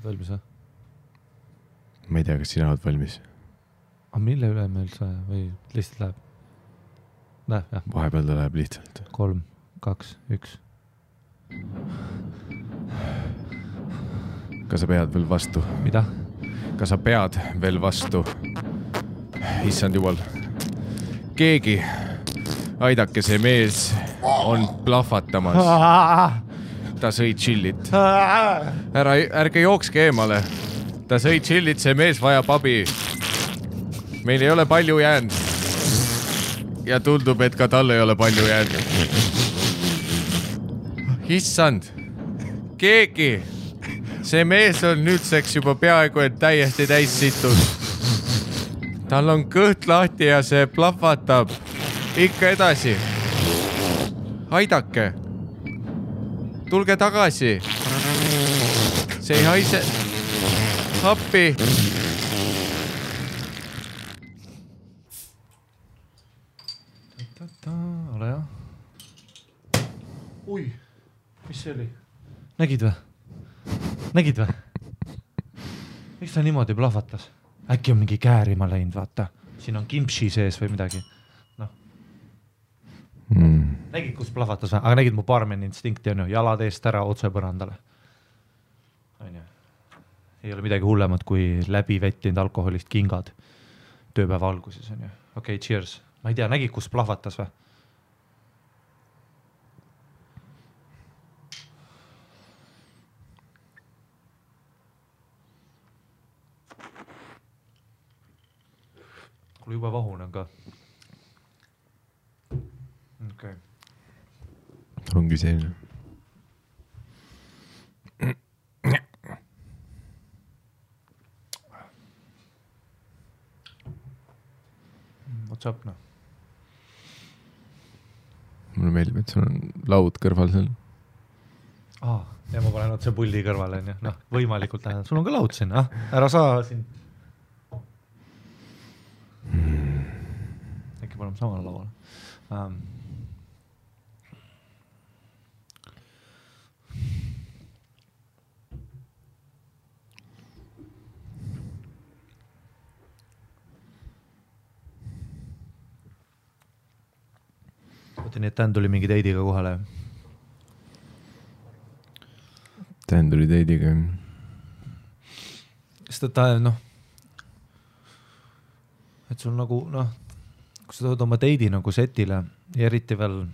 Valmis või? Ma ei tea, kas sina oled valmis. Aga mille üle me üldse või lihtsalt läheb? Läheb, jah. Vahepeal ta läheb lihtsalt. 3, 2, 1. Kas sa pead veel vastu? Mida? Kas sa pead veel vastu? Issand jumal. Keegi, aidake see mees on plahvatamas. Ta sõi chillit. Ärge jookske eemale. Ta sõi chillit, see mees vajab abi. Meil ei ole palju jäänud. Ja tundub, et ka tal ei ole palju jäänud. Issand. Keegi. See mees on nüüdseks juba peaaegu et täiesti täis situd. Tal on kõht lahti ja see plahvatab. Ikka edasi. Aidake. Tulge tagasi. See ei haise. Appi. Ole jah. Ui, mis see oli? Nägid või? Miks ta niimoodi plahvatas? Äkki on mingi käärima läinud, vaata. Siin on kimpsi sees või midagi. No. Nägid, kus plahvatas või? Aga nägid mu barmeni instinkti on ju. Jalad eest ära otse põrandale. Ei ole midagi hullemat kui läbi vettinud alkoholist kingad tööpäeva alguses on ju. Okei, cheers. Ma ei tea, nägid, kus plahvatas või? Kuule juba vahunen ka. Okay. Ongi selline. What's up, no? Mulle meeldib, et sul on laud kõrval seal. Ja ma panen otse pulli kõrvale. No, võimalikult lähedal. Sul on ka laud siin. Ära saa siin. Äkki paneme samale lauale. Oota nii, et Dan tuli mingi teidiga kohale. Dan tuli teidiga. Sest ta et sul nagu, kui sa tood oma teidi nagu setile ja eriti veel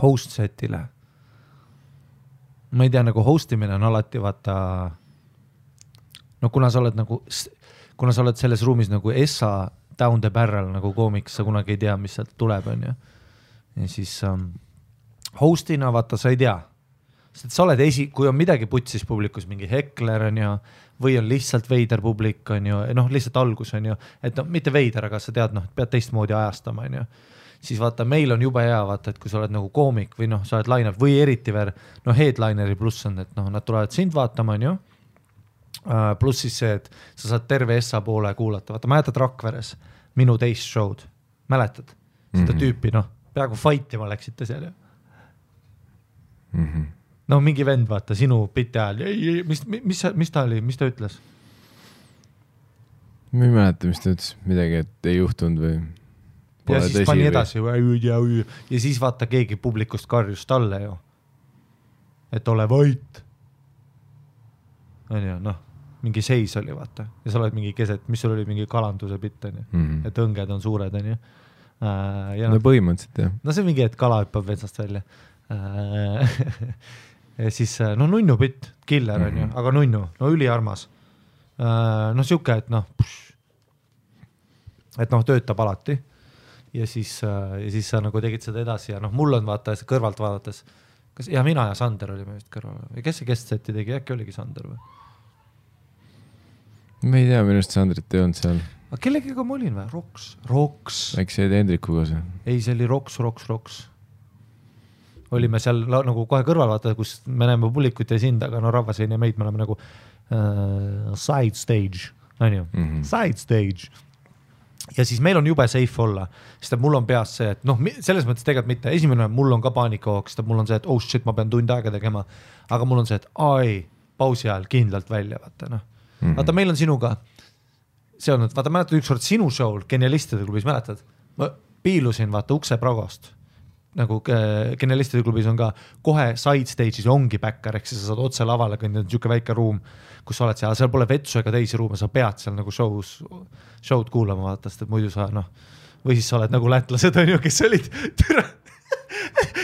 host setile. Ma ei tea, nagu hostimine on alati vaata, kuna sa oled selles ruumis nagu Essa down the barrel nagu koomiks, sa kunagi ei tea, mis sealt tuleb, on ju. Ja siis hostina vaata, sa ei tea. Sest sa oled kui on midagi putsis publikus, mingi hekler on ju, või on lihtsalt veider publik on ju, lihtsalt algus on ju, et mitte veider, aga sa tead, pead teistmoodi ajastama on ju. Siis vaata, meil on jube hea vaata, et kui sa oled nagu koomik või sa oled line-up või eriti veel, headlineri pluss on, et nad tulevad sind vaatama on ju. Pluss siis see, et sa saad terve Essa poole kuulata. Vaata, mäletad Rakveres minu teist show'd. Mäletad? Seda tüüpi, peaaegu fightima läksite seal ju. Mingi vend, vaata, sinu biti ajal. Mis ta oli? Mis ta ütles? Ma ei mäleta, mis ta ütles. Midagi, et ei juhtunud või... Ja siis pani edasi. Ja siis vaata, keegi publikust karjus talle ju. Et ole vait. On ju, mingi seis oli, vaata. Ja sa oled mingi keset, mis sul oli mingi kalanduse bitt, on ju. Et õnged on suured, on ju. Põhimõtteliselt, jah. See on mingi, et kala hüppab vetsast välja. Ja siis, nunnu bitt, killer on ju, aga nunnu, üliarmas. Siuke, et töötab alati. Ja siis sa nagu tegid seda edasi ja mul on vaata kõrvalt vaadates, mina ja Sander olime vist kõrval. Või kes see guest-seti tegi, äkki oligi Sander või? Ma ei tea, minust Sandrit ei olnud seal. Aga kellegiga ma olin või? Roks. Äkki see Hendrikuga see? Ei, see oli Roks. Olime seal nagu kohe kõrval vaata, kus me näeme publikut ja sind, aga rahvas ei näe meid, me oleme nagu side stage, on ju, side stage. Ja siis meil on jube safe olla, sest mul on peas see, et selles mõttes tegelikult mitte, esimene mul on ka paanikahoog, sest mul on see, et oh shit, ma pean tund aega tegema, aga mul on see, et pausi ajal kindlalt välja, vaata noh. Vaata, meil on sinuga, see on, vaata, mäletad ükskord sinu show'l Genialistide klubis, mäletad? Ma piilusin, vaata, ukse pragost. Nagu Genialistide klubis on ka kohe side stage'is ongi backer, ehk sa saad otse lavale kõndida, niisugune väike ruum, kus sa oled seal pole vetsu ega teisi ruume, sa pead seal nagu show'd kuulama, vaata, sest et muidu sa, noh, või siis sa oled nagu lätlased, on ju, kes olid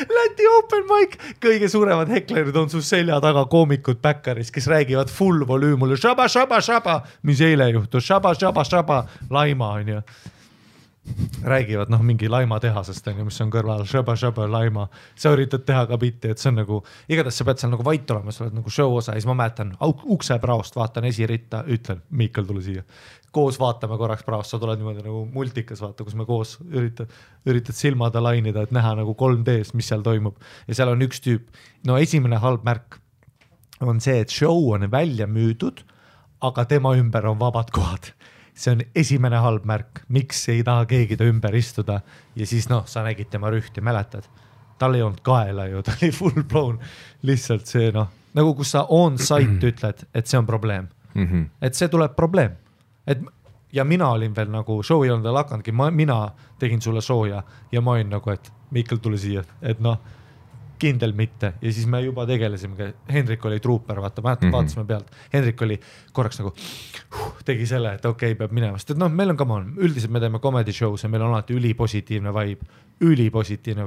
Läti open mic, kõige suuremad heklerid on su selja taga koomikud backeris, kes räägivad full volüümule šaba, šaba, šaba, mis eile juhtus, šaba, šaba, šaba, laima on ju. Räägivad mingi laima tehasest, on ju, mis on kõrval, šaba, šaba, laima. Sa üritad teha ka bitti, et see on nagu, igatahes sa pead seal nagu vait olema, sa oled nagu show osa ja siis ma mäletan ukse praost, vaatan esiritta, ütlen, Miikal tule siia. Koos vaatame korraks praost, sa tuled niimoodi nagu multikas, vaata, kus me koos üritad silmada lainida, et näha nagu 3Ds, mis seal toimub. Ja seal on üks tüüp, no esimene halb märk on see, et show on välja müüdud, aga tema ümber on vabad kohad. See on esimene halb märk, miks ei taha keegi ta ümber istuda ja siis sa nägid tema rühti, mäletad? Tal ei olnud kaela ju, ta oli full blown, lihtsalt see nagu kus sa on site ütled, et see on probleem, et see tuleb probleem. Ja mina olin veel nagu, show ei olnud veel hakandki, mina tegin sulle sooja ja ma olin nagu, et Miikal tule siia, et kindel mitte ja siis me juba tegelesime, Hendrik oli truuper, vaata, vaatasime pealt, Hendrik oli korraks nagu tegi selle, et okei, peab minema, sest et meil on üldiselt me teeme comedy shows ja meil on alati ülipositiivne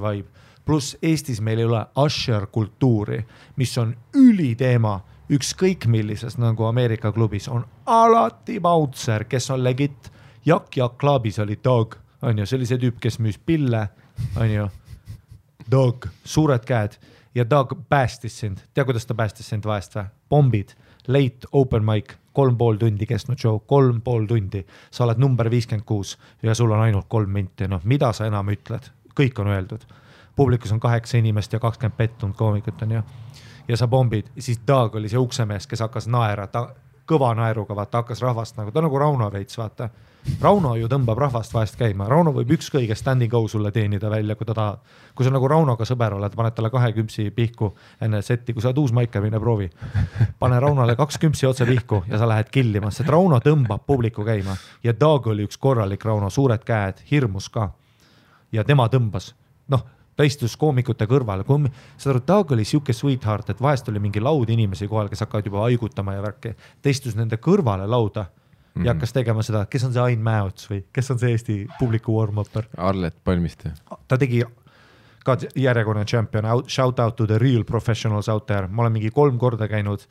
vibe, pluss Eestis meil ei ole usher kultuuri, mis on üliteema, ükskõik millises nagu Ameerika klubis on alati bouncer, kes on legit, Jak Klaabis oli Dog, on ju, see oli see tüüp, kes müüs pille, on ju, Dog, suured käed ja Dog päästis sind. Tea, kuidas ta päästis sind vahest või? Bombid, late open mic, 3,5 tundi kestnud show, 3,5 tundi. Sa oled number 56 ja sul on ainult 3 minti. Mida sa enam ütled? Kõik on öeldud. Publikus on 8 inimest ja 20 pettunud koomikut on ju. Ja sa bombid. Ja siis Dog oli see uksemees, kes hakkas naera, kõva naeruga, vaata, hakkas rahvast nagu, ta nagu Rauno veits, vaata. Rauno ju tõmbab rahvast vahest käima. Rauno võib ükskõige standing go sulle teenida välja, kui ta tahab. Kui sa nagu Raunoga sõber oled, paned talle 2 kümpsi pihku enne setti, kui sa oled uus maika, mine proovi. Pane Raunole 2 kümpsi otse pihku ja sa lähed killima, sest Rauno tõmbab publiku käima. Ja Dog oli üks korralik Rauno, suured käed, hirmus ka. Ja tema tõmbas. Ta istus koomikute kõrval. Dog oli siuke sweetheart, et vahest oli mingi laud inimesi kohal, kes hakkavad juba haigutama ja värki. Ta istus nende kõrvale lauda ja hakkas tegema seda, kes on see Ain Mäots või kes on see Eesti publiku warm-upper? Arlet Palmiste. Ta tegi ka järjekordne champion, shout out to the real professionals out there. Ma olen mingi 3 korda käinud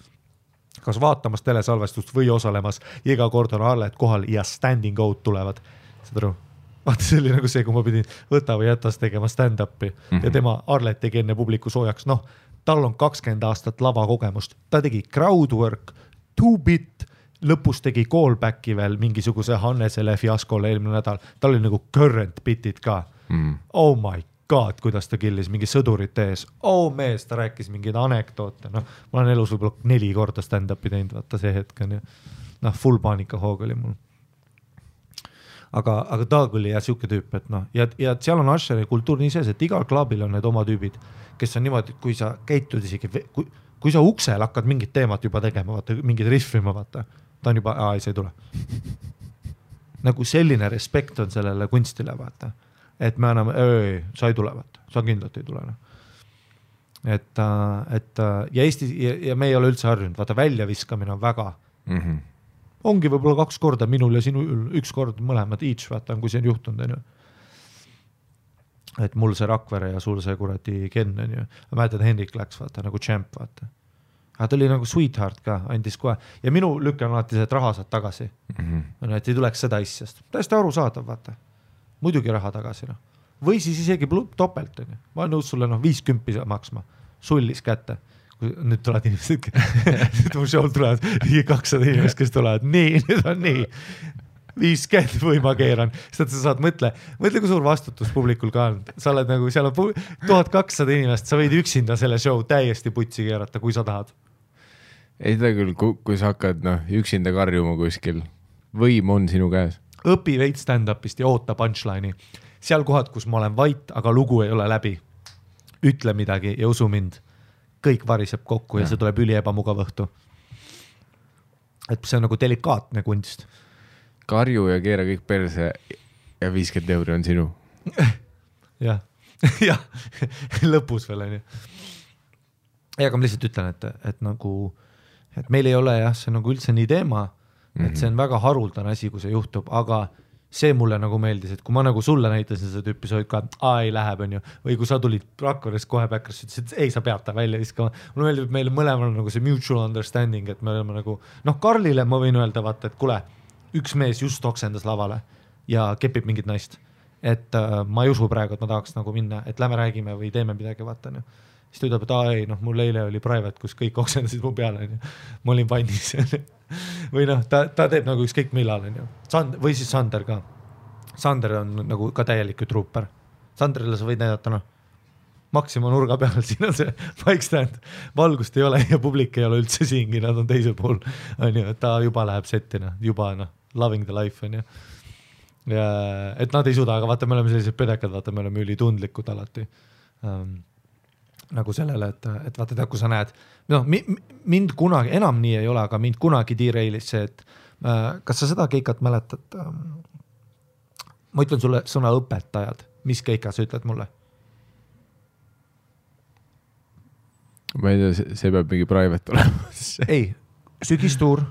kas vaatamas telesalvestust või osalemas. Iga kord on Arlet kohal ja standing out tulevad. Saad aru? Vaata, see oli nagu see, kui ma pidin võta või jätas tegema stand-upi ja tema Arlet tegi enne publiku soojaks. Tal on 20 aastat lavakogemust. Ta tegi crowdwork, 2-bit, lõpus tegi callbacki veel mingisuguse Hannesele fiaskole eelmine nädal. Tal oli nagu current bitid ka. Oh my god, kuidas ta killis mingi sõdurite ees. Oh mees, ta rääkis mingeid anekdoote. Ma olen elus võib-olla 4 korda stand-upi teinud, vaata see hetk on ju. Full paanika hoog oli mul. Aga Dog oli ja siuke tüüp, et ja seal on Usheri kultuur nii sees, et igal klaabil on need oma tüübid, kes on niimoodi, kui sa käitud isegi, kui sa uksel hakkad mingit teemat juba tegema, vaata, mingid riffima, vaata, ta on juba, see ei tule. Nagu selline respekt on sellele kunstile, vaata, et me anname, sa ei tule, vaata, sa kindlalt ei tule. Et ja Eesti, ja me ei ole üldse harjunud, vaata, väljaviskamine on väga ongi võib-olla 2 korda minul ja sinul 1 kord mõlemad each, vaata, kui see on juhtunud, on ju. Et mul see Rakvere ja sul see kuradi Ken, on ju. Ma mäletad, Hendrik läks, vaata, nagu champ, vaata. Aga ta oli nagu sweetheart ka, andis kohe. Ja minu lükkan alati see, et raha saad tagasi. Et ei tuleks seda asjast. Täiesti aru saadav, vaata. Muidugi raha tagasi, Või siis isegi topelt, on ju. Ma olen nõus sulle 50 maksma. Sullis kätte. Nüüd tulevad inimesed, nüüd mu show tulevad 200 inimest, kes tulevad, nüüd on nii, 50 või ma keeran, sest sa saad mõtle, kui suur vastutus publikul ka on, sa oled nagu, seal on 1200 inimest, sa võid üksinda selle show täiesti putsi keerata, kui sa tahad. Ei seda küll, kui sa hakkad üksinda karjuma kuskil, võim on sinu käes. Õpi veid stand-upist ja oota punchline'i. Seal kohad, kus ma olen vait, aga lugu ei ole läbi. Ütle midagi ja usu mind. Kõik variseb kokku ja see tuleb üli ebamugav õhtu. et see on nagu delikaatne kunst. Karju ja keera kõik perse ja 50 € on sinu. jah, jah, lõpus veel on ju. Aga ma lihtsalt ütlen, et nagu, et meil ei ole jah, see nagu üldse nii teema, et see on väga haruldane asi, kui see juhtub, aga see mulle nagu meeldis, et kui ma nagu sulle näitasin seda tüüpi, sa olid ka, ei läheb, on ju, või kui sa tulid Rakverest kohe Backrasse, ütlesid, et ei, sa pead ta välja viskama. Mulle meeldib, et meil mõlemal on nagu see mutual understanding, et me oleme nagu, Karlile ma võin öelda, vaata, et kuule, üks mees just oksendas lavale ja kepib mingit naist. Et ma ei usu praegu, et ma tahaks nagu minna, et lähme räägime või teeme midagi, vaata. Siis ta ütleb, et ei, mul eile oli private, kus kõik oksendasid mu peale. Ma olin vannis. või ta teeb nagu ükskõik millal. Või siis Sander ka. Sander on nagu ka täielik trooper. Sanderile sa võid näidata, Maxima nurga peal, siin on see bike stand. Valgust ei ole ja publik ei ole üldse siingi, nad on teisel pool. Ta juba läheb settina, juba loving the life on ju. Ja, et nad ei suuda, aga vaata, me oleme sellised pedekad, vaata, me oleme ülitundlikud alati. Nagu sellele, et vaata, kui sa näed, mind kunagi, enam nii ei ole, aga mind kunagi D-Railis see, et kas sa seda keikat mäletad? Ma ütlen sulle sõna õpetajad, mis keika sa ütled mulle? Ma ei tea, see peab mingi private olema. ei, sügistuur,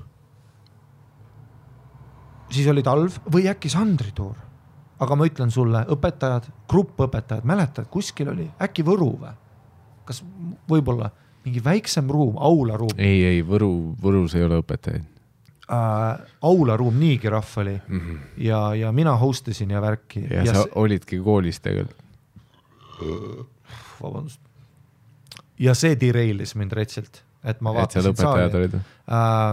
siis oli talv või äkki Sandri tuur. Aga ma ütlen sulle, õpetajad, grupp õpetajad, mäletad, kuskil oli äkki Võru või? Kas võib-olla mingi väiksem ruum, aularuum? Ei, Võrus ei ole õpetajaid. Aularuum, niigi rahv oli ja mina hostasin ja värki. Ja sa olidki koolis tegelikult. Vabandust. Ja see D-Railis mind retsilt, et ma vaatasin saali.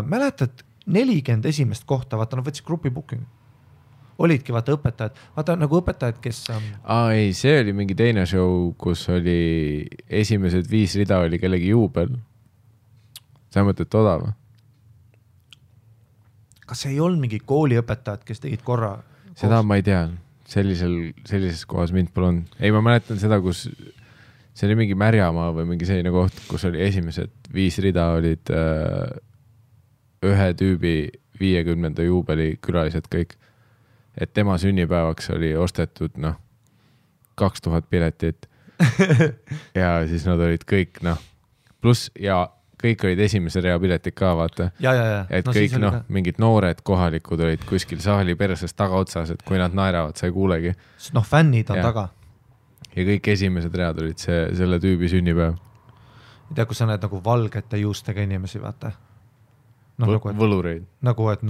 Mäletad, 40 esimest kohta, vaata, nad võtsid grupi booking. Olidki, vaata, õpetajad. Vaata, nagu õpetajad, kes... ei, see oli mingi teine show, kus oli esimesed 5 rida oli kellegi juubel. Sa mõtled toda või? Kas ei olnud mingi kooliõpetajad, kes tegid korra? Seda ma ei tea. Sellises kohas mind pole olnud. Ei, ma mäletan seda, kus... See oli mingi Märjamaa või mingi selline koht, kus oli esimesed 5 rida olid ühe tüübi 50. juubeli külalised kõik. Et tema sünnipäevaks oli ostetud 2000 piletit ja siis nad olid kõik pluss ja kõik olid esimese rea piletid ka, vaata. Et kõik mingid noored kohalikud olid kuskil saali perses tagaotsas, et kui nad naeravad, sa ei kuulegi. Fännid on taga. Ja kõik esimesed read olid selle tüübi sünnipäev. Ei tea, kui sa näed nagu valgete juustega inimesi, vaata. Võlureid. Nagu, et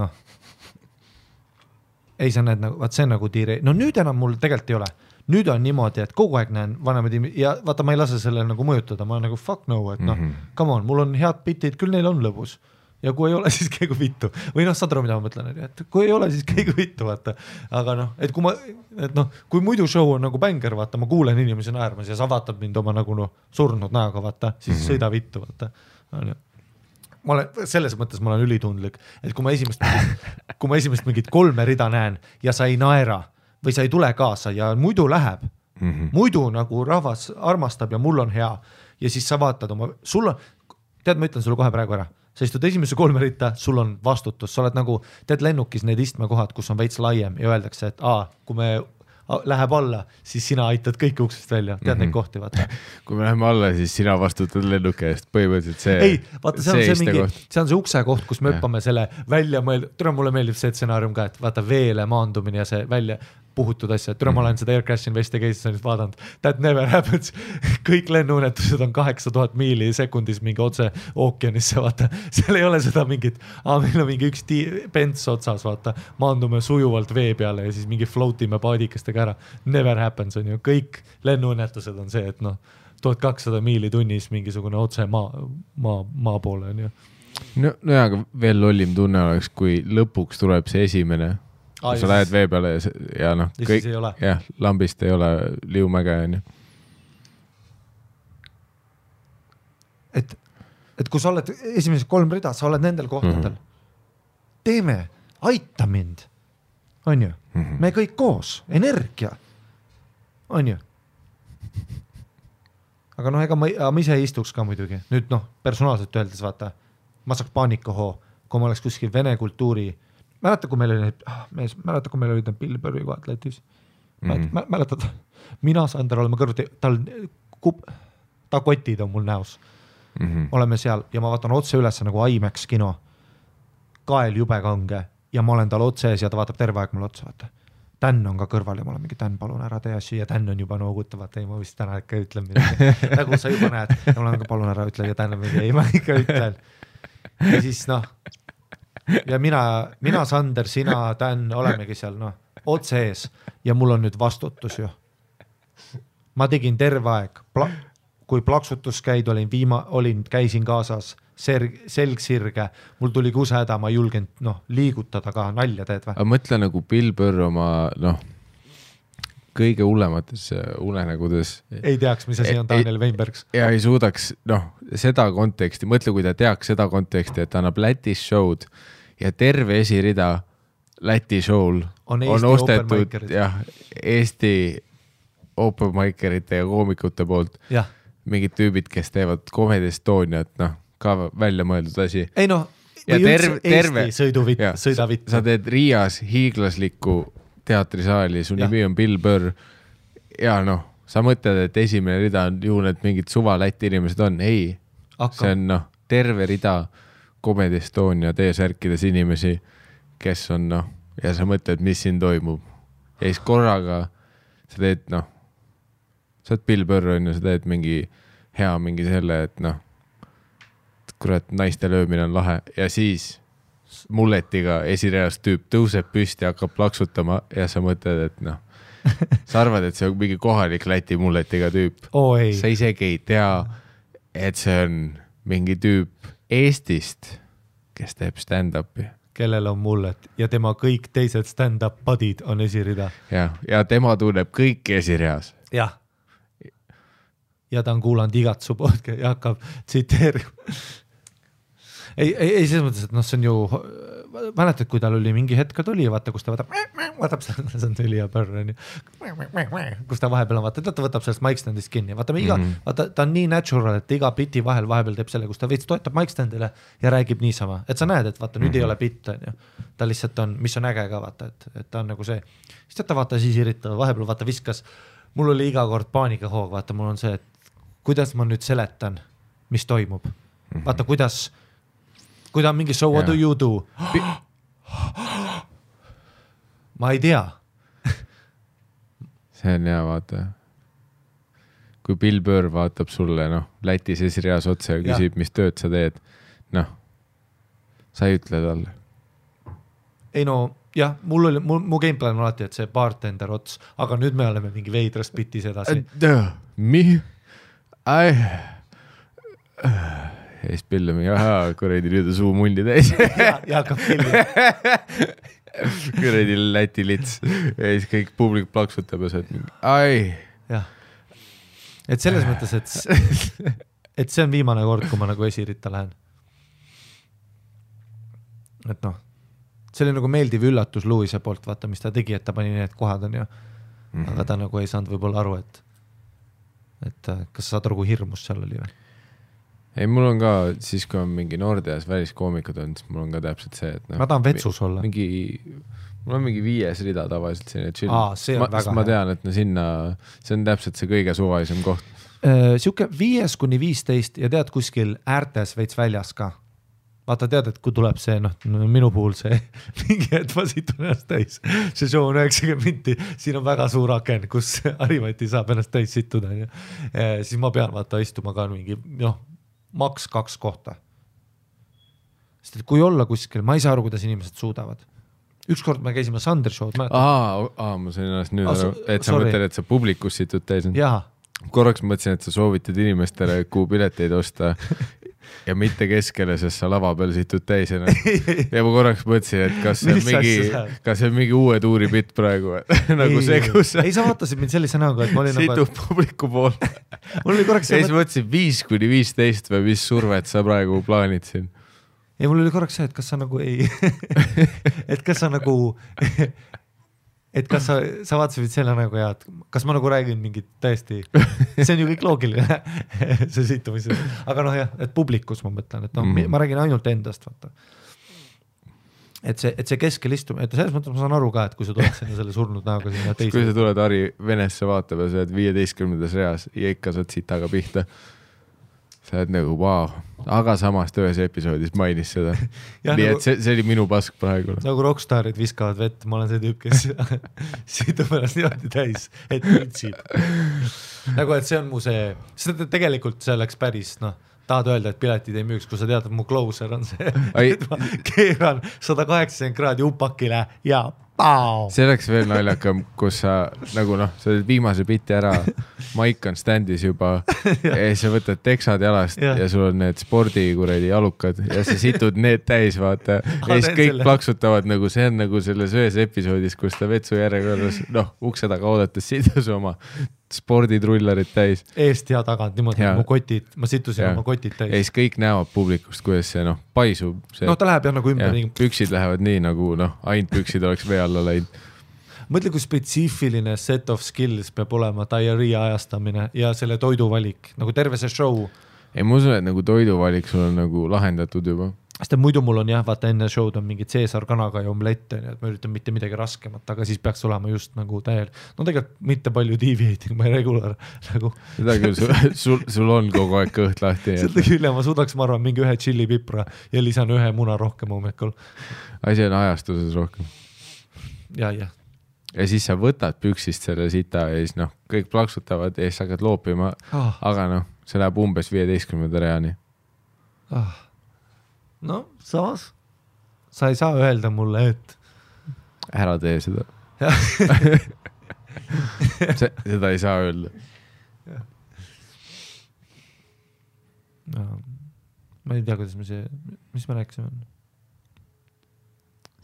ei, sa näed, vaat see nagu D-Rail. Nüüd enam mul tegelikult ei ole. Nüüd on niimoodi, et kogu aeg näen vanemad ja vaata, ma ei lase selle nagu mõjutada. Ma olen nagu fuck no, et come on, mul on head bitid, küll neil on lõbus. Ja kui ei ole, siis käigu vittu. Või saad aru, mida ma mõtlen, et kui ei ole, siis käigu vittu, vaata. Aga et kui muidu show on nagu bänger, vaata, ma kuulen inimesi naermas ja sa vaatad mind oma nagu surnud näoga, vaata, siis sõida vittu, vaata. Selles mõttes ma olen ülitundlik, et kui ma esimest mingit 3 rida näen ja sa ei naera või sa ei tule kaasa ja muidu läheb, muidu nagu rahvas armastab ja mul on hea ja siis sa vaatad oma, tead, ma ütlen sulle kohe praegu ära. Sa istud esimese 3 ritta, sul on vastutus, sa oled nagu, teed lennukis need istmekohad, kus on veits laiem ja öeldakse, et kui me läheb alla, siis sina aitad kõiki uksest välja, tead neid kohti, vaata. Kui me läheme alla, siis sina vastutad lennuki eest, põhimõtteliselt see. Ei, vaata, see on see ukse koht, kus me õppame selle välja mõelda, mulle meeldib see stsenaarium ka, et vaata veele maandumine ja see välja puhutud asja, et ma olen seda Air Crash Investi case'is vaadanud, that never happens, kõik lennuunetused on 8000 miili sekundis mingi otse ookeanisse, vaata, seal ei ole seda mingit, meil on mingi üks pents otsas, vaata, maandume sujuvalt vee peale ja siis mingi floatime paadikestega ära, never happens on ju, kõik lennuunetused on see, et 1200 miili tunnis mingisugune otse maa poole on ju. No aga veel lollim tunne oleks, kui lõpuks tuleb see esimene kui sa lähed vee peale ja kõik, lambist ei ole liumäge on ju. Et kui sa oled esimesed 3 rida, sa oled nendel kohtadel. Teeme, aita mind. On ju? Me kõik koos, energia. On ju? Aga ega ma ise istuks ka muidugi. Nüüd personaalselt öeldes vaata, ma saaks paanikahoo kui ma oleks kuskil vene kultuuri, mäleta, kui meil olid need Bill Burri kohad Lätis. Mäletad, mina Sander oleme kõrvuti, ta kotid on mul näos. Oleme seal ja ma vaatan otse üles nagu IMAX kino, kael jube kange ja ma olen tal otse ees ja ta vaatab terve aeg mulle otsa, vaata. Dan on ka kõrval ja ma olen mingi, Dan, palun ära tee asju ja Dan on juba noogutav, vaata, ei ma vist täna ikka ütlen midagi. Nagu sa juba näed ja ma olen ka palun ära ütle ja Dan on mingi, ei ma ikka ütlen. Ja siis ja mina Sander, sina, Dan, olemegi seal otse ees ja mul on nüüd vastutus ju. Ma tegin terve aeg, kui plaksutus käid, käisin kaasas, selg sirge, mul tuli kusehäda, ma ei julgenud liigutada ka, nalja teed või? Aga mõtle nagu Bill Burr oma kõige hullemates unenägudes. Ei teaks, mis asi on Daniel Weinbergs. Ja ei suudaks seda konteksti, mõtle, kui ta teaks seda konteksti, et ta annab Lätis show'd ja terve esirida Läti show'l on ostetud Eesti open micerite ja koomikute poolt mingid tüübid, kes teevad Comedy Estoniat, ka välja mõeldud asi. Ei või terve sõidavitt. Sa teed Riias hiiglaslikku teatrisaali, su nimi on Bill Burr ja sa mõtled, et esimene rida on ju need mingid suva Läti inimesed on. Ei, see on terve rida Comedy Estonia T-särkides inimesi, kes on ja sa mõtled, mis siin toimub. Ja siis korraga sa teed sa oled Bill Burr on ja sa teed mingi selle, et kurat, naiste löömine on lahe ja siis mulletiga esireas tüüp tõuseb püsti ja hakkab plaksutama ja sa mõtled, et sa arvad, et see on mingi kohalik Läti mulletiga tüüp. Sa isegi ei tea, et see on mingi tüüp Eestist, kes teeb stand-upi. Kellel on mullet ja tema kõik teised stand-up budid on esirida. Ja tema tunneb kõiki esireas. Jah. Ja ta on kuulanud igat su podcast ja hakkab tsiteerima. Ei selles mõttes, et see on ju, mäletad, kui tal oli mingi hetk tuli ja vaata, kus ta võtab see on tüli ja pörr, kus ta vahepeal on, ta võtab sellest mic standist kinni. Vaata, ta on nii natural, et iga biti vahepeal teeb selle, kus ta veits toetab mic standile ja räägib niisama. Et sa näed, et vaata, nüüd ei ole bitt, ta lihtsalt on, mis on äge ka, vaata, et ta on nagu see. Siis ta vaata siis irritab, vahepeal vaata viskas, mul oli iga kord paanikahoog, vaata, mul on see, et kuidas ma nüüd seletan, mis toimub. Vaata, kui ta on mingi so what do you do? Ma ei tea. See on hea, vaata. Kui Bill Burr vaatab sulle, Lätis esireas otse ja küsib, mis tööd sa teed, sa ei ütle talle. Ei jah, mu gameplan on alati, et see bartender ots, aga nüüd me oleme mingi veidrast bitis edasi. Ja siis Bill on mingi, kuradi nüüd on suu mulli täis. Ja hakkab pilli. Kuradi Läti lits. Ja siis kõik publik plaksutab ja sa oled mingi, Jah. Et selles mõttes, et see on viimane kord, kui ma nagu esirita lähen. Et see oli nagu meeldiv üllatus Louise poolt, vaata, mis ta tegi, et ta pani need kohad on ju. Aga ta nagu ei saanud võib-olla aru, et kas saad aru, kui hirmus seal oli või? Ei, mul on ka, siis kui on mingi Nordeas väliskoomikud on, siis mul on ka täpselt see, et ma tahan vetsus olla. Mul on mingi 5 rida tavaliselt selline chill. See on väga ma tean, et sinna, see on täpselt see kõige suvalisem koht. Siuke 5-15 ja tead kuskil äärtes veits väljas ka. Vaata tead, et kui tuleb see, minu puhul see mingi hetk ma situn ennast täis. See show on 90 minti, siin on väga suur aken, kus Harimati saab ennast täis situda. Siis ma pean vaata istuma ka mingi, maks 2 kohta. Sest et kui olla kuskil, ma ei saa aru, kuidas inimesed suudavad. Ükskord me käisime Sander show'd. Ma sain ennast nüüd aru, et sa mõtled, et sa publikus situd täis. Korraks mõtlesin, et sa soovitad inimestele kuu pileteid osta ja mitte keskele, sest sa lava peal situd täis. Ja ma korraks mõtlesin, et kas see on mingi uue tuuri bitt praegu. Nagu see, kus ei, sa vaatasid mind sellise näoga, et ma olin situb publiku pool. Mul oli korraks ja siis mõtlesin 5-15 või mis survet sa praegu plaanid siin. Ja mul oli korraks see, et kas sa nagu ei et kas sa nagu et kas sa vaatasid selle nagu ja kas ma nagu räägin mingit täiesti, see on ju kõik loogiline see situmis, aga jah, et publikus ma mõtlen, et ma räägin ainult endast, vaata. et see keskel istumine, et selles mõttes ma saan aru ka, et kui sa tuled sinna selle surnud näoga sinna teise. Kui sa tuled Harri Venesse vaatama, sa oled 15. reas ja ikka saad sitaga pihta. Sa oled nagu vau, aga samast ühes episoodis mainis seda. Nii et see oli minu pask praegu. Nagu rockstarid viskavad vett, ma olen see tüüp, kes siit on pärast niimoodi täis, et ütsib. Nagu, et see on mu see, seda tegelikult see läks päris, tahad öelda, et piletid ei müüks, kui sa tead, et mu closer on see, et ma keeran 180 kraadi upakile ja pao. See oleks veel naljakam, kus sa nagu sa oled viimase biti ära, maik on standis juba ja sa võtad teksad jalast ja sul on need spordikuredi jalukad ja sa situd need täis, vaata. Ja siis kõik plaksutavad nagu, see on nagu selles ühes episoodis, kus ta vetsu järjekorras, ukse taga oodates sidus oma sporditrullarid täis. Eest ja tagant, niimoodi mu kotid, ma situsin oma kotid täis. Ja siis kõik näevad publikust, kuidas see paisub. See, ta läheb jah nagu ümber. Püksid lähevad nii nagu ainult püksid oleks vee alla läinud. Mõtle, kui spetsiifiline set of skills peab olema diarrhea ajastamine ja selle toiduvalik, nagu terve see show. Ei, ma usun, et nagu toiduvalik sul on nagu lahendatud juba. Sest muidu mul on vaata enne show'd on mingi Caesar kanaga ja omlette, et ma üritan mitte midagi raskemat, aga siis peaks olema just nagu täiel. Tegelikult mitte palju deviating, ma ei regular nagu. Seda küll, sul on kogu aeg kõht lahti. Seda küll, ma suudaks, ma arvan, mingi ühe chili pipra ja lisan ühe muna rohkem hommikul. Asi on ajastuses rohkem. Ja siis sa võtad püksist selle sita ja siis kõik plaksutavad ja siis hakkad loopima, aga see läheb umbes 15. reani. Samas sa ei saa öelda mulle, et ära tee seda. Seda ei saa öelda. Ma ei tea, kuidas mis me rääkisime.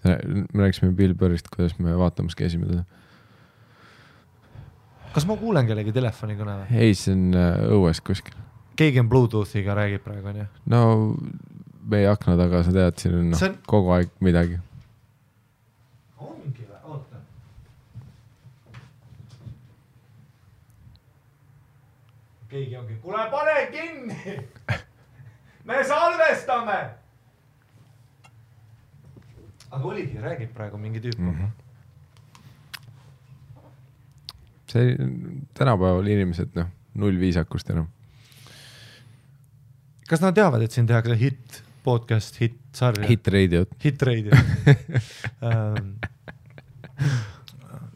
Me rääkisime Bill Burrist, kuidas me vaatamas käisime teda. Kas ma kuulen kellegi telefoni kõne? Ei, see on õues kuskil. Keegi on Bluetoothiga räägib praegu, on ju? No meie akna taga, sa tead, siin on kogu aeg midagi. Ongi või? Oota. Keegi ongi. Kuule, pane kinni! Me salvestame! Aga oligi, räägib praegu mingi tüüp. See tänapäeval inimesed, null viisakust enam. Kas nad teavad, et siin tehakse podcast, sarja? Hit radio.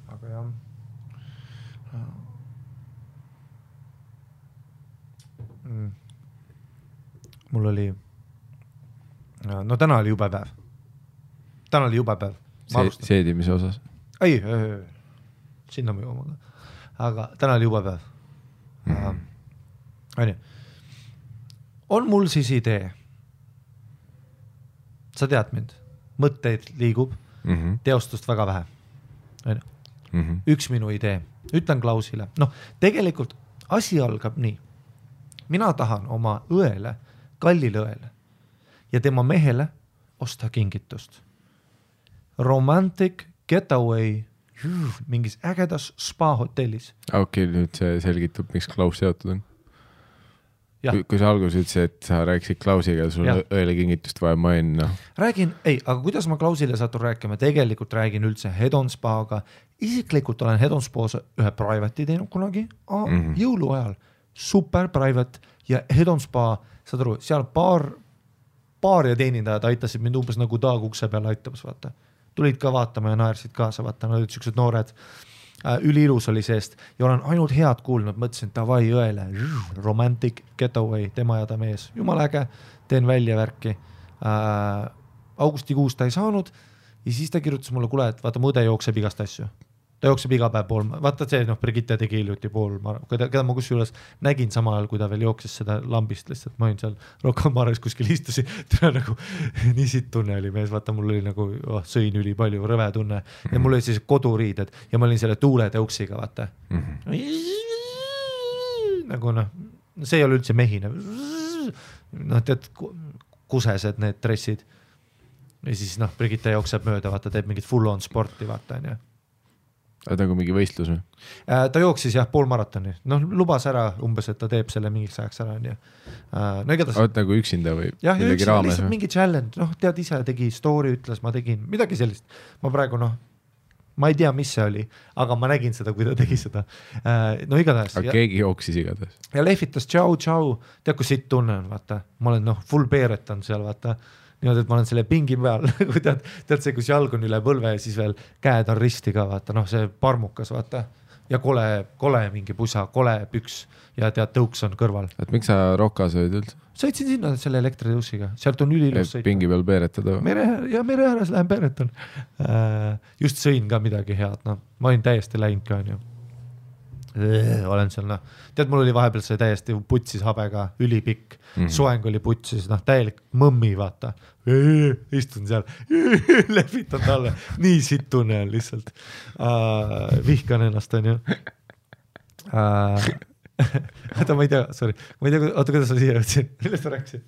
Aga jah. Mul oli, täna oli jube päev. Seedimise osas? Ei, sinna me jooma. Aga täna oli jube päev. On mul siis idee. Sa tead mind. Mõtteid liigub. Teostust väga vähe. Üks minu idee. Ütlen Klausile. Tegelikult asi algab nii. Mina tahan oma õele, kallile õele ja tema mehele osta kingitust. Romantic getaway mingis ägedas spa hotellis. Okei, nüüd see selgitab, miks Klaus seotud on. Kui sa algus ütlesid, et sa rääkisid Klausiga, sul õele kingitust vaja main. Räägin, aga kuidas ma Klausile satun rääkima? Tegelikult räägin üldse Head on Spaga. Isiklikult olen Head on Spa's ühe private'i teinud kunagi jõulu ajal. Super private ja Head on Spa, saad aru, seal paar ja teenindajad aitasid mind umbes nagu taag ukse peale aitamas, vaata. Tulid ka vaatama ja naersid kaasa, vaata, nad olid siuksed noored. Üliilus oli seest ja olen ainult head kuulnud, mõtlesin, davai õele, romantic getaway, tema ja ta mees, jumal äge, teen välja värki. Augustikuus ta ei saanud ja siis ta kirjutas mulle, kuule, et vaata, mu õde jookseb igast asju. Ta jookseb iga päev pool, vaata see, Brigitte tegi hiljuti pool, keda ma kusjuures nägin samal ajal, kui ta veel jookses seda lambist lihtsalt, ma olin seal Rocca-Mares kuskil istusin, tule nagu nii siit tunne oli mees, vaata mul oli nagu sõin üli palju, rõve tunne ja mul oli siis koduriided ja ma olin selle tuuletõuksiga, vaata. Nagu see ei ole üldse mehine. Tead, kusesed need dressid ja siis Brigitte jookseb mööda, vaata, teeb mingit full on sporti, vaata, on ju. nagu mingi võistlus või? Ta jooksis jah poolmaratoni, noh lubas ära umbes, et ta teeb selle mingiks ajaks ära, nii. No igatahes. Oot nagu üksinda või jah, millegi raames? Lihtsalt mingi challenge, noh tead ise tegi story, ütles, ma tegin midagi sellist. Ma praegu ma ei tea, mis see oli, aga ma nägin seda, kui ta tegi seda. No igatahes. Aga keegi jooksis igatahes. Ja lehvitas tšau, tead kui siit tunne on, vaata. Ma olen full beeretan seal, vaata. Niimoodi, et ma olen selle pingi peal, tead see, kus jalg on üle põlve ja siis veel käed on risti ka, vaata, see parmukas, vaata. Ja kole mingi pusa, kole püks ja tead tõuks on kõrval. Et miks sa Rokas olid üldse? Sõitsin sinna selle elektritõussiga, sealt on ülilus sõita. Pingi peal peeretada? Mere ääres lähen peeretan. Just sõin ka midagi head, ma olin täiesti läinud ka, on ju. Olen seal, tead, mul oli vahepeal see täiesti putsis habega, ülipikk, soeng oli putsis, täielik mõmmi, vaata. Istun seal, lehvitan talle, nii sitt tunne on lihtsalt. Vihkan ennast, on ju. Oota, ma ei tea, sorry. Ma ei tea, oota, kuidas ma siia jõudsin? Millest ma rääkisin?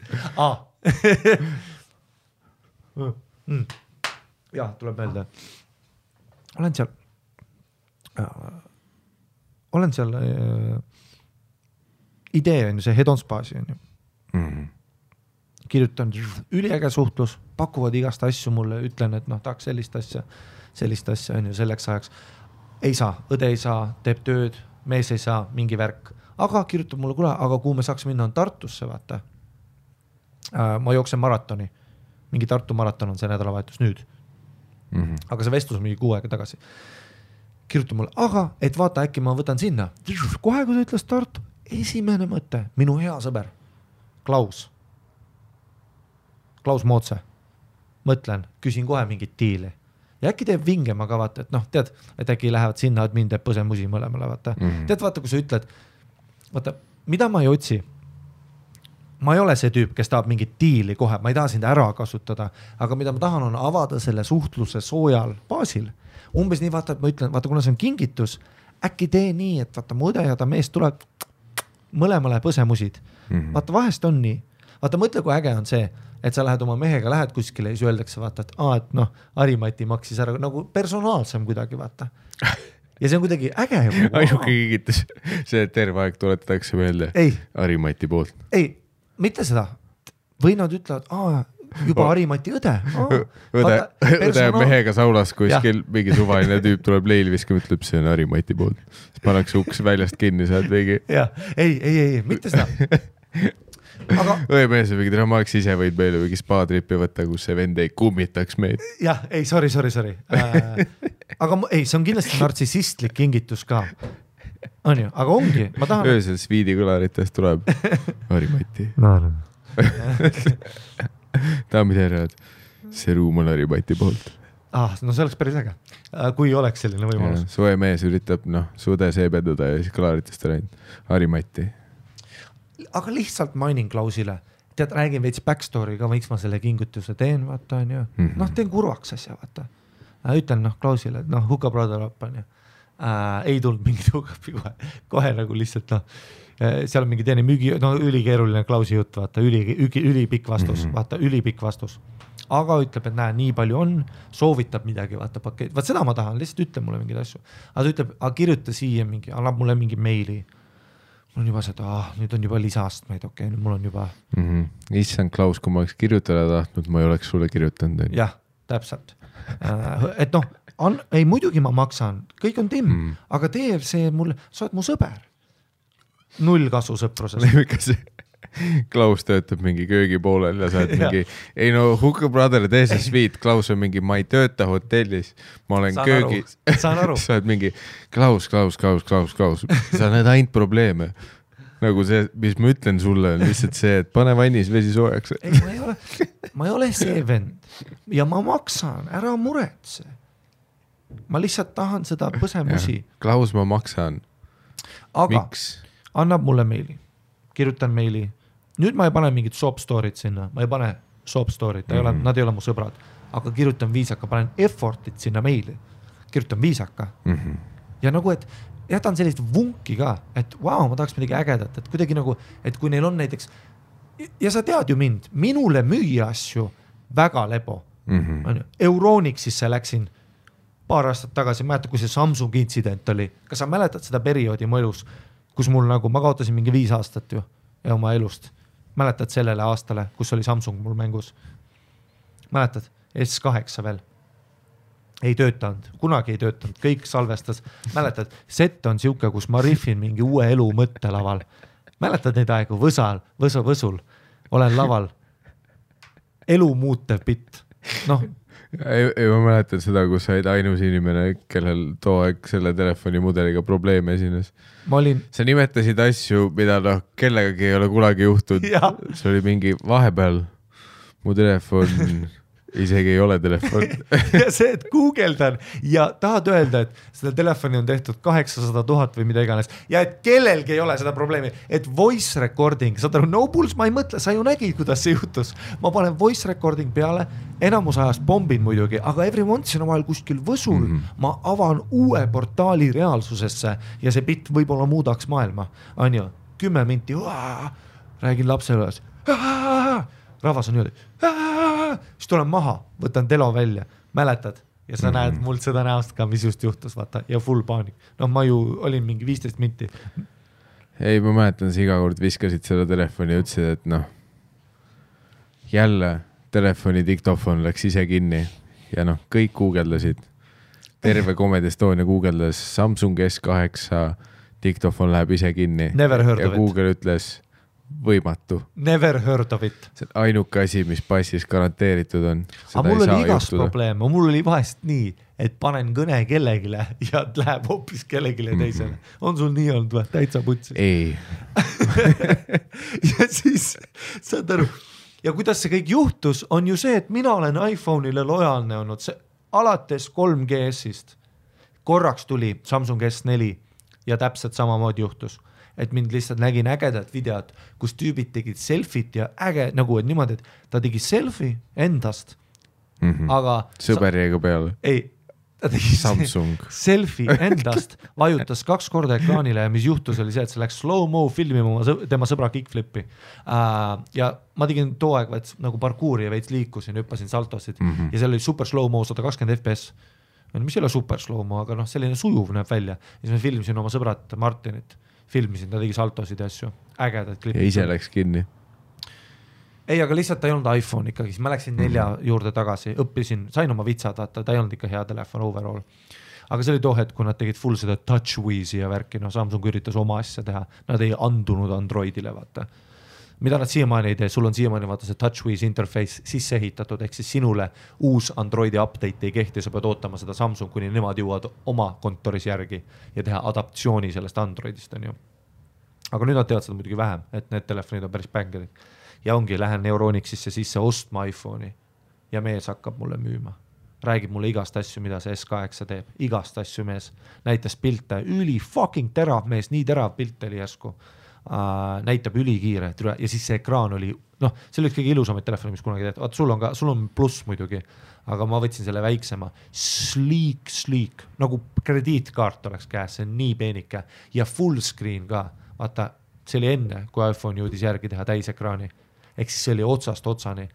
Jah, tuleb meelde. Olen seal idee on ju, see Head on Spaasi on ju. Kirjutan üliäge suhtlus, pakuvad igast asju mulle, ütlen, et tahaks sellist asja on ju selleks ajaks. Ei saa, õde ei saa, teeb tööd, mees ei saa, mingi värk. Aga kirjutab mulle, kuule, aga kuhu me saaks minna on Tartusse, vaata. Ma jooksen maratoni. Mingi Tartu maraton on see nädalavahetus nüüd. Aga see vestlus on mingi 6 aega tagasi. Kirjutab mulle, aga et vaata, äkki ma võtan sinna. Kohe, kui ta ütles Tartu, esimene mõte, minu hea sõber, Klaus Mootse. Mõtlen, küsin kohe mingit diili. Ja äkki teeb vingema ka, vaata, et tead, et äkki lähevad sinna, et mind teeb põsemusi mõlemale, vaata. Tead, vaata, kui sa ütled, vaata, mida ma ei otsi? Ma ei ole see tüüp, kes tahab mingit diili kohe, ma ei taha sind ära kasutada, aga mida ma tahan on avada selle suhtluse soojal baasil. Umbes nii, vaata, et ma ütlen, vaata, kuna see on kingitus, äkki tee nii, et vaata, mu õde ja ta mees tuleb mõlemale põsemusid. Vaata, vahest on nii. Vaata, mõtle, kui äge on see, et sa lähed oma mehega, lähed kuskile ja siis öeldakse, vaata, et Harimati maksis ära nagu personaalsem kuidagi, vaata. Ja see on kuidagi äge. Ainuke kingitus, see terve aeg tuletatakse meelde Harimati poolt. Ei, mitte seda. Või nad ütlevad, juba Harimati õde. Õde mehega saunas kuskil mingi suvaline tüüp tuleb leili viskama, ütleb, see on Harimati poolt. Siis pannakse uks väljast kinni, saad veegi. Ei, mitte seda. Õemees on mingi, ma oleks ise võid meile mingi spa-trippi võtta, kus see vend ei kummitaks meid. Jah, ei, sorry. Aga see on kindlasti nartsissistlik kingitus ka. On ju, aga ongi, ma tahan... Öösel Sviidi kõlaritest tuleb Harimati. Daamid ja herrad, see ruum on Harimati poolt. No see oleks päris äge, kui oleks selline võimalus. Su õemees üritab sude seebendada ja siis kõlaritest on Harimati. Aga lihtsalt mainin Klausile. Tead, räägin veits backstory ka, võiks ma selle kingutuse teen, vaata, on ju. Teen kurvaks asja, vaata. Ütlen, Klausile, et hookup brother up, on ju. Ei tulnud mingit hookupi kohe nagu lihtsalt, seal on mingi teine müügi, ülikeeruline Klausi jutt, vaata, ülipikk vastus, vaata, ülipikk vastus. Aga ütleb, et näe, nii palju on, soovitab midagi, vaata, pakett. Vaat seda ma tahan, lihtsalt ütle mulle mingid asju. Aga ta ütleb, kirjuta siia mingi, annab mulle mingi meili. Mul on juba seda, nüüd on juba lisaastmeid, okei, nüüd mul on juba... Issand Klaus, kui ma oleks kirjutada tahtnud, ma ei oleks sulle kirjutanud. Jah, täpselt. Et ei, muidugi ma maksan, kõik on timm, aga teeb see mulle, sa oled mu sõber. 0 kasu sõprusest. Kas Klaus töötab mingi köögi poolel ja sa oled mingi, ei hookup brother, tee see sweet, Klaus on mingi, ma ei tööta hotellis, ma olen köögis. Saan aru. Sa oled mingi, Klaus, sa näed ainult probleeme. Nagu see, mis ma ütlen sulle, on lihtsalt see, et pane vannis vesi soojaks. Ei, ma ei ole see vend ja ma maksan, ära muretse. Ma lihtsalt tahan seda põsemusi. Klaus, ma maksan. Aga miks? Annab mulle meili, kirjutan meili. Nüüd ma ei pane mingit soap story't sinna, ma ei pane soap story't, nad ei ole mu sõbrad, aga kirjutan viisaka, panen effortit sinna meili, kirjutan viisaka. Ja nagu, et jätan sellist vunki ka, et ma tahaks midagi ägedat, et kuidagi nagu, et kui neil on näiteks, ja sa tead ju mind, minule müüa asju väga lebo. Eurooniksis läksin paar aastat tagasi, mäletad, kui see Samsung intsident oli, kas sa mäletad seda perioodi mu elus, kus mul nagu, ma kaotasin mingi 5 aastat ju ja oma elust, mäletad sellele aastale, kus oli Samsung mul mängus, mäletad, S8 veel, ei töötanud, kunagi ei töötanud, kõik salvestas, mäletad, set on siuke, kus ma riffin mingi uue elu mõttelaval, mäletad neid aegu, võsul, olen laval, elu muutev bitt, noh. Ei, ma mäletan seda, kus sa olid ainus inimene, kellel too aeg selle telefoni mudeliga probleeme esines. Sa nimetasid asju, mida kellegagi ei ole kunagi juhtud. See oli mingi vahepeal mu telefon isegi ei ole telefon. Ja see, et guugeldan ja tahad öelda, et seda telefoni on tehtud 800 000 või mida iganes ja et kellelgi ei ole seda probleemi, et voice recording, saad aru, no pulse, ma ei mõtle, sa ju nägid, kuidas see juhtus. Ma panen voice recording peale, enamus ajast bombin muidugi, aga every once in a while kuskil võsul ma avan uue portaali reaalsusesse ja see bitt võib-olla muudaks maailma. On ju, 10 minti, räägin lapsele, rahvas on niimoodi, siis tulen maha, võtan telo välja, mäletad ja sa näed mult seda näost ka, mis just juhtus, vaata, ja full paanik. No ma ju olin mingi 15 minti. Ei, ma mäletan, sa iga kord viskasid seda telefoni ja ütlesid, et jälle telefoni diktofon läks ise kinni ja kõik guugeldasid. Terve Comedy Estonia guugeldas Samsung S8, diktofon läheb ise kinni. Never heard ja of it. Google ütles võimatu. Never heard of it. See on ainuke asi, mis passis garanteeritud on. Aga mul oli igast probleem, mul oli vahest nii, et panen kõne kellegile ja läheb hoopis kellegile teisele. On sul nii olnud või? Täitsa putsi? Ei. Ja siis, saad aru, ja kuidas see kõik juhtus, on ju see, et mina olen iPhone'ile lojaalne olnud see, alates 3GS-ist. Korraks tuli Samsung S4 ja täpselt samamoodi juhtus. Et mind lihtsalt nägin ägedat videot, kus tüübid tegid selfit ja äge, nagu et niimoodi, et ta tegi selfie endast, aga... Sõber jäi ka peale. Ei, ta tegi Samsung. Selfie endast, vajutas 2 korda ekraanile ja mis juhtus oli see, et see läks slow-mo filmima tema sõbra kickflipi. Ja ma tegin too aeg nagu parkuuri ja veits liikusin, hüppasin saltosid ja seal oli super slow-mo 120 FPS. Mis ei ole super slow-mo, aga selline sujuv näeb välja. Ja siis me filmisin oma sõbrat Martinit. Filmisin, ta tegi saltosid ja asju, ägedad klipid. Ja ise läks kinni? Ei, aga lihtsalt ta ei olnud iPhone ikkagi, siis ma läksin 4 juurde tagasi, õppisin, sain oma vitsad, ta ei olnud ikka hea telefon overall. Aga see oli too hetk, kui nad tegid full seda TouchWizi ja värki, Samsung üritas oma asja teha, nad ei andunud Androidile, vaata. Mida nad siiamaani ei tee, sul on siiamaani vaata see TouchWiz interface sisse ehitatud, ehk siis sinule uus Androidi update ei kehti, sa pead ootama seda Samsung, kuni nemad jõuad oma kontoris järgi ja teha adaptsiooni sellest Androidist, on ju. Aga nüüd nad teevad seda muidugi vähem, et need telefonid on päris bängerid. Ja ongi, lähen Neuronixisse sisse ostma iPhone'i ja mees hakkab mulle müüma. Räägib mulle igast asju, mida see S8 teeb. Igast asju mees. Näitas pilte, üli fucking terav mees, nii terav pilt oli järsku. Näitab ülikiire ja siis see ekraan oli, see oli kõige ilusamaid telefoni, mis kunagi tehtud. Sul on pluss muidugi, aga ma võtsin selle väiksema. Sleek, nagu krediitkaart oleks käes, see on nii peenike ja full screen ka. Vaata, see oli enne, kui iPhone jõudis järgi teha täisekraani. Ehk siis see oli otsast otsani.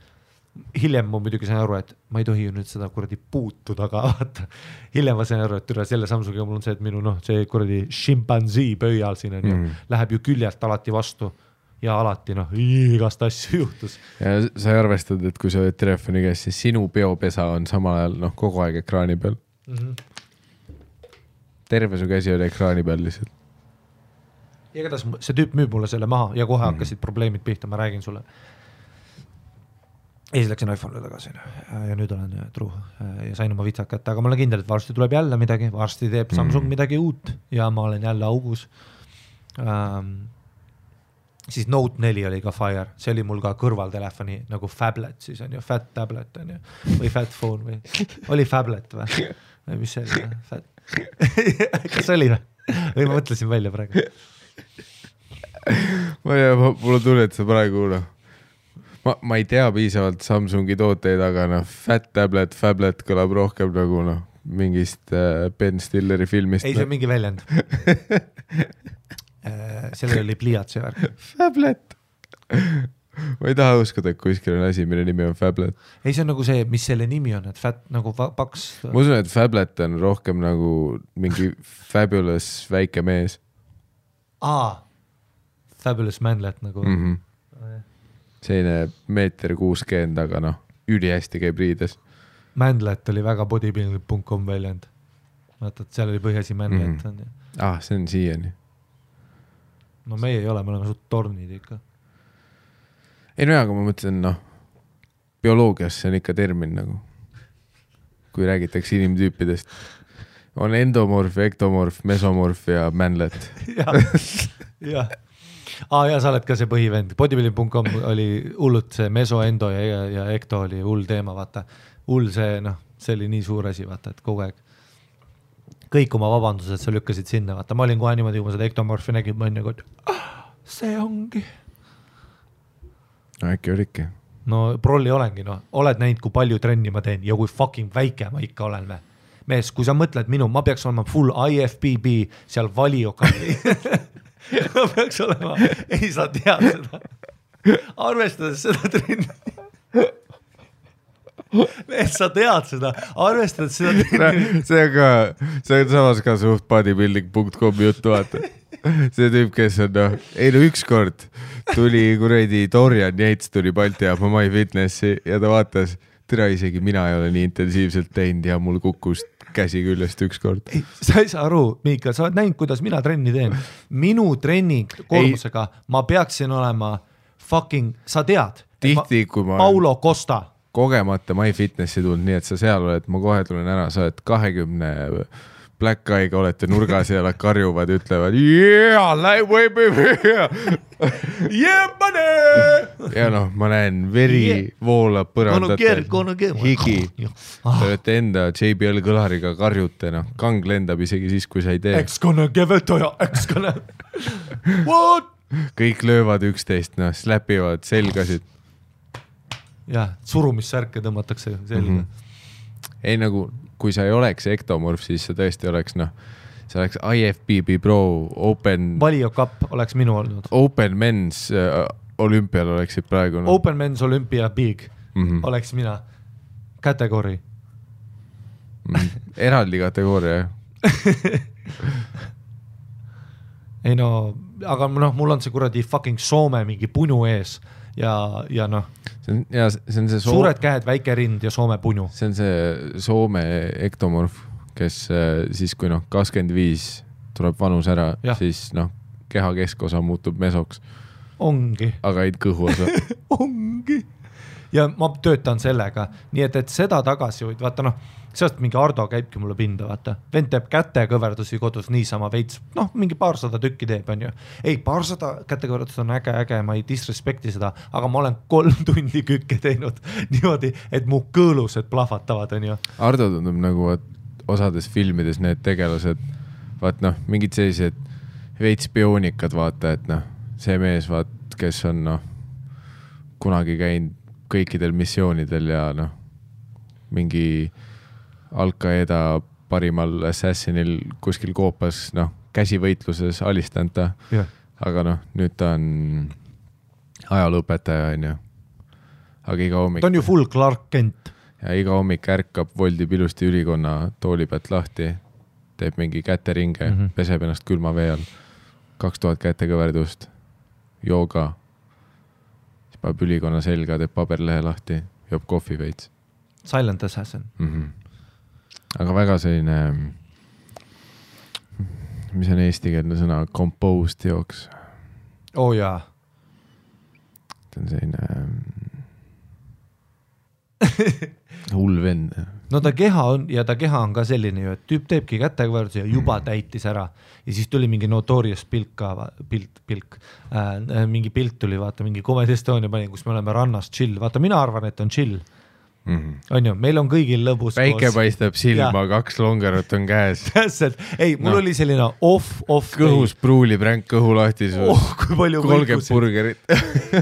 Hiljem ma muidugi sain aru, et ma ei tohi ju nüüd seda kuradi puutuda, aga vaata, hiljem ma sain aru, et selle Samsungiga mul on see, et minu see kuradi šimpanzii pöial siin on ju, läheb ju küljelt alati vastu ja alati igast asju juhtus. Ja sa ei arvestad, et kui sa oled telefoni käes, siis sinu peopesa on samal ajal kogu aeg ekraani peal. Terve su käsi oli ekraani peal lihtsalt. Ja kuidas see tüüp müüb mulle selle maha ja kohe hakkasid probleemid pihta, ma räägin sulle. Ja siis läksin iPhone'ile tagasi ja nüüd olen truu ja sain oma vitsad kätte, aga ma olen kindel, et varsti tuleb jälle midagi, varsti teeb Samsung midagi uut ja ma olen jälle augus. Siis Note 4 oli ka Fire, see oli mul ka kõrvaltelefoni nagu Fablet, siis on ju, Fat Tablet on ju, või Fat Phone või, oli Fablet või mis see oli? Kas oli või ma mõtlesin välja praegu? Ma ei tea, mulle tuli, et sa praegu ma ei tea piisavalt Samsungi tooteid, aga Fat Tablet, Fablet kõlab rohkem nagu mingist Ben Stilleri filmist. Ei, see on mingi väljend. Sellel oli pliiatsi värk. Fablet. ma ei taha uskuda, et kuskil on asi, mille nimi on Fablet. Ei, see on nagu see, mis selle nimi on, et fat nagu paks. Ma usun, et Fablet on rohkem nagu mingi fabulous väike mees. Fabulous manlet nagu. Selline 1.60 m, aga noh, ülihästi käib riides. Manlet oli väga bodybuilding.com väljend. Vaata, et seal oli põhjasi manlet. See on siiani. No meie ei ole, me oleme suht tornid ikka. Ei no aga ma mõtlen, bioloogias see on ikka termin nagu, kui räägitakse inimtüüpidest. On endomorf, ektomorf, mesomorf ja manlet. Ja, sa oled ka see põhivend. Bodybuilding.com oli hullult see meso, endo ja ekto oli hull teema, vaata. Hull see, see oli nii suur asi, vaata, et kogu aeg. Kõik oma vabandused sa lükkasid sinna, vaata. Ma olin kohe niimoodi, kui ma seda ektomorfi nägin, ma olin nagu, see ongi. No äkki olidki. No prolli olengi, oled näinud, kui palju trenni ma teen ja kui fucking väike ma ikka olen. Mees, kui sa mõtled ma peaks olema full IFBB seal valiokalli. Ma peaks olema, ei sa tead seda. Arvestades seda trenni. Mees, sa tead seda, arvestades seda trenni. See on samas ka suht bodybuilding.com juttu, vaata. See tüüp, kes on, ükskord tuli kuradi Dorian Yates tuli Balti ja My Fitnessi ja ta vaatas, tere isegi mina ei ole nii intensiivselt teinud ja mul kukkus käsi küljest ükskord. Sa ei saa aru, Miika, sa oled näinud, kuidas mina trenni teen. Minu treening koormusega ma peaksin olema fucking, sa tead, tihti, kui ma Paulo Costa. Kogemata My Fitnessi tulnud, nii et sa seal oled, ma kohe tulen ära, sa oled 20 Black Eye'ga olete nurgas ja nad karjuvad ja ütlevad ja ma näen veri voolab põrandatel, higi. Te olete enda JBL kõlariga karjute, kang lendab isegi siis, kui sa ei tee. Eks-kone keveltoja, eks-kone. What? Kõik löövad üksteist, släpivad selgasid. Jah, surumissärke tõmmatakse selga. Ei nagu... kui sa ei oleks ektomorf, siis sa tõesti oleks, see oleks IFBB Pro Open... Valio Cup oleks minu olnud. Open Men's olümpial oleksid praegu. Open Men's Olympia Big oleks mina. Kategori. Eraldi kategooria, Ei aga mul on see kuradi fucking Soome mingi punu ees. Ja see on see suured käed, väike rind ja Soome punu. See on see Soome ektomorf, kes siis kui 25 tuleb vanus ära, siis keha keskosa muutub mesoks. Ongi. Aga ei kõhu osa. Ongi. Ja ma töötan sellega, nii et seda tagasi võid, vaata sealt mingi Ardo käibki mulle pinda, vaata. Vend teeb kätekõverdusi kodus niisama veits, mingi 200 tükki teeb, on ju. Ei, 200 kätekõverdus on äge, ma ei disrespekti seda, aga ma olen 3 tundi kükke teinud niimoodi, et mu kõõlused plahvatavad, on ju. Ardo tundub nagu osades filmides need tegelased, vaat mingid sellised veits bioonikad, vaata, et see mees, vaat, kes on kunagi käinud kõikidel missioonidel ja mingi Al-Qaeda parimal assassinil kuskil koopas, käsivõitluses alistanud ta, aga nüüd ta on ajalõpetaja, on ju. Aga iga hommik... Ta on ju full Clark Kent. Ja iga hommik ärkab, voldib ilusti ülikonna tooli pealt lahti, teeb mingi käteringe, peseb ennast külma vee all, 2000 kätekõverdust, jooga, siis paneb ülikonna selga, teeb paberlehe lahti, joob kohvi veits. Silent Assassin. Aga väga selline, mis on eestikeelne sõna, composed jooks. Jaa. Ta on selline hull vend. No ta keha on ka selline ju, et tüüp teebki kätekõverduse ja juba täitis ära. Ja siis tuli mingi Notorious mingi pilt tuli, vaata, mingi Comedy Estonia pani, kus me oleme rannas chill. Vaata, mina arvan, et on chill. On ju, meil on kõigil lõbus päike paistab silma, 2 longerot on käes. Täpselt, ei, mul oli selline off kõhus pruulib ränk kõhu lahtisus. Kui palju 30 burgerit.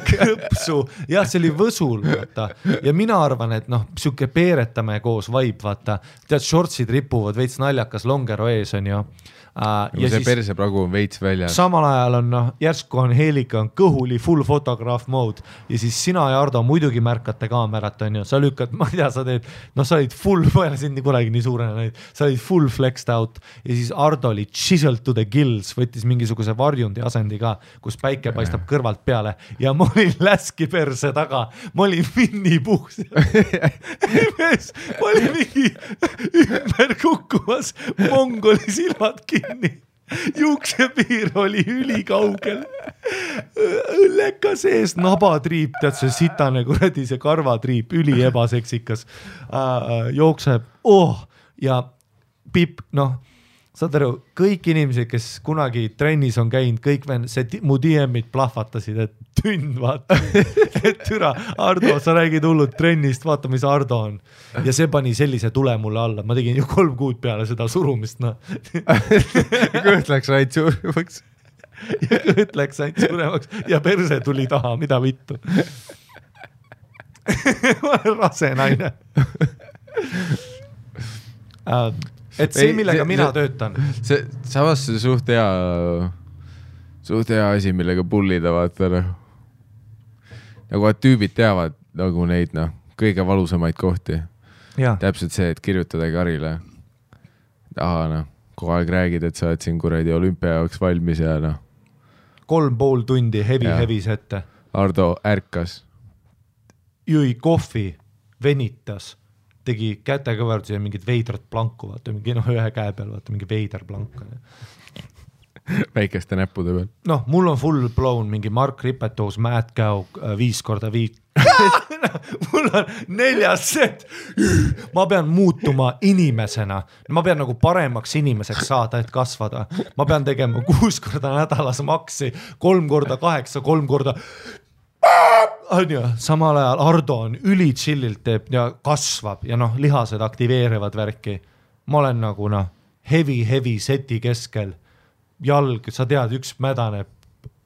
Kõpsu, jah, see oli võsul, vaata. Ja mina arvan, et siuke peeretame koos vibe, vaata. Tead, shortsid ripuvad, veits naljakas longero ees on ju. Ja see persepragu on veits väljas. Samal ajal on järsku on Helika on kõhuli full fotograaf mode ja siis sina ja Ardo muidugi märkate kaamerat on ju, sa lükkad, ma ei tea, sa teed, sa olid full, ma ei ole sind nii kunagi nii suurena näinud, sa olid full flexed out ja siis Ardo oli chiseled to the gills, võttis mingisuguse varjundi asendi ka, kus päike paistab kõrvalt peale ja ma olin läski perse taga, ma olin Winnie Puhs ma olin mingi ümber kukkumas, mongoli silmad kinni, juuksepiir oli ülikaugel, õlleka sees nabatriip, tead see sitane kuradi, see karvatriip, üli ebaseksikas, jookseb, ja Pipp, saad aru, kõik inimesed, kes kunagi trennis on käinud, kõik mu DM-id plahvatasid, et tünn, vaata, et türa, Ardo, sa räägid hullud trennist, vaata, mis Ardo on. Ja see pani sellise tule mulle alla, ma tegin ju 3 kuud peale seda surumist, Kõht läks aid suuremaks. Ja kõht läks aid suuremaks ja perse tuli taha, mida vittu. Ma olen rase naine. Et see, millega mina töötan. Samas see suht hea asi, millega pullida vaata. Nagu et tüübid teavad nagu neid kõige valusamaid kohti. Ja. Täpselt see, et kirjutada Karile. Kogu aeg räägid, et sa oled siin kuradi olümpia jaoks valmis ja 3,5 tundi heavy sette. Ardo ärkas. Jõi kohvi, venitas. Tegi kätekõverdusi ja mingid veidrat planku, vaata, mingi ühe käe peal, vaata, mingi veider plank. Väikeste näppude peal. Mul on full blown mingi Mark Ripetoos, Matt Cow 5x5. Mul on 4 set. Ma pean muutuma inimesena. Ma pean nagu paremaks inimeseks saada, et kasvada. Ma pean tegema 6 korda nädalas maksi, 3 korda 8, 3 korda... Samal ajal Ardo on üli chillilt teeb ja kasvab ja lihased aktiveerivad värki. Ma olen nagu heavy seti keskel. Jalg, sa tead, üks mädane,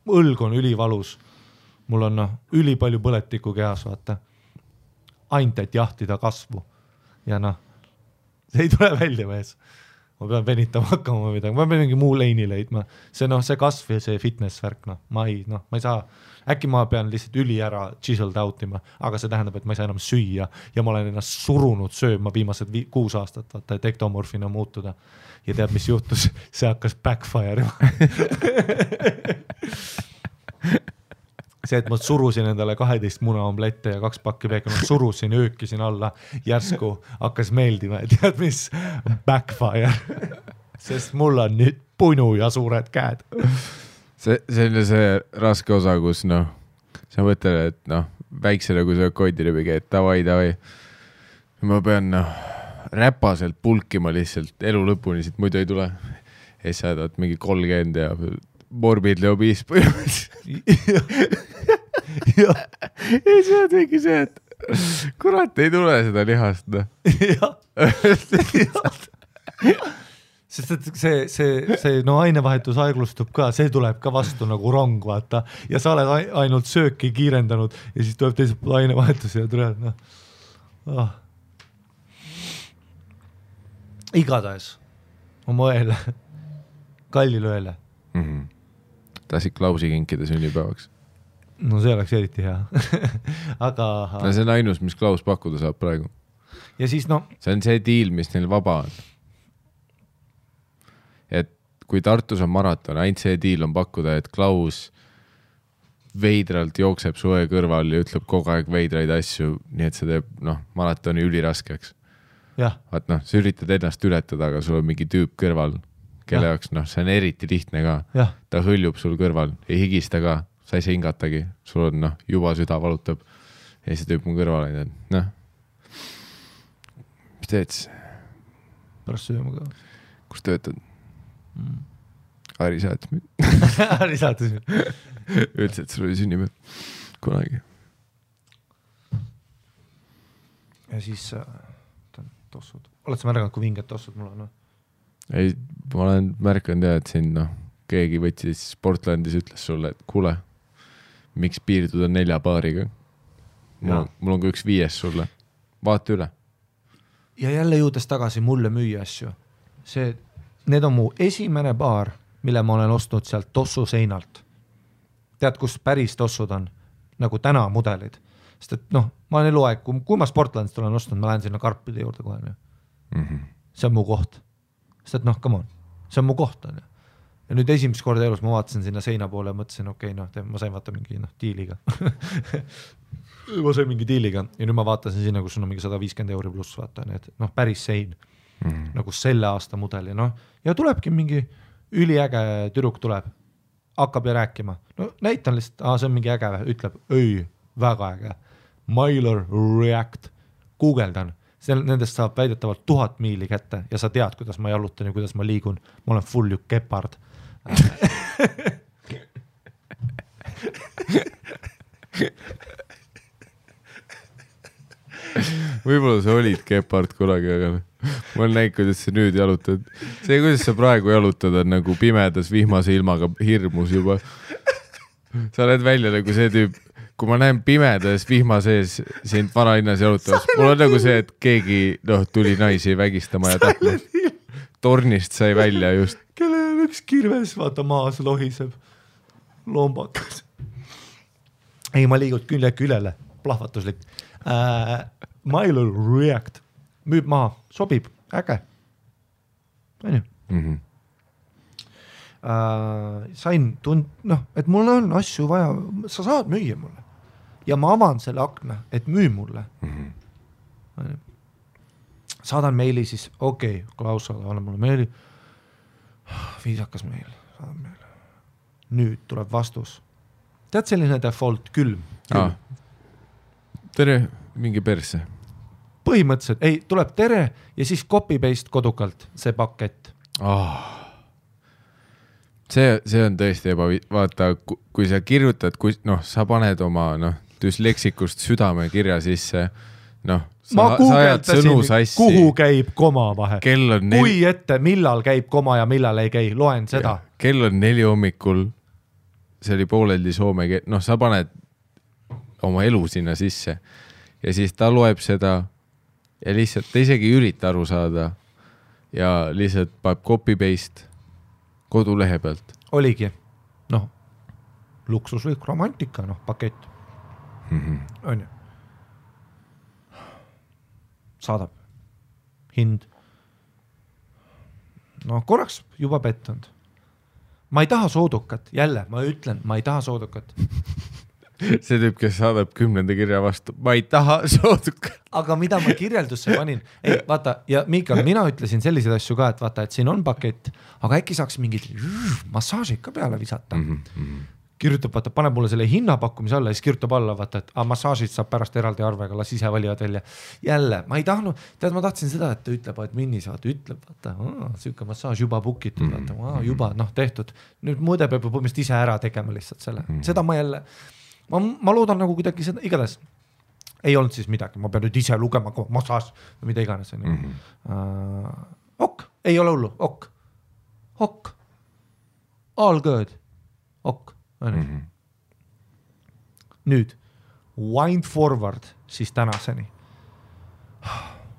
õlg on ülivalus. Mul on üli palju põletikku kehas, vaata. Ainult, et jahtida kasvu. Ja see ei tule välja mees. Ma pean venitama hakkama midagi. Ma pean mingi muu leini leidma. See kasv ja see fitness värk, ma ei saa. Äkki ma pean lihtsalt üli ära chiseled outima, aga see tähendab, et ma ei saa enam süüa ja ma olen ennast surunud sööma viimased 6 aastat, vaata, et ektomorfina muutuda. Ja tead, mis juhtus? See hakkas backfire. See, et ma surusin endale 12 muna omlette ja 2 pakki peekon, surusin, öökisin alla, järsku hakkas meeldima, et tead, mis backfire. Sest mul on nüüd punu ja suured käed. See on see raske osa, kus sa mõtled, et väiksele, kui sa koidiribiga, et davai. Ma pean räpaselt pulkima lihtsalt elu lõpuni, siit muidu ei tule. Ja sa saad mingi 30 ja morbidli obiis põhimõtteliselt. Ja see on mingi see, et kurat ei tule seda lihast. Sest et see ainevahetus aeglustub ka, see tuleb ka vastu nagu rong, vaata. Ja sa oled ainult sööki kiirendanud ja siis tuleb teiselt pool ainevahetus ja tuleb, Igatahes oma õele, kallile õele. Tahtsid Klausi kinkida sünnipäevaks? No see oleks eriti hea. Aga... see on ainus, mis Klaus pakkuda saab praegu. Ja siis see on see deal, mis neil vaba on. Et kui Tartus on maraton, ainult see deal on pakkuda, et Klaus veidralt jookseb su õe kõrval ja ütleb kogu aeg veidraid asju, nii et see teeb maratoni üliraskeks. Vaat sa üritad ennast ületada, aga sul on mingi tüüp kõrval, kelle jaoks see on eriti lihtne ka. Ta hõljub sul kõrval, ei higista ka, sa ei saa hingatagi, sul on juba süda valutab ja see tüüp mu kõrval on, mis teed siis? Pärast sööma ka. Kus töötad? Ari saatis mind. Ari saatis mind. Ütles, et sul oli sünnipäev kunagi. ja siis tossud. Oled sa märganud, kui vinged tossud mul on? Ei, ma olen märkanud et siin keegi võttis Portlandis ütles sulle, et kuule, miks piirduda 4 paariga? Mul on ka üks 5 sulle. Vaata üle. Ja jälle jõudes tagasi mulle müüa asju. Need on mu esimene paar, mille ma olen ostnud sealt tossu seinalt. Tead, kus päris tossud on? Nagu täna mudelid. Sest et ma olen eluaeg, kui ma Sportlandist olen ostnud, ma lähen sinna karpide juurde kohe. See on mu koht. Sest et come on, see on mu koht. Ja nüüd esimest korda elus ma vaatasin sinna seina poole ja mõtlesin, ma sain vaata mingi diiliga. Ma sain mingi diiliga ja nüüd ma vaatasin sinna, kus on mingi 150 € pluss, vaata, need päris sein. Nagu selle aasta mudeli. Ja tulebki mingi üliäge tüdruk tuleb, hakkab ja rääkima. Näitan lihtsalt, see on mingi äge, ütleb, ei, väga äge. Mylar React, guugeldan. Nendest saab väidetavalt 1000 miili kätte ja sa tead, kuidas ma jalutan ja kuidas ma liigun. Ma olen full ju gepard. Võib-olla sa olid gepard kunagi, aga ma olen näinud, kuidas sa nüüd jalutad. See, kuidas sa praegu jalutad, on nagu pimedas vihmase ilmaga hirmus juba. Sa oled välja nagu see tüüp, kui ma näen pimedas vihma sees sind vanalinnas jalutavast, mul on nagu see, et keegi tuli naisi vägistama ja tapma. Tornist sai välja just. Kellel üks kirves, vaata maas lohiseb. Lombakas. Ei, ma liigud külele. Plahvatuslik. Mylar React. Müüb maha. Sobib. Äge. Sain et mul on asju vaja. Sa saad müüa mulle. Ja ma avan selle akna, et müü mulle. Saadan meili siis, Klaus, anna mulle meili. Viisakas meil. Saadan meile. Nüüd tuleb vastus. Tead selline default külm? Tere, mingi perse. Põhimõtteliselt, ei, tuleb tere ja siis copy-paste kodukalt see pakett. See on tõesti vaata, kui sa kirjutad, sa paned oma düsleksikust südame kirja sisse, ma guugeldasin, kuhu käib koma vahe. Kui ette, millal käib koma ja millal ei käi, loen seda. Kell on 4 hommikul, see oli pooleldi soome, sa paned oma elu sinna sisse ja siis ta loeb seda ja lihtsalt ta isegi ürita aru saada ja lihtsalt paneb copy-paste kodulehe pealt. Oligi, luksuslik romantika, pakett. On ju. Saadab. Hind. Korraks juba pettunud. Ma ei taha soodukat. Jälle, ma ütlen, ma ei taha soodukat. See tüüp, kes saadab 10. kirja vastu. Ma ei taha soodukat. Aga mida ma kirjeldusse panin? Ei, vaata, ja Miikal, mina ütlesin selliseid asju ka, et vaata, et siin on pakett, aga äkki saaks mingid massaažid ka peale visata. Kirjutab, vaata, paneb mulle selle hinnapakkumise alla ja siis kirjutab alla, vaata, et massaažid saab pärast eraldi arvega, las ise valivad välja. Jälle, ma ei tahtnud, ma tahtsin seda, et ta ütleb, et minnis, vaata, ütleb, vaata, süüke massaaž juba bookitud, vaata, juba, tehtud. Nüüd mõõde peab põhimõtteliselt ise ära tegema lihtsalt selle. Seda ma jälle, ma loodan nagu kuidagi seda, igatahes ei olnud siis midagi, ma pean nüüd ise lugema massaaž või mida iganes. Ok, ei ole hullu, ok. All good, ok. Nüüd wind forward siis tänaseni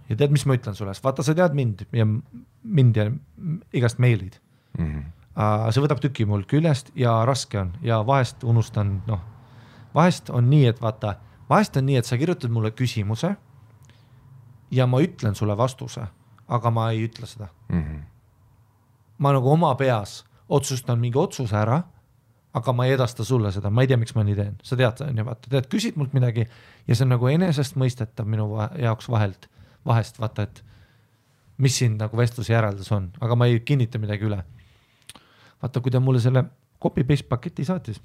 ja tead, mis ma ütlen sulle, vaata sa tead mind ja igast meilid. See võtab tüki mul küljest ja raske on ja vahest unustan, vahest on nii, et vaata, vahest on nii, et sa kirjutad mulle küsimuse ja ma ütlen sulle vastuse, aga ma ei ütle seda. Ma nagu oma peas otsustan mingi otsuse ära, aga ma ei edasta sulle seda, ma ei tea, miks ma nii teen. Sa tead, vaata, küsid mult midagi ja see on nagu enesest mõistetav minu jaoks vahest, vaata, et mis siin nagu vestluse järeldus on, aga ma ei kinnita midagi üle. Vaata, kui ta mulle selle copy-paste paketi saatis,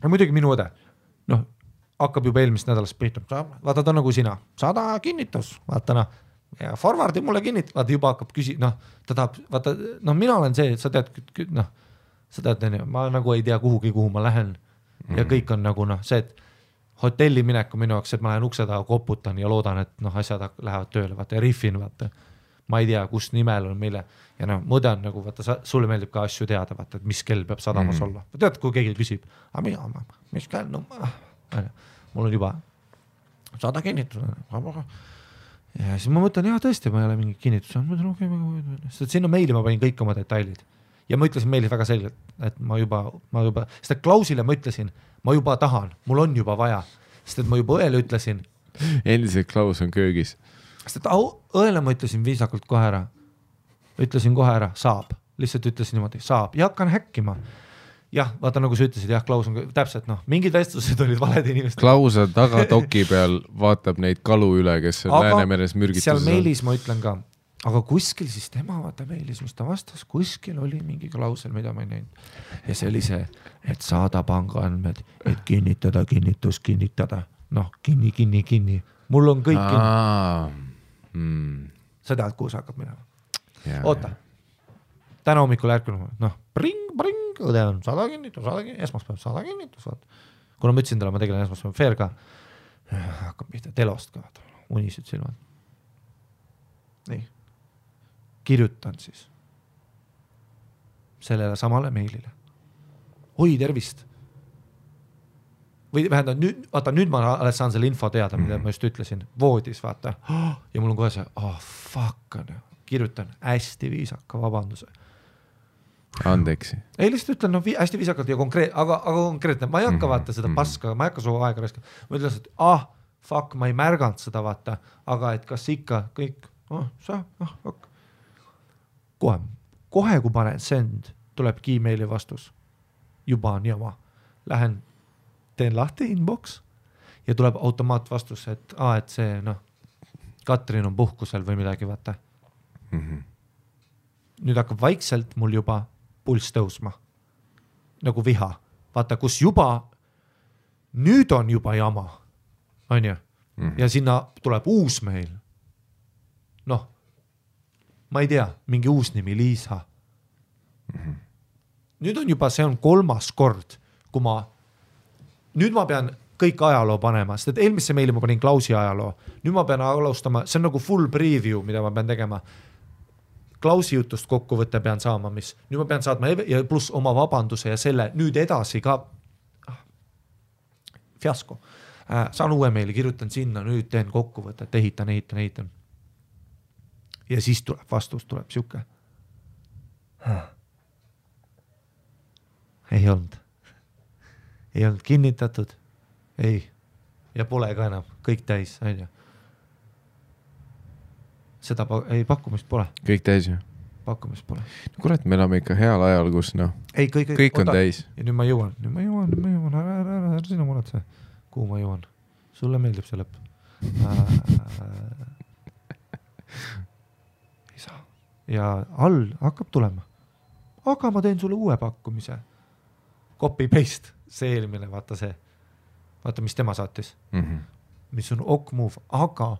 ja muidugi minu õde, hakkab juba eelmist nädalast pihta, vaata ta nagu sina, 100 kinnitus, vaata ja forwardi mulle kinnitus, vaata juba hakkab ta tahab, vaata, mina olen see, et sa tead, ma nagu ei tea kuhugi, kuhu ma lähen ja kõik on nagu see, et hotelli mineku minu jaoks, et ma lähen ukse taha, koputan ja loodan, et noh, asjad lähevad tööle, vaata ja riffin, vaata. Ma ei tea, kus nimel on meile ja noh, mõde on nagu, vaata, sulle meeldib ka asju teada, vaata, et mis kell peab sadamas olla. Tead, kui keegi küsib, mis kell, no mul on juba 100 kinnitus. Ja siis ma mõtlen, tõesti, ma ei ole mingi kinnitus. Sest sinna meili ma panin kõik oma detailid. Ja ma ütlesin meili väga selgelt, et ma juba, sest Klausile ma ütlesin, ma juba tahan, mul on juba vaja. Sest et ma juba õele ütlesin. Endiselt Klaus on köögis. Sest et õele ma ütlesin viisakalt kohe ära. Ütlesin kohe ära, saab. Lihtsalt ütlesin niimoodi, saab. Ja hakkan häkkima. Jah, vaata nagu sa ütlesid, Klaus on täpselt, mingid vestlused olid valed inimesed. Klaus on taga doki peal, vaatab neid kalu üle, kes on Läänemeres mürgituses. Seal meilis ma ütlen ka, aga kuskil siis tema vaata meilis, mis ta vastas, kuskil oli mingi klausel, mida ma ei näinud. Ja see oli see, et saada pangaandmed, et kinnitada, kinnitada. Noh, kinni. Mul on kõik kinni. Sa tead, kuhu sa hakkab minema. Oota. Täna hommikul ärkunud, bring, õde on 100 kinnitus, esmaspäev 100 kinnitus. Kuna ma ütlesin talle, ma tegelen esmaspäev fair ka, hakkab pihta telost ka, unised silmad. Nii. Kirjutan siis sellele samale meilile. Oi, tervist. Või vähendab, nüüd ma alles saan selle info teada, mida ma just ütlesin. Voodis, vaata. Ja mul on kohe see, fuck on. Kirjutan hästi viisaka vabanduse. Andeksi. Ei, lihtsalt ütlen, hästi viisakalt ja aga konkreetne. Ma ei hakka vaata seda paska, ma ei hakka su aega raiskama. Ma ütlen, et fuck, ma ei märganud seda vaata, aga et kas ikka kõik, kohe kui panen send, tuleb Gmaili vastus. Juba on jama. Lähen, teen lahti inbox ja tuleb automaatvastus, et see, Katrin on puhkusel või midagi, vaata. Nüüd hakkab vaikselt mul juba pulss tõusma. Nagu viha. Vaata, kus juba, nüüd on juba jama. On ju? Ja sinna tuleb uus meil. Ma ei tea, mingi uus nimi, Liisa. Nüüd on juba, see on 3. kord, kui nüüd ma pean kõik ajaloo panema, sest et eelmisse meili ma panin Klausi ajaloo. Nüüd ma pean alustama, see on nagu full preview, mida ma pean tegema. Klausi jutust kokkuvõtte pean saama, mis nüüd ma pean saatma ja pluss oma vabanduse ja selle nüüd edasi ka fiasko. Saan uue meili, kirjutan sinna, nüüd teen kokkuvõtet, ehitan. Ja siis tuleb vastus, tuleb siuke. Ei olnud kinnitatud. Ei. Ja pole ka enam, kõik täis, on ju. Seda pakkumist pole. Kõik täis ju? Pakkumist pole. Kurat, me elame ikka heal ajal, kus kõik on täis. Ja nüüd ma jõuan. Ära sina muretse. Kuhu ma jõuan? Sulle meeldib see lõpp. Ei saa. Ja all hakkab tulema. Aga ma teen sulle uue pakkumise. Copy paste. See eelmine, vaata see. Vaata, mis tema saatis. Mis on ok move. Aga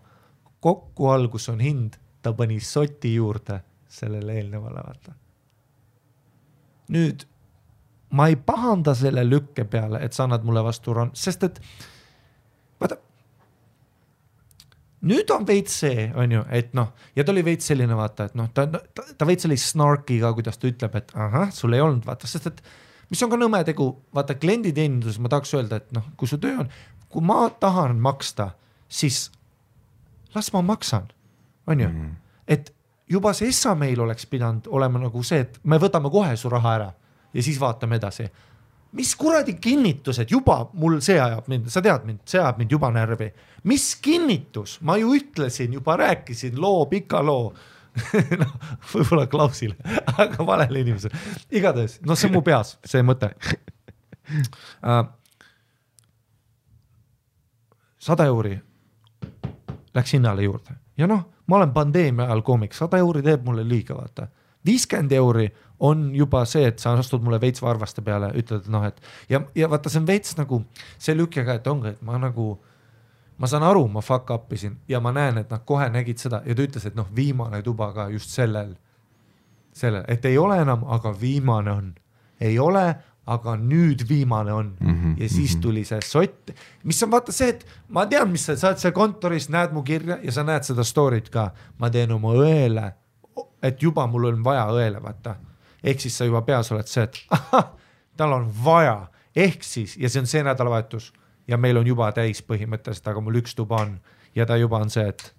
kokku algus on hind, ta pani soti juurde sellele eelnevale, vaata. Nüüd, ma ei pahanda selle lükke peale, et sa annad mulle vastu sest et, vaata, nüüd on veits see, on ju, et ja ta oli veits selline, vaata, et ta veits sellise snarkiga, kuidas ta ütleb, et sul ei olnud, vaata, sest et mis on ka nõme tegu, vaata, klienditeenindus, ma tahaks öelda, et kui su töö on, kui ma tahan maksta, siis las ma maksan, on ju? Et juba see SA meil oleks pidanud olema nagu see, et me võtame kohe su raha ära ja siis vaatame edasi. Mis kuradi kinnitused, juba mul see ajab mind, sa tead mind, see ajab mind juba närvi. Mis kinnitus? Ma ju ütlesin, juba rääkisin pika loo. Võib-olla Klausile, aga valele inimesele. Igatahes, see on mu peas, see mõte. 100 euri läks hinnale juurde. Ja ma olen pandeemia ajal koomik, 100 euri teeb mulle liiga, vaata. 50 euri on juba see, et sa astud mulle veits varvaste peale, ütled, et ja vaata, see on veits nagu see lükkega, et ongi, et ma saan aru, ma fuck upisin ja ma näen, et nad kohe nägid seda ja ta ütles, et viimane tuba ka just sellel, et ei ole enam, aga viimane on. Ei ole, aga nüüd viimane on ja siis tuli see sott, mis on vaata see, et ma tean, mis sa oled seal kontoris, näed mu kirja ja sa näed seda story't ka, ma teen oma õele, et juba mul on vaja õele, vaata. Ehk siis sa juba peas oled see, et tal on vaja, ehk siis, ja see on see nädalavahetus ja meil on juba täis põhimõtteliselt, aga mul üks tuba on ja ta juba on see, et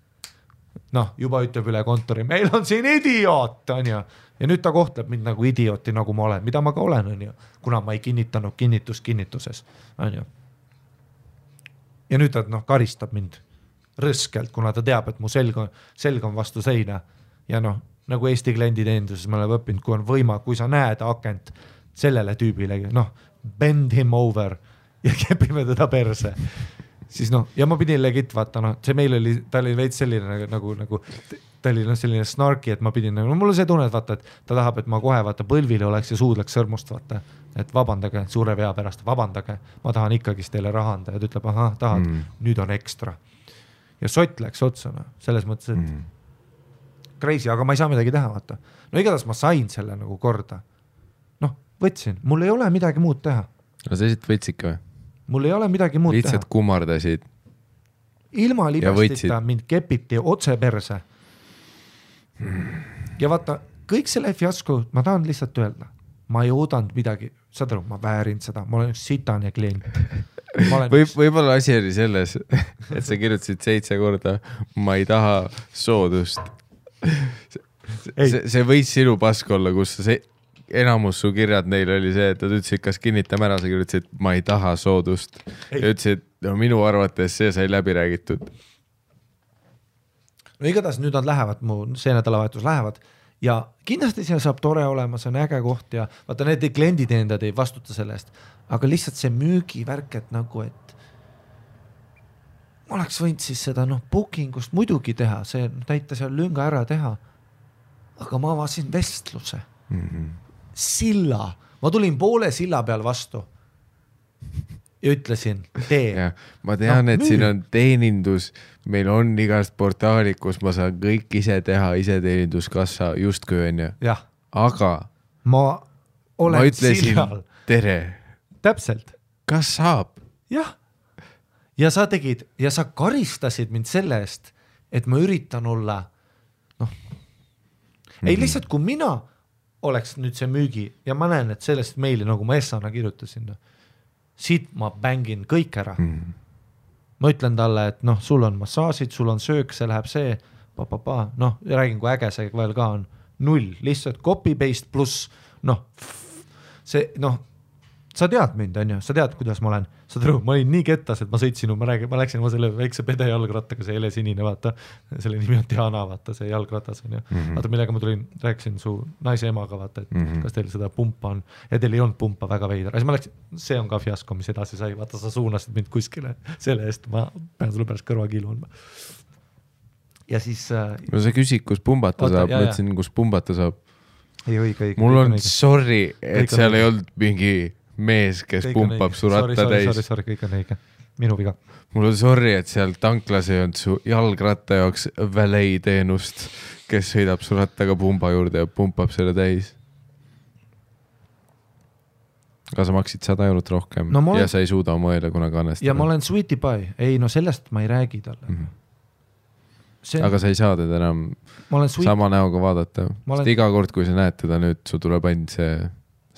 noh, juba ütleb üle kontori, meil on siin idioot, on ju. Ja nüüd ta kohtleb mind nagu idiooti, nagu ma olen, mida ma ka olen, on ju, kuna ma ei kinnitanud kinnituses, on ju. Ja nüüd ta karistab mind rõskelt, kuna ta teab, et mu selg on vastu seina ja noh, nagu Eesti klienditeeninduses ma olen õppinud, kui sa näed akent sellele tüübile, noh, bend him over ja kepime teda perse. Siis noh, ja ma pidin legit vaata, noh, see meil oli, ta oli veits selline nagu ta oli selline snarki, et ma pidin, mul on see tunne, et vaata, et ta tahab, et ma kohe vaata põlvile oleks ja suudleks sõrmust vaata, et vabandage suure vea pärast, vabandage, ma tahan ikkagist teile raha anda ja ta ütleb, ahah, tahad, nüüd on ekstra. Ja sott läks otsana, selles mõttes, et crazy, aga ma ei saa midagi teha, vaata. No igatahes ma sain selle nagu korda. Noh, võtsin, mul ei ole midagi muud teha. No sa lihtsalt võtsid ka või? Mul ei ole midagi muud lihtsalt teha. Kummardasid. Ilma libestita mind kepiti otse perse. Ja vaata, kõik selle fiasko, ma tahan lihtsalt öelda, ma ei oodanud midagi, saad aru, ma väärin seda, ma olen üks sitane klient. Võib-olla asi oli selles, et sa kirjutasid 7 korda, ma ei taha soodust. See võis sinu pask olla, kus enamus su kirjad neil oli see, et nad ütlesid, kas kinnitame ära, sa kirjutasid, ma ei taha soodust. Ja ütlesid, no minu arvates see sai läbi räägitud. No igatahes nüüd nad lähevad, see nädalavahetus lähevad ja kindlasti see saab tore olema, see on äge koht ja vaata need klienditeenindajad ei vastuta selle eest, aga lihtsalt see müügivärk, et nagu, et ma oleks võinud siis seda bookingust muidugi teha, see täita seal lünga ära teha, aga ma avasin vestluse. Silla, ma tulin poole silla peal vastu ja ütlesin, tee. Ja, ma tean, et siin on teenindus, meil on igast portaalid, kus ma saan kõik ise teha, ise teeninduskassa justkui on ju. Jah. Aga ma ütlesin sillal. Tere. Täpselt. Kas saab? Jah. Ja sa tegid, ja sa karistasid mind selle eest, et ma üritan olla, ei lihtsalt, kui mina oleks nüüd see müügi ja ma näen, et sellest meili, nagu ma Essana kirjutasin, siit ma bängin kõik ära. Ma ütlen talle, et sul on massaasid, sul on söök, see läheb see, räägin, kui äge see veel ka on, 0, lihtsalt copy-paste pluss, see, sa tead mind, on ju, sa tead, kuidas ma olen, ma olin nii kettas, et ma sõitsin, ma läksin oma selle väikse pede jalgrattaga, see helesinine, vaata, selle nimi on Diana, vaata, see jalgratas on ju, vaata, millega ma tulin, rääkisin su naise emaga, vaata, et kas teil seda pumpa on, ja teil ei olnud pumpa väga veidra, siis ma läksin, see on ka fiasko, mis edasi sai, vaata, sa suunasid mind kuskile, selle eest ma pean sulle pärast kõrvakiilu andma. Ja siis no sa küsid, kus pumbata saab, ma ütlesin, kus pumbata saab. Ei, õige. Mul on sorry, et seal ei olnud mingi mees, kes kõik pumpab su ratta täis. Sorry, kõik on õige. Minu viga. Mul on sorry, et seal tanklas ei olnud su jalgratta jaoks valet teenust, kes sõidab su rattaga pumba juurde ja pumpab selle täis. Aga sa maksid 100 € rohkem ja sa ei suuda oma õele kunagi annestada. Ja ma olen sweetie pie. Ei, sellest ma ei räägi talle. Aga sa ei saa teda enam sama näoga vaadata. Sest iga kord, kui sa näed teda nüüd, su tuleb ainult see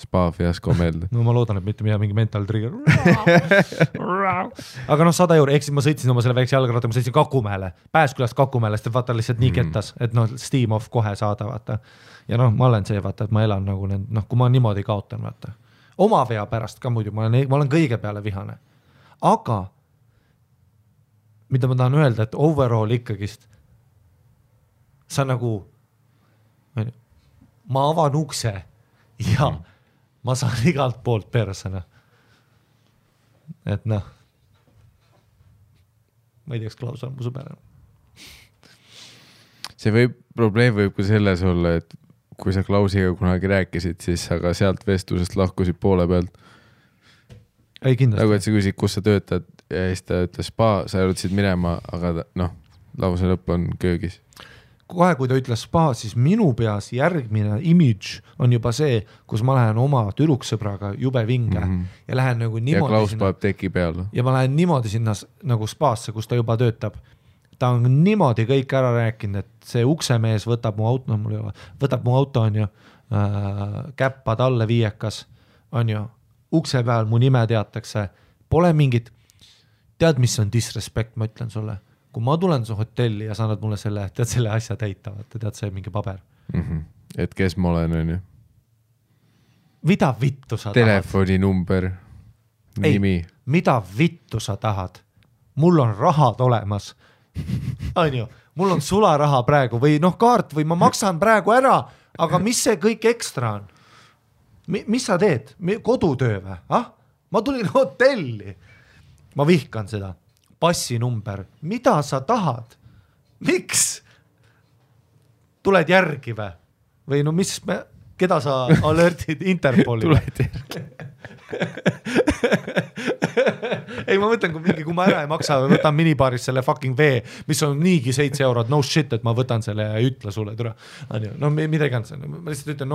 spa fiasko meelde. No ma loodan, et mitte mingi mental trigger. Aga 100 €, ehk siis ma sõitsin oma selle väikse jalgratta, ma sõitsin Kakumäele, Pääskülast Kakumäele, sest vaata lihtsalt nii kettas, et steam off kohe saada, vaata. Ja ma olen see, vaata, et ma elan nagu kui ma niimoodi kaotan, vaata. Oma vea pärast ka muidu, ma olen kõige peale vihane. Aga mida ma tahan öelda, et overall ikkagist sa nagu ma avan ukse ja ma saan igalt poolt persena. Et ma ei tea, kas Klaus on mu sõber. See probleem võib ka selles olla, et kui sa Klausiga kunagi rääkisid, siis sa ka sealt vestlusest lahkusid poole pealt. Ei, kindlasti. Nagu et sa küsid, kus sa töötad ja siis ta ütles spa, sa jõudsid minema, aga lause lõpp on köögis. kohe, kui ta ütles spa, siis minu peas järgmine image on juba see, kus ma lähen oma tüdruksõbraga jube vinge ja lähen nagu niimoodi ja Klaus paneb teki peale. Ja ma lähen niimoodi sinna nagu spaasse, kus ta juba töötab. Ta on niimoodi kõik ära rääkinud, et see uksemees võtab mu auto, on ju, käppad alle viiekas, on ju, ukse peal mu nime teatakse, pole mingit, tead, mis on disrespect, ma ütlen sulle. Kui ma tulen su hotelli ja sa annad mulle selle asja täita, tead, see mingi paber. Et kes ma olen, on ju? Mida vittu sa Telefoninumber, nimi. Mida vittu sa tahad? Mul on rahad olemas. On ju, mul on sularaha praegu või kaart või ma maksan praegu ära, aga mis see kõik ekstra on? Mis sa teed? Kodutöö või? Ma tulin hotelli. Ma vihkan seda. Passinumber. Mida sa tahad? Miks? Tuled järgi või keda sa alertid Interpoli? Tuled järgi. Ei, ma mõtlen, kui ma ära ei maksa või võtan minibaaris selle fucking vee, mis on niigi 7 €, no shit, et ma võtan selle ja ütle sulle, tule. No midagi on see. Ma lihtsalt ütlen,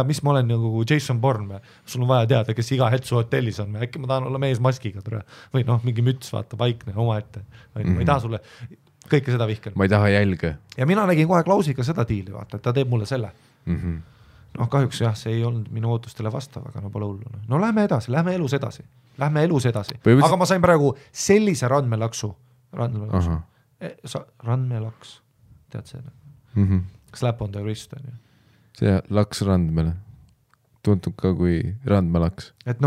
mis ma olen nagu Jason Bourne, sul on vaja teada, kes iga hetk su hotellis on, äkki ma tahan olla mees maskiga, tule. Või mingi müts, vaata, vaikne oma ette. Ma ei taha sulle kõike seda vihkan. Ma ei taha jälge. Ja mina nägin kohe Klausiga seda diili, vaata, et ta teeb mulle selle. Kahjuks jah, see ei olnud minu ootustele vastav, aga pole hullu. No lähme elus edasi. Aga ma sain praegu sellise randmelaksu. Randmelaks. Tead see? Slap on the wrist. See laks randmele. Tuntub ka kui randmelaks. Et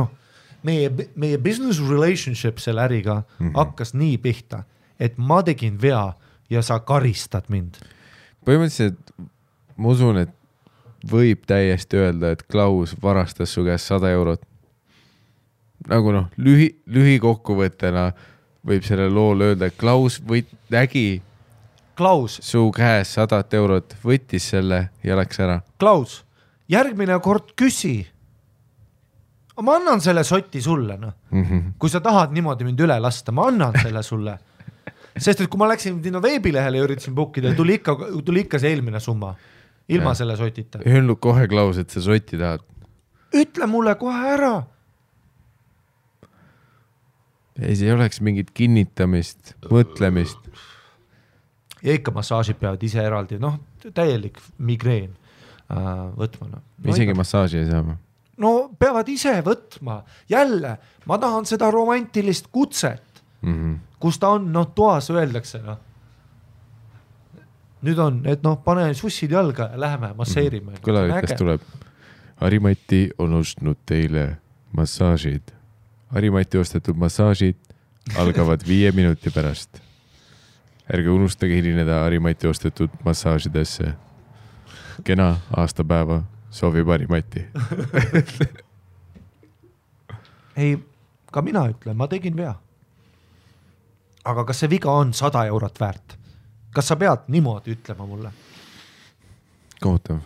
meie business relationship selle äriga hakkas nii pihta, et ma tegin vea ja sa karistad mind. Põhimõtteliselt ma usun, et võib täiesti öelda, et Klaus varastas su käest 100 €. Nagu lühikokkuvõttena võib selle lool öelda, et Klaus nägi su käes 100 €, võttis selle ja läks ära. Klaus, järgmine kord küsi. Ma annan selle sotti sulle. Kui sa tahad niimoodi mind üle lasta, ma annan selle sulle. Sest et kui ma läksin veebilehele ja üritasin bookida, tuli ikka see eelmine summa. Ilma selle sotita. Öelnud kohe, Klaus, et sa sotti tahad. Ütle mulle kohe ära. Ei, see ei oleks mingit kinnitamist, mõtlemist. Ja ikka massaažid peavad ise eraldi, täielik migreen võtma. Isegi massaaži ei saa. No peavad ise võtma. Jälle, ma tahan seda romantilist kutset, kus ta on, toas öeldakse. Nüüd on, et pane sussid jalga ja läheme masseerime. Kõlavikas tuleb. Harimati on ostnud teile massaažid. Harimati ostetud massaažid algavad 5 minuti pärast. Ärge unustage hilineda Harimati ostetud massaažidesse. Kena aastapäeva soovib Harimati. Ei, ka mina ütlen, ma tegin vea. Aga kas see viga on 100 € väärt? Kas sa pead niimoodi ütlema mulle? Kohutav.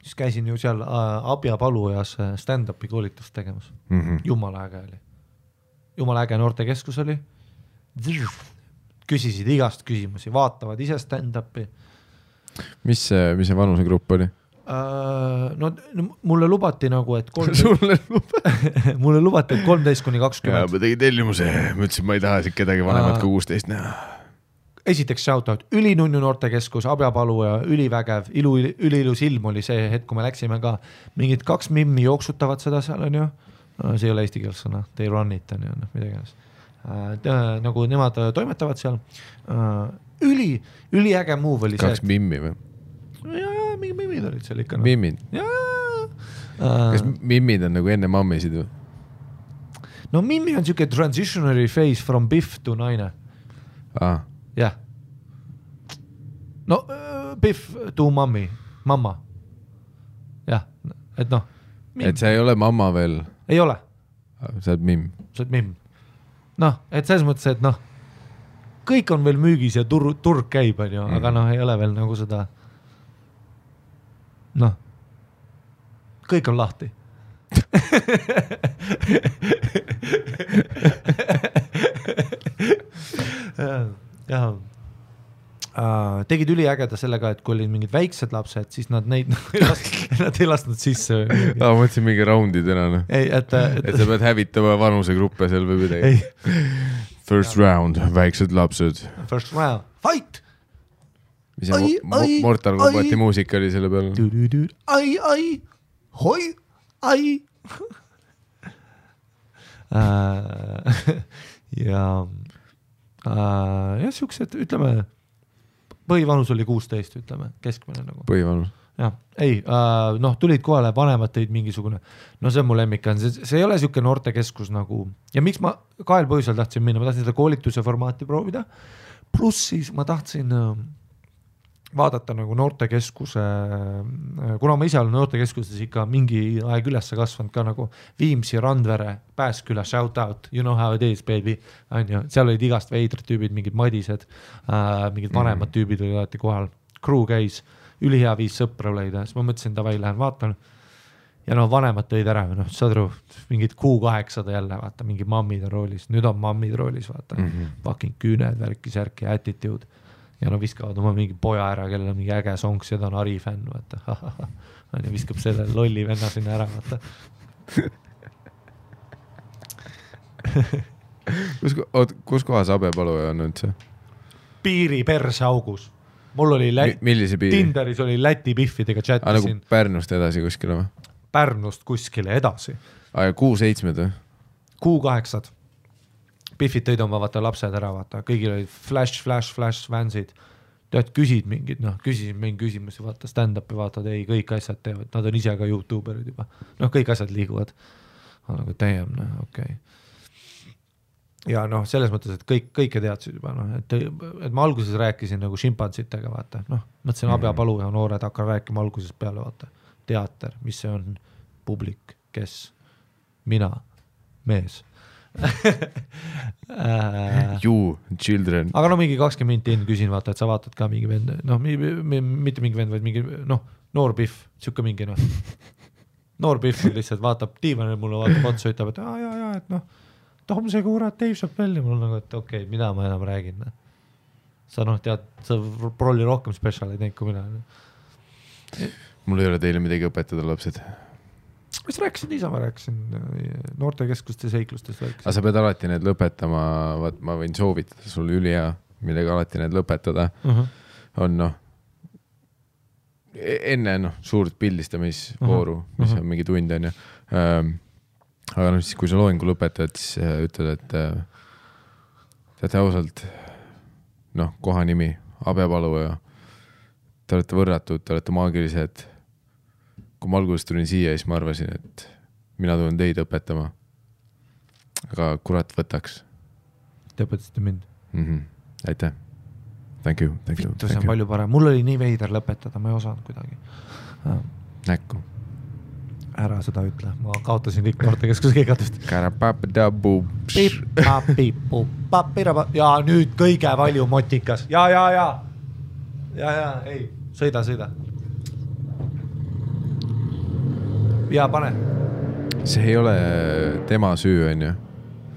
Siis käisin ju seal Abja Palujas stand-upi koolitust tegemas. Jumala äge oli. Jumala äge noortekeskus oli. Küsisid igast küsimusi, vaatavad ise stand-upi. Mis see vanusegrupp oli? Mulle lubati nagu, et mulle lubati, et 13–20. Ja, ma tegin tellimuse, ma ütlesin, ma ei taha kedagi vanemat kui 16 näha. Esiteks shoutout, ülinunnu noortekeskus, Abja Palu ja ülivägev, üliilus ilm oli see hetk, kui me läksime ka. Mingid 2 mimmi jooksutavad seda seal on ju. See ei ole eesti keeles sõna, they run it on ju, midagi. Nagu nemad toimetavad seal. Üliäge move oli 2 mimmi või? Jaa, mingi mimmid olid seal ikka. Mimmid? Kas mimmid on nagu enne mammisid või? No mimmi on siuke transitionary phase from biff to naine. Jah. No biff to mamma. Jah, et et sa ei ole mamma veel? Ei ole. Sa oled mimm? Sa oled mimm. Et selles mõttes, et kõik on veel müügis ja turg käib, aga ei ole veel nagu seda kõik on lahti. jah. Tegid üliägeda sellega, et kui olid mingid väiksed lapsed, siis nad neid nad ei lasknud sisse. Mõtlesin mingi roundidena, noh. Et sa pead hävitama vanusegruppe seal või midagi. First round, väiksed lapsed. First round, fight! Mis Mortal Kombati muusika oli selle peal? Ai, hoi, ai. Ja siuksed, ütleme, põhivanus oli 16, ütleme, keskmine nagu. Põhivanus. Jah, ei, tulid kohale vanemad teid mingisugune, see on mu lemmik, see ei ole siuke noortekeskus nagu, ja miks ma 2 põhjusel tahtsin minna, ma tahtsin seda koolituse formaati proovida, pluss siis ma tahtsin vaadata nagu noortekeskuse, kuna ma ise olen noortekeskuses ikka mingi aeg ülesse kasvanud ka nagu Viimsi, Randvere, Pääsküla, shout out, you know how it is, baby, seal olid igast veidrad tüübid, mingid madised, mingid vanemad tüübid olid alati kohal, crew käis, ülihea viis sõpra leida, siis ma mõtlesin, davai, lähen vaatan, ja vanemad tõid ära, saad aru, mingid Q800 jälle, vaata, mingi mammid on roolis, nüüd on mammid roolis, vaata, fucking küüned, värki-särki, attitude. Ja viskavad oma mingi poja ära, kellel on mingi äge songs ja ta on Ari fänn, vaata. Ja viskab selle lolli venna sinna ära, vaata. Kus kohas Abepaluja on üldse? Piiri perse augus. Mul oli millise piiri? Tinderis oli Läti piffidega chattisin. Nagu Pärnust edasi kuskile või? Pärnust kuskile edasi. Ja Q7 või? Q8. Piffid tõid oma vaata lapsed ära, vaata, kõigil olid flash vansid, tead, küsid mingid, küsisin mingi küsimusi, vaata, stand-upi vaatad, ei, kõik asjad teevad, nad on ise ka YouTuberid juba, kõik asjad liiguvad, nagu täiem, okei. Ja selles mõttes, et kõike teadsid juba, et ma alguses rääkisin nagu šimpantsitega, vaata, mõtlesin Abepaluja noored, hakkan rääkima alguses peale, vaata, teater, mis see on, publik, kes, mina, mees. You, children. Aga mingi 20 minti enne küsin, vaata, et sa vaatad ka mingi vend, mitte mingi vend, vaid mingi, noor piff, siuke mingi, noor piff lihtsalt vaatab diivanil mulle, vaatab otsa, ütleb, et jaa, et Tom see kurat Dave Chappelli, mul on nagu, et okei, mida ma enam räägin. Sa tead, sa prolli rohkem spetsial ei teinud kui mina. Mul ei ole teile midagi õpetada, lapsed. Mis rääkisin ise, ma rääkisin noortekeskuste seiklustest. Aga sa pead alati need lõpetama, ma võin soovitada sulle ülihea, millega alati need lõpetada. On enne suurt pildistamisvooru, mis on mingi tund on. Aga siis, kui sa loengu lõpetad, siis ütled, et teate ausalt, koha nimi, Abepaluja, te olete võrratud, te olete maagilised. Kui ma alguses tulin siia, siis ma arvasin, et mina tulen teid õpetama. Aga kurat võtaks. Te õpetasite mind. Aitäh. Thank you. Vittu, see on palju parem. Mul oli nii veider lõpetada, ma ei osanud kuidagi. Näkku. Ära seda ütle. Ma kaotasin kõik noortekeskuse keegatust. Ja nüüd kõige valju motikas. Ja, ei, sõida. Ja pane. See ei ole tema süü, on ju?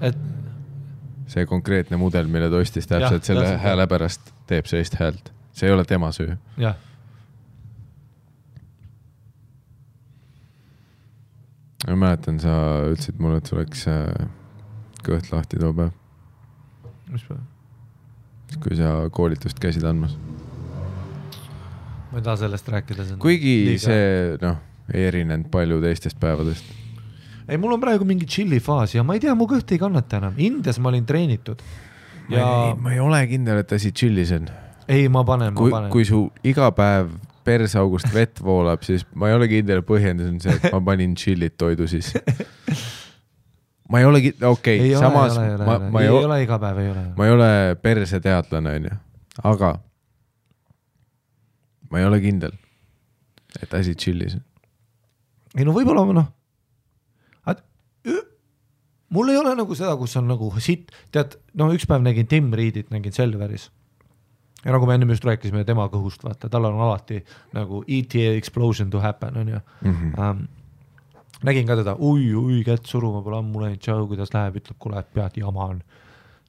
Et... See konkreetne mudel, mille ta ostis täpselt selle hääle pärast teeb sellist häält. See ei ole tema süü. Jah. Ma mäletan, sa ütlesid mulle, et sul oleks kõht lahti too päev. Mis päev? Kui sa koolitust käisid andmas. Ma ei taha sellest rääkida. Kuigi see, ei erinenud palju teistest päevadest. Ei, mul on praegu mingi chilli faas ja ma ei tea, mu kõht ei kannata enam. Indias ma olin treenitud. Ma ei ole kindel, et asi chillis on. Ei, ma panen. Kui su iga päev persaugust vett voolab, siis ma ei ole kindel, põhjendus on see, et ma panin chillit toidu siis. Ma ei ole okei, samas ei ole iga päev, ei ole. Ma ei ole perse teadlane, on ju. Aga ma ei ole kindel, et asi chillis. Ei, võib-olla mul ei ole nagu seda, kus on nagu sitt, tead, üks päev nägin Tim Reedit, nägin Selveris. Ja nagu me enne just rääkisime tema kõhust, vaata, tal on alati nagu ETA explosion to happen, on ju. Nägin ka teda, ui, kätt suruma pole ammu läinud, tšau, kuidas läheb, ütleb, kuule, et pead jama on.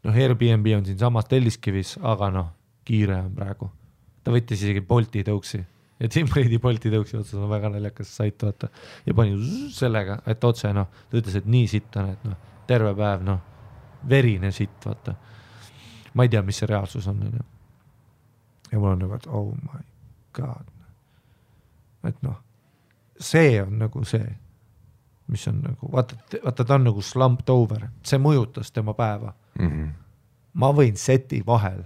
noh, Airbnb on siin samas Telliskivis, aga noh, kiire on praegu. Ta võttis isegi Bolti tõuksi ja Tim Brady Bolti tõuksi otsas on väga naljakas sait, vaata. Ja pani sellega, et otse, noh, ta ütles, et nii sitt on, et noh, terve päev, noh, verine sitt, vaata. Ma ei tea, mis see reaalsus on. Ja mul on nagu, et oh my god. Et noh, see on nagu see, mis on nagu, vaata, ta on nagu slumped over, see mõjutas tema päeva. Ma võin seti vahel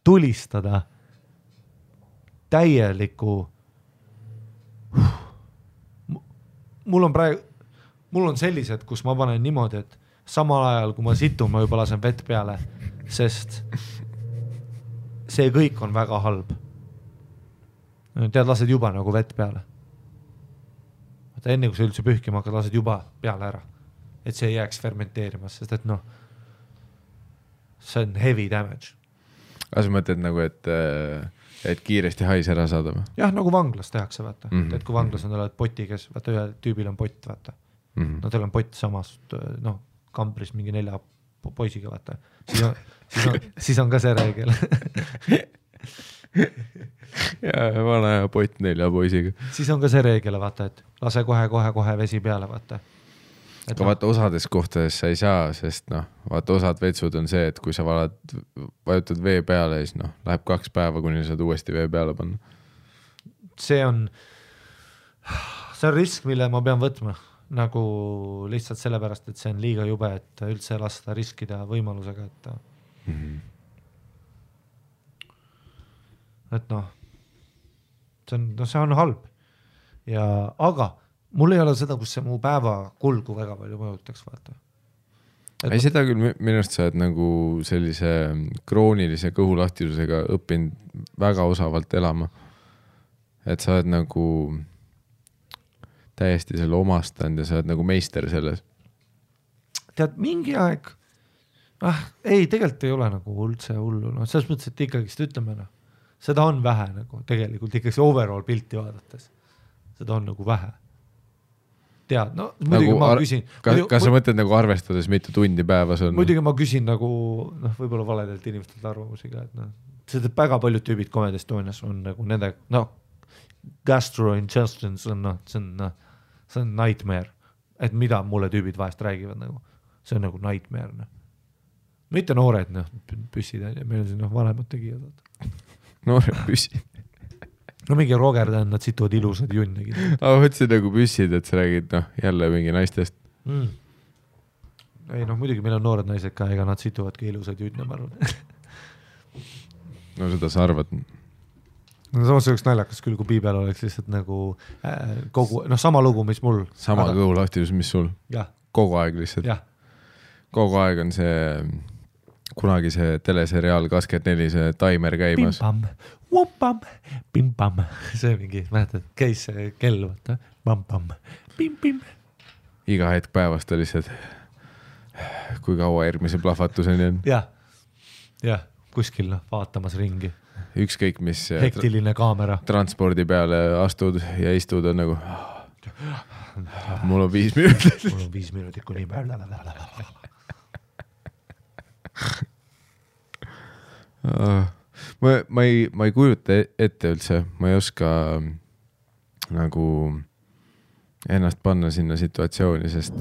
tulistada täieliku mul on sellised, kus ma panen niimoodi, et samal ajal, kui ma situn, ma juba lasen vett peale, sest see kõik on väga halb. Tead, lased juba nagu vett peale. Vaata, enne kui sa üldse pühkima hakkad, lased juba peale ära. Et see ei jääks fermenteerimas, sest et noh, see on heavy damage. Aga sa mõtled nagu, et kiiresti hais ära saada või? Jah, nagu vanglas tehakse, vaata. Et kui vanglas on oled poti, kes, vaata, ühe tüübil on pott, vaata. No teil on pott samast, noh, kambris mingi 4 poisiga, vaata. Siis on ka see reegel. Ja vana ja pott 4 poisiga. Siis on ka see reegel, vaata, et lase kohe vesi peale, vaata. Aga vaata, osades kohtades sa ei saa, sest noh, vaata, osad vetsud on see, et kui sa vajutad vee peale, siis noh, läheb 2 päeva, kuni saad uuesti vee peale panna. See on risk, mille ma pean võtma, nagu lihtsalt sellepärast, et see on liiga jube, et üldse lasta riskida võimalusega, et et noh, see on halb. Ja, aga mul ei ole seda, kus see mu päeva kulgu väga palju mõjutaks, vaata. Ei, seda küll minust sa oled nagu sellise kroonilise kõhulahtisusega õppinud väga osavalt elama. Et sa oled nagu täiesti selle omastanud ja sa oled nagu meister selles. Tead, mingi aeg, ei, tegelikult ei ole nagu üldse hullu. No, selles mõttes, et ikkagist ütleme, no, seda on vähe nagu tegelikult ikkagi overall pilti vaadates. Seda on nagu vähe. Tead, no muidugi nagu ma küsin. Kas sa mõtled nagu arvestades mitu tundi päevas on? Muidugi ma küsin nagu, noh, võib-olla valedelt inimestelt arvamusiga, et noh, seda väga paljud tüübid Comedy Estonias on nagu nende, noh, gastrointestines on, noh, see on nightmare, et mida mulle tüübid vahest räägivad nagu, see on nagu nightmare, noh. Mitte noored, noh, püssid, meil on siin, noh, vanemad tegijad. Noored püssid. No mingi Rogerdan, nad situvad ilusad junnegi. Aga võtsid nagu püssid, et sa räägid, noh, jälle mingi naistest. Ei, noh, muidugi meil on noored naised ka, ega nad situvadki ilusad junne, ma arvan. No seda sa arvad. No samas oleks naljakas küll, kui piibel oleks lihtsalt nagu kogu, noh, sama lugu, mis mul. Sama kõhulahtisus, mis sul. Jah. Kogu aeg lihtsalt. Jah. Kogu aeg on see, kunagi see teleseriaal 24, see taimer käimas. Pim-pam, pim-pam, see mingi, mäletad, käis see kell, vaata, pam-pam, pim-pim. Iga hetk päevast oli lihtsalt, kui kaua järgmise plahvatuseni on. Jah, kuskil vaatamas ringi. Ükskõik, mis hektiline kaamera. Transpordi peale astud ja istud on nagu, mul on 5 minutit. Mul on 5 minutit kuni peale. Ma ei kujuta ette üldse, ma ei oska nagu ennast panna sinna situatsiooni, sest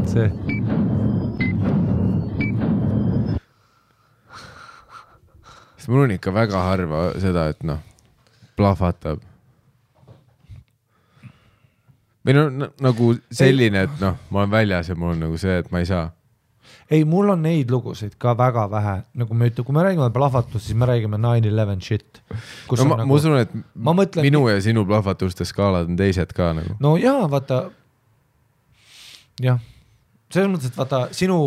see sest mul on ikka väga harva seda, et noh, plahvatab. Või no, nagu selline, et noh, ma olen väljas ja mul on nagu see, et ma ei saa. Ei, mul on neid lugusid ka väga vähe. Nagu me ütleme, kui me räägime plahvatust, siis me räägime 9/11 shit. No, ma usun, et minu ja sinu plahvatuste skaalad on teised ka nagu. No jaa, vaata, jah. Selles mõttes, et vaata, sinu...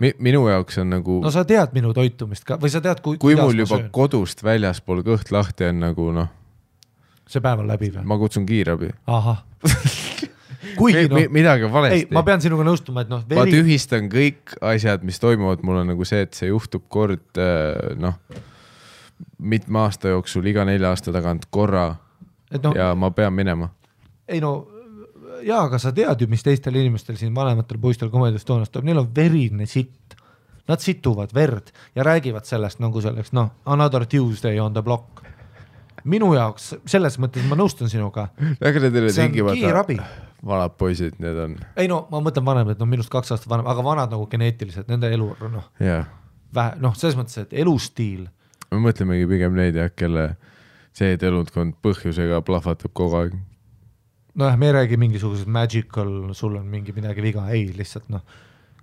Minu jaoks on nagu... No sa tead minu toitumist ka, või sa tead, kui mul juba kodust väljaspool kõht lahti on nagu, noh... See päev on läbi või? Ma kutsun kiirabi. Aha. Kuigi, no, midagi valesti. Ei, ma pean sinuga nõustuma, et noh... Ma tühistan kõik asjad, mis toimuvad. Mul on nagu see, et see juhtub kord, noh, mitme aasta jooksul, iga 4 aasta tagant korra no, ja ma pean minema. Ei no, aga sa tead ju, mis teistel inimestel siin vanematel poistel Comedy Estonias tuleb, neil on verine sitt. Nad situvad verd ja räägivad sellest nagu selleks, another Tuesday on the block. Minu jaoks, selles mõttes ma nõustun sinuga. Aga need ei ole see on kiirabi. Vanad poisid, need on. Ei ma mõtlen vanem, et minust 2 aastat vanem, aga vanad nagu geneetiliselt, nende elu, selles mõttes, et elustiil. Me mõtlemegi pigem neid, kelle see elundkond põhjusega plahvatab kogu aeg. Me ei räägi mingisugused magical, sul on midagi viga, ei, lihtsalt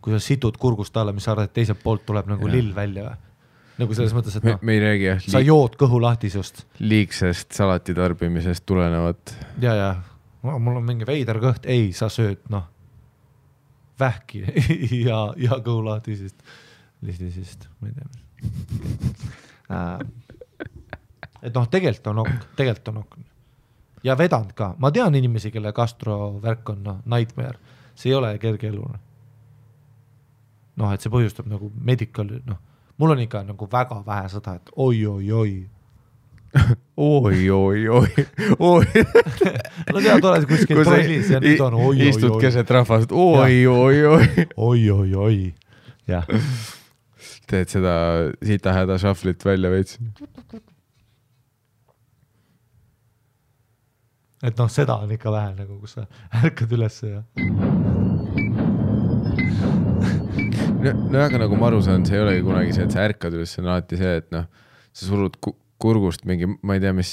kui sa situd kurgust alla, mis sa arvad, et teiselt poolt tuleb nagu lill välja. Nagu selles mõttes, et me ei räägi sa jood kõhu lahtisust. Liigsest salati tarbimisest tulenevat. Ja. Mul on mingi veider kõht, ei, sa sööd, vähki ja kõhu lahtisest. Ma ei tea. Et tegelikult on ok. Ja vedanud ka. Ma tean inimesi, kelle gastrovärk on nightmare. See ei ole kerge elu. Et see põhjustab nagu medical, mul on ikka nagu väga vähe seda, et oi. Oi. No tead, oled kuskil trollis ja nüüd on oi. Istud keset rahvast, oi. Oi. Jah. Teed seda sita häda šaflit välja veits. Et seda on ikka vähe nagu, kus sa ärkad üles ja... aga nagu ma aru saan, see ei olegi kunagi see, et sa ärkad üles, see on alati see, et sa surud kurgust mingi, ma ei tea, mis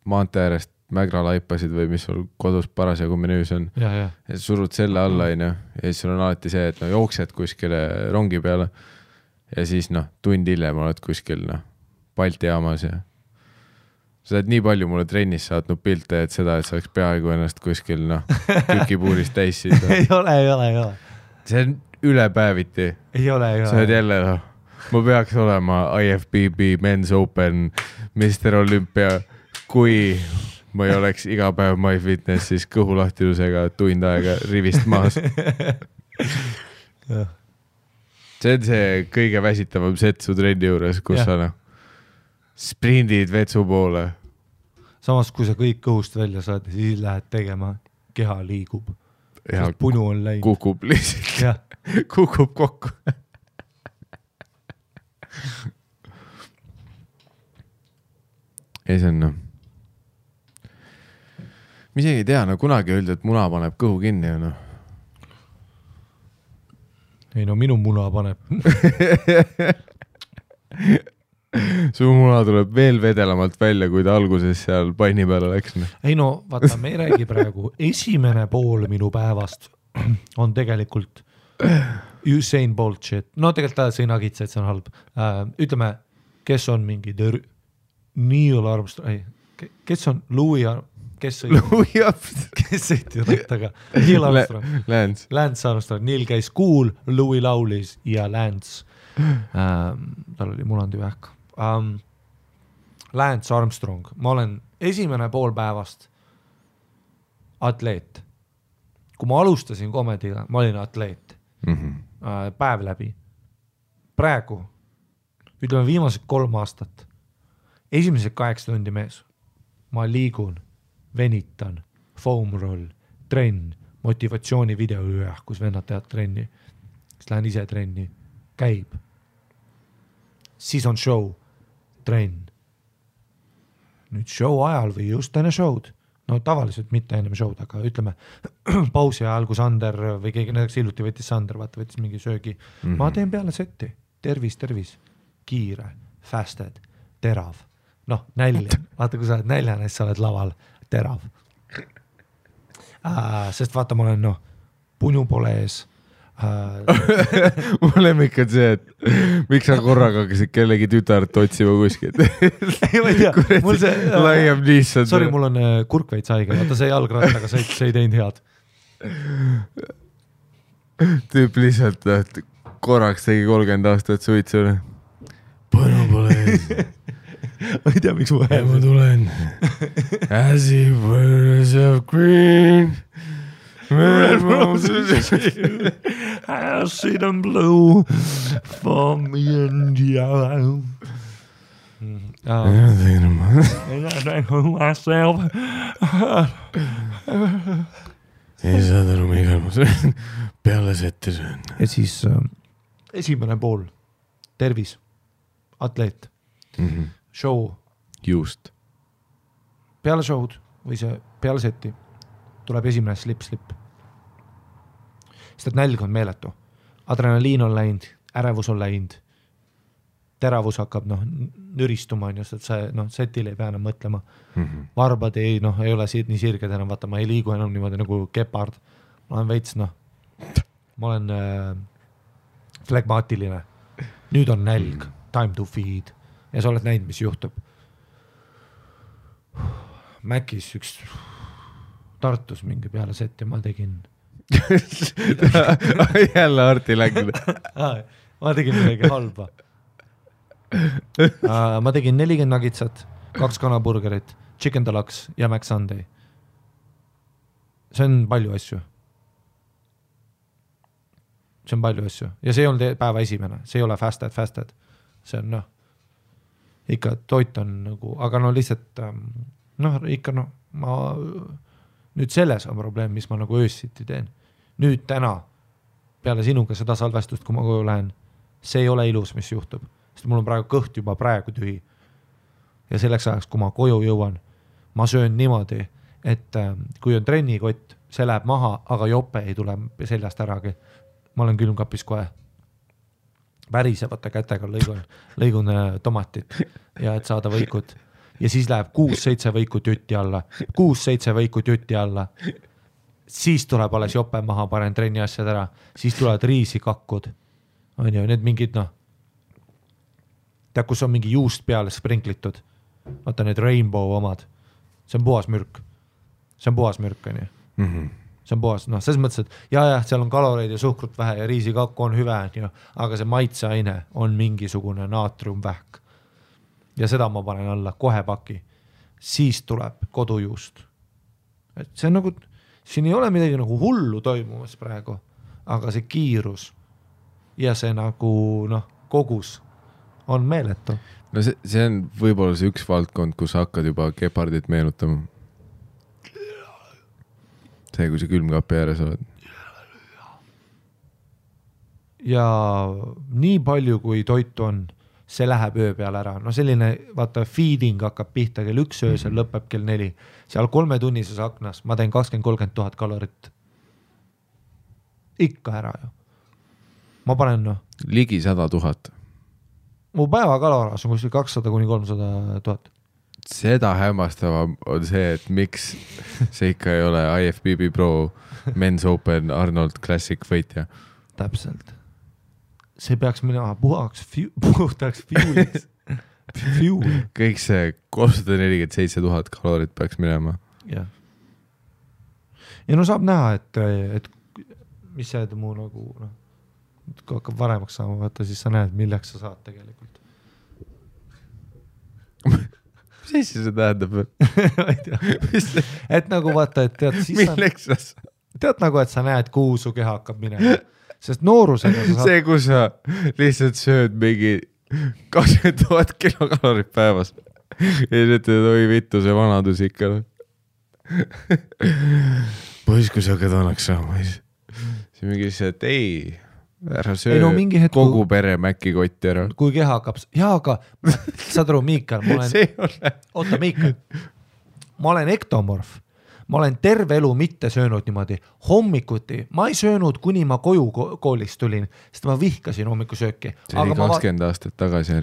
maantee äärest mägra laipasid või mis sul kodus parasjagu menüüs on. Ja surud selle alla, ja siis sul on alati see, et jooksed kuskile rongi peale ja siis tund hiljem oled kuskil Balti jaamas ja sa oled nii palju mulle trennis saatnud pilte, et seda, et sa oleks peaaegu ennast kuskil tükipuurist täissid. Ei ole. See on ülepäeviti. Ei ole. Sa oled jälle, ma peaks olema IFBB Men's Open Mr. Olympia, kui ma ei oleks iga päev MyFitness, siis kõhulahtilusega tund aega rivist maas. See on see kõige väsitavam set su trenni juures, kus sa sprindid vetsu poole. Samas, kui sa kõik kõhust välja saad, siis lähed tegema, keha liigub. Sest punu on läinud. Kukub lihtsalt. Kukub kokku. Ei, see on ma isegi ei tea, kunagi öeldi, et muna paneb kõhu kinni. Ei, minu muna paneb. Su muna tuleb veel vedelamalt välja, kui ta alguses seal panni peale läks. Ei vaata, me ei räägi praegu. Esimene pool minu päevast on tegelikult Usain Bolt shit. Tegelikult ta sõi nagitsa, et see on halb. Ütleme, kes on mingi Neil Armstrong, kes on Louis kes sõitis rattaga? Neil Armstrong. Lance Armstrong. Neil käis cool, Louis laulis ja Lance. Tal oli munandi vähk. Lance Armstrong. Ma olen esimene pool päevast atleet. Kui ma alustasin komediga, ma olin atleet. Päev läbi. Praegu, ütleme viimased 3 aastat, esimesed 8 tundi mees. Ma liigun, venitan, foam roll, trenn, motivatsiooni video kus vennad teavad trenni. Siis lähen ise trenni, käib. Siis on show, trenn. Nüüd show ajal või just enne show'd. Tavaliselt mitte ennem show'd, aga ütleme pausi ajal, kui Sander või keegi, näiteks hiljuti võttis Sander, võttis mingi söögi. Ma teen peale setti. Tervis. Kiire, fasted, terav. Nälja. Vaata, kui sa oled näljane, siis sa oled laval. Terav. Sest vaata, ma olen, punu pole ees. Mul lemmik on see, et miks sa korraga hakkasid kellegi tütart otsima kuskilt. Ei, ma ei tea. Mul see... Laiam lihtsalt. Sorry, mul on kurkveits haige. Vaata, see jalgrattaga see ei teinud head. Tüüp lihtsalt korraks tegi 30 aastat suitsule. Põnu pole ees. Ma ei tea, miks mu hääl. Ma tulen. As if birds of green. Red roses. I see them blue for me and you. And I think to myself, ei saad aru, Miigal, ma söön peale sette söön. Ja siis esimene pool, tervis, atleet, show. Just. Peale show'd või see peale seti tuleb esimene slip. Sest et nälg on meeletu. Adrenaliin on läinud, ärevus on läinud, teravus hakkab nüristuma, just, et see setil ei pea enam mõtlema. Varbad ei ole nii sirged enam, vaata, ma ei liigu enam niimoodi nagu kepard. Ma olen veits, ma olen flegmaatiline. Nüüd on nälg, time to feed. Ja sa oled näinud, mis juhtub. Mäkis üks Tartus mingi peale seti ma tegin. Jälle Arti läinud. Ma tegin midagi halba. Ma tegin 40 nugitsat, 2 kanaburgerit, chicken deluxe ja Mac Sunday. See on palju asju. Ja see ei olnud päeva esimene, see ei ole fasted. See on ikka toit on nagu, aga lihtsalt ikka ma nüüd selles on probleem, mis ma nagu öössiti teen. Nüüd täna peale sinuga seda salvestust, kui ma koju lähen, see ei ole ilus, mis juhtub. Sest mul on praegu kõht juba praegu tühi. Ja selleks ajaks, kui ma koju jõuan, ma söön niimoodi, et kui on trennikott, see läheb maha, aga jope ei tule seljast äragi. Ma olen külmkapis kohe värisevate kätega lõigun tomatit ja et saada võikut. Ja siis läheb 6-7 võikut jutti alla. 6-7 võikut jutti alla. Siis tuleb alles jope maha, panen trenni asjad ära. Siis tulevad riisikakud. On ju, need mingid tead, kus on mingi juust peale sprinklitud. Vaata need rainbow omad. See on puhas mürk. On ju. See on puhas, selles mõttes, et seal on kaloreid ja suhkrut vähe ja riisikakku on hüve, aga see maitseaine on mingisugune naatriumvähk. Ja seda ma panen alla kohe paki. Siis tuleb kodujuust. Et see on nagu, siin ei ole midagi nagu hullu toimumas praegu, aga see kiirus ja see nagu kogus on meeletu. No see on võib-olla see üks valdkond, kus hakkad juba gepardit meenutama. See, kui see külmkapi ääres oled. Ja nii palju, kui toitu on, see läheb öö peale ära. Selline, vaata, feeding hakkab pihta kell 1 öösel, lõpeb kell 4. Seal 3 tunnises aknas ma teen 20-30 000 kalorit. Ikka ära ju. Ma panen, ligi 100 000. Mu päeva kaloraas on kuskil 200-300 000. Seda hämmastavam on see, et miks see ikka ei ole IFBB Pro Men's Open Arnold Classic võitja. Täpselt. See peaks minema puhtaks fueliks. Kõik see 347 000 kalorit peaks minema. Ja saab näha, et mis see muu nagu, kui hakkab varemaks saama, vaata, siis sa näed, milleks sa saad tegelikult. Mis see tähendab? Et nagu vaata, et tead, siis milleks sa tead nagu, et sa näed, kuhu su keha hakkab minema. Sest noorusega sa saad... See, kus sa lihtsalt sööd mingi 20 000 kilokalorit päevas. Ja ütled, oi vittu, see vanadus ikka. Pois, kui sa hakkad vanaks saama. See mingi see, et ei... Ära söö kogu pere mäkkikotti ära. Kui keha hakkab... aga saad aru, Miikal, oota, Miikal, ma olen ektomorf. Ma olen terve elu mitte söönud niimoodi. Hommikuti ma ei söönud, kuni ma koju koolist tulin, sest ma vihkasin hommikusööki. See oli 20 aastat tagasi.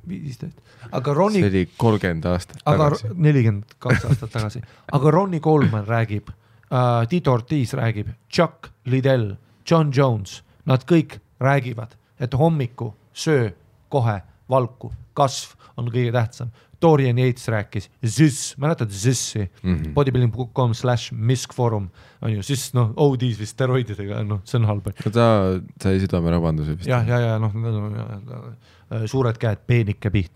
15. Aga Ronnie... See oli 30 aastat tagasi. 42 aastat tagasi. Aga Ronnie Coleman räägib, Tito Ortiz räägib, Chuck Liddell, John Jones, nad kõik räägivad, et hommiku söö kohe valku, kasv on kõige tähtsam. Dorian Yates rääkis, ZIS, mäletad ZIS-i, bodybuilding.com/miskforum, on ju, ZIS, ODs või steroididega, see on halb. Ta sai südamerabanduse vist. Ja, suured käed, peenike piht.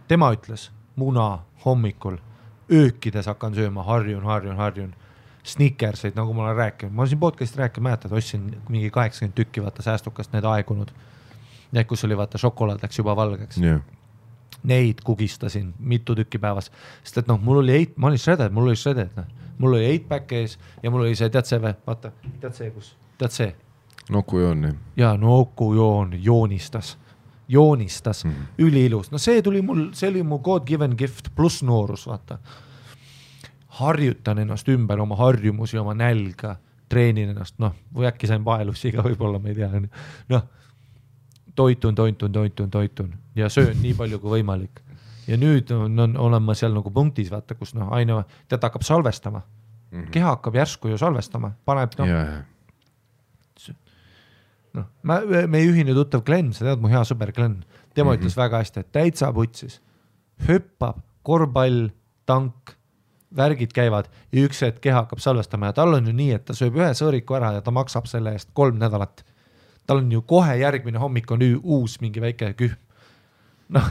Tema ütles, muna hommikul, öökides hakkan sööma, harjun. Snickerseid, nagu ma olen rääkinud. Ma olen siin podcast'i rääkinud, mäletad, ostsin mingi 80 tükki, vaata säästukast need aegunud. Need, kus oli, vaata, šokolaad läks juba valgeks. Yeah. Neid kugistasin mitu tükki päevas. Sest et ma olin shredded. mul oli 8-pack ees ja mul oli see, tead see või, vaata, tead see. Nokujoon. Jaa, nokujoon joonistas, üliilus. No see oli mu God given gift pluss noorus, vaata. Harjutan ennast ümber oma harjumusi, oma nälga, treenin ennast, noh, või äkki sain vaelussiga võib-olla, ma ei tea, noh, toitun ja söön nii palju kui võimalik. Ja nüüd olen ma seal nagu punktis, vaata, kus noh, aina tead hakkab salvestama. Keha hakkab järsku ju salvestama, paneb noh, meie ühine tuttav Glenn, sa tead mu hea sõber Glenn, tema ütles väga hästi, et täitsa putsis, hüppab, korvpall, tank, värgid käivad ja üks hetk keha hakkab salvestama ja tal on ju nii, et ta sööb ühe sõõriku ära ja ta maksab selle eest 3 nädalat. Tal on ju kohe järgmine hommik on uus mingi väike kühm. Noh,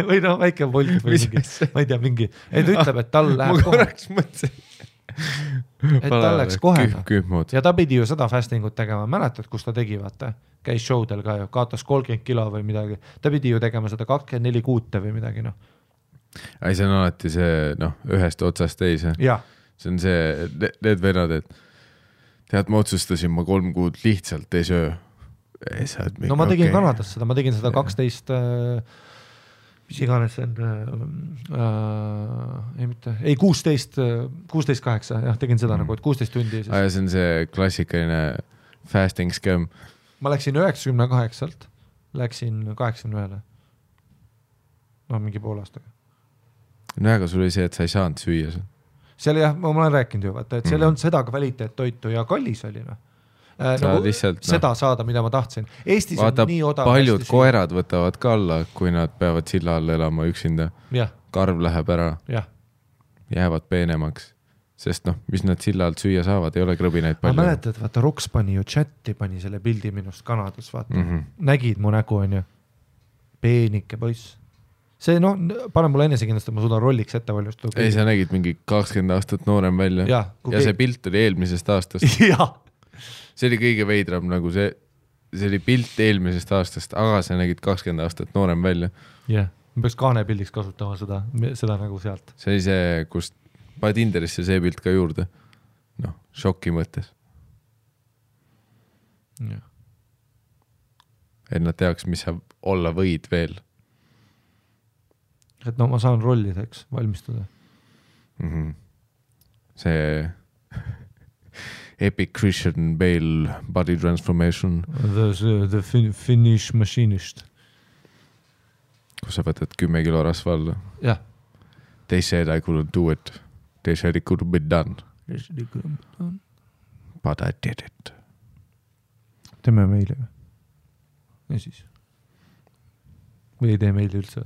või noh, väike volt või mingi, ma ei tea, mingi, et ütleb, et tal läheb kohe. Ma korraks mõtlesin. Et tal läks kohe. Ja ta pidi ju seda fastingut tegema. Mäletad, kus ta tegi, vaata? Käis showdel ka ju, kaatas 30 kilo või midagi. Ta pidi ju tegema seda 24 kuute või midagi, noh. Ei, see on alati see, noh, ühest otsast teise. Ja. See on see, need vennad, et tead, ma otsustasin, ma 3 kuud lihtsalt ei söö. No ma tegin Kanadas seda, ma tegin seda 12, mis iganes see on, ei 16-8, jah, tegin seda nagu, et 16 tundi. Ja see on see klassikaline fasting scam. Ma läksin 98-lt, läksin 81-le. No mingi pool aastaga. No aga sul oli see, et sa ei saanud süüa. Seal jah, ma olen rääkinud ju, vaata, et seal on seda kvaliteet toitu ja kallis oli. Nagu lihtsalt, seda saada, mida ma tahtsin. Eestis vaata, on nii odav. Paljud koerad võtavad ka alla, kui nad peavad silla all elama üksinda. Ja. Karv läheb ära. Ja. Jäävad peenemaks. Sest noh, mis nad silla alt süüa saavad, ei ole krõbinaid palju. Ma mäletad, vaata, Roks pani ju chatti, pani selle pildi minust Kanadas, vaata. Nägid mu nägu, on ju. Peenike poiss. See, no, pane mulle enesekindlust, et ma suudan rolliks ette valmistada. Ei, sa nägid mingi 20 aastat noorem välja. Ja see pilt oli eelmisest aastast. Ja. See oli kõige veidram, nagu see oli pilt eelmisest aastast, aga sa nägid 20 aastat noorem välja. Jah, ma peaks kaanepildiks kasutama seda nagu sealt. See oli see, kus paned Tinderisse see pilt ka juurde. Noh, šoki mõttes. Ja. Et nad teaks, mis sa olla võid veel. Et no ma saan rollideks valmistada. See Epic Christian Bale body transformation. The Finnish machinist. Kus sa võtad 10 kilo rasva alla. Jah. They said I couldn't do it. They said it couldn't be done. But I did it. Teeme meile. Ja siis. Või ei tee meile üldse.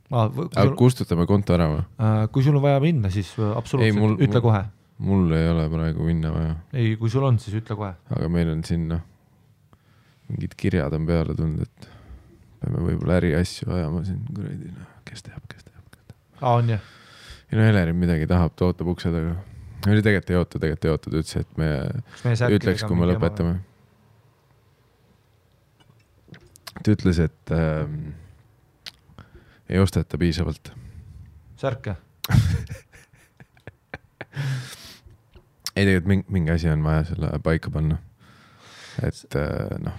Aga kustutame konto ära või? Kui sul on vaja minna, siis absoluutselt ütle kohe. Mul ei ole praegu minna vaja. Ei, kui sul on, siis ütle kohe. Aga meil on siin, noh, mingid kirjad on peale tulnud, et peame võib-olla äriasju ajama siin, kuradi, kes teab. On jah? Ja no Helerin midagi tahab, ta ootab ukse taga. Oli tegelikult ei oota, ta ütles, et me ütleks, kui me lõpetame. Ta ütles, et ei osteta piisavalt. Särke? Ei, tegelikult mingi asi on vaja selle paika panna. Et noh.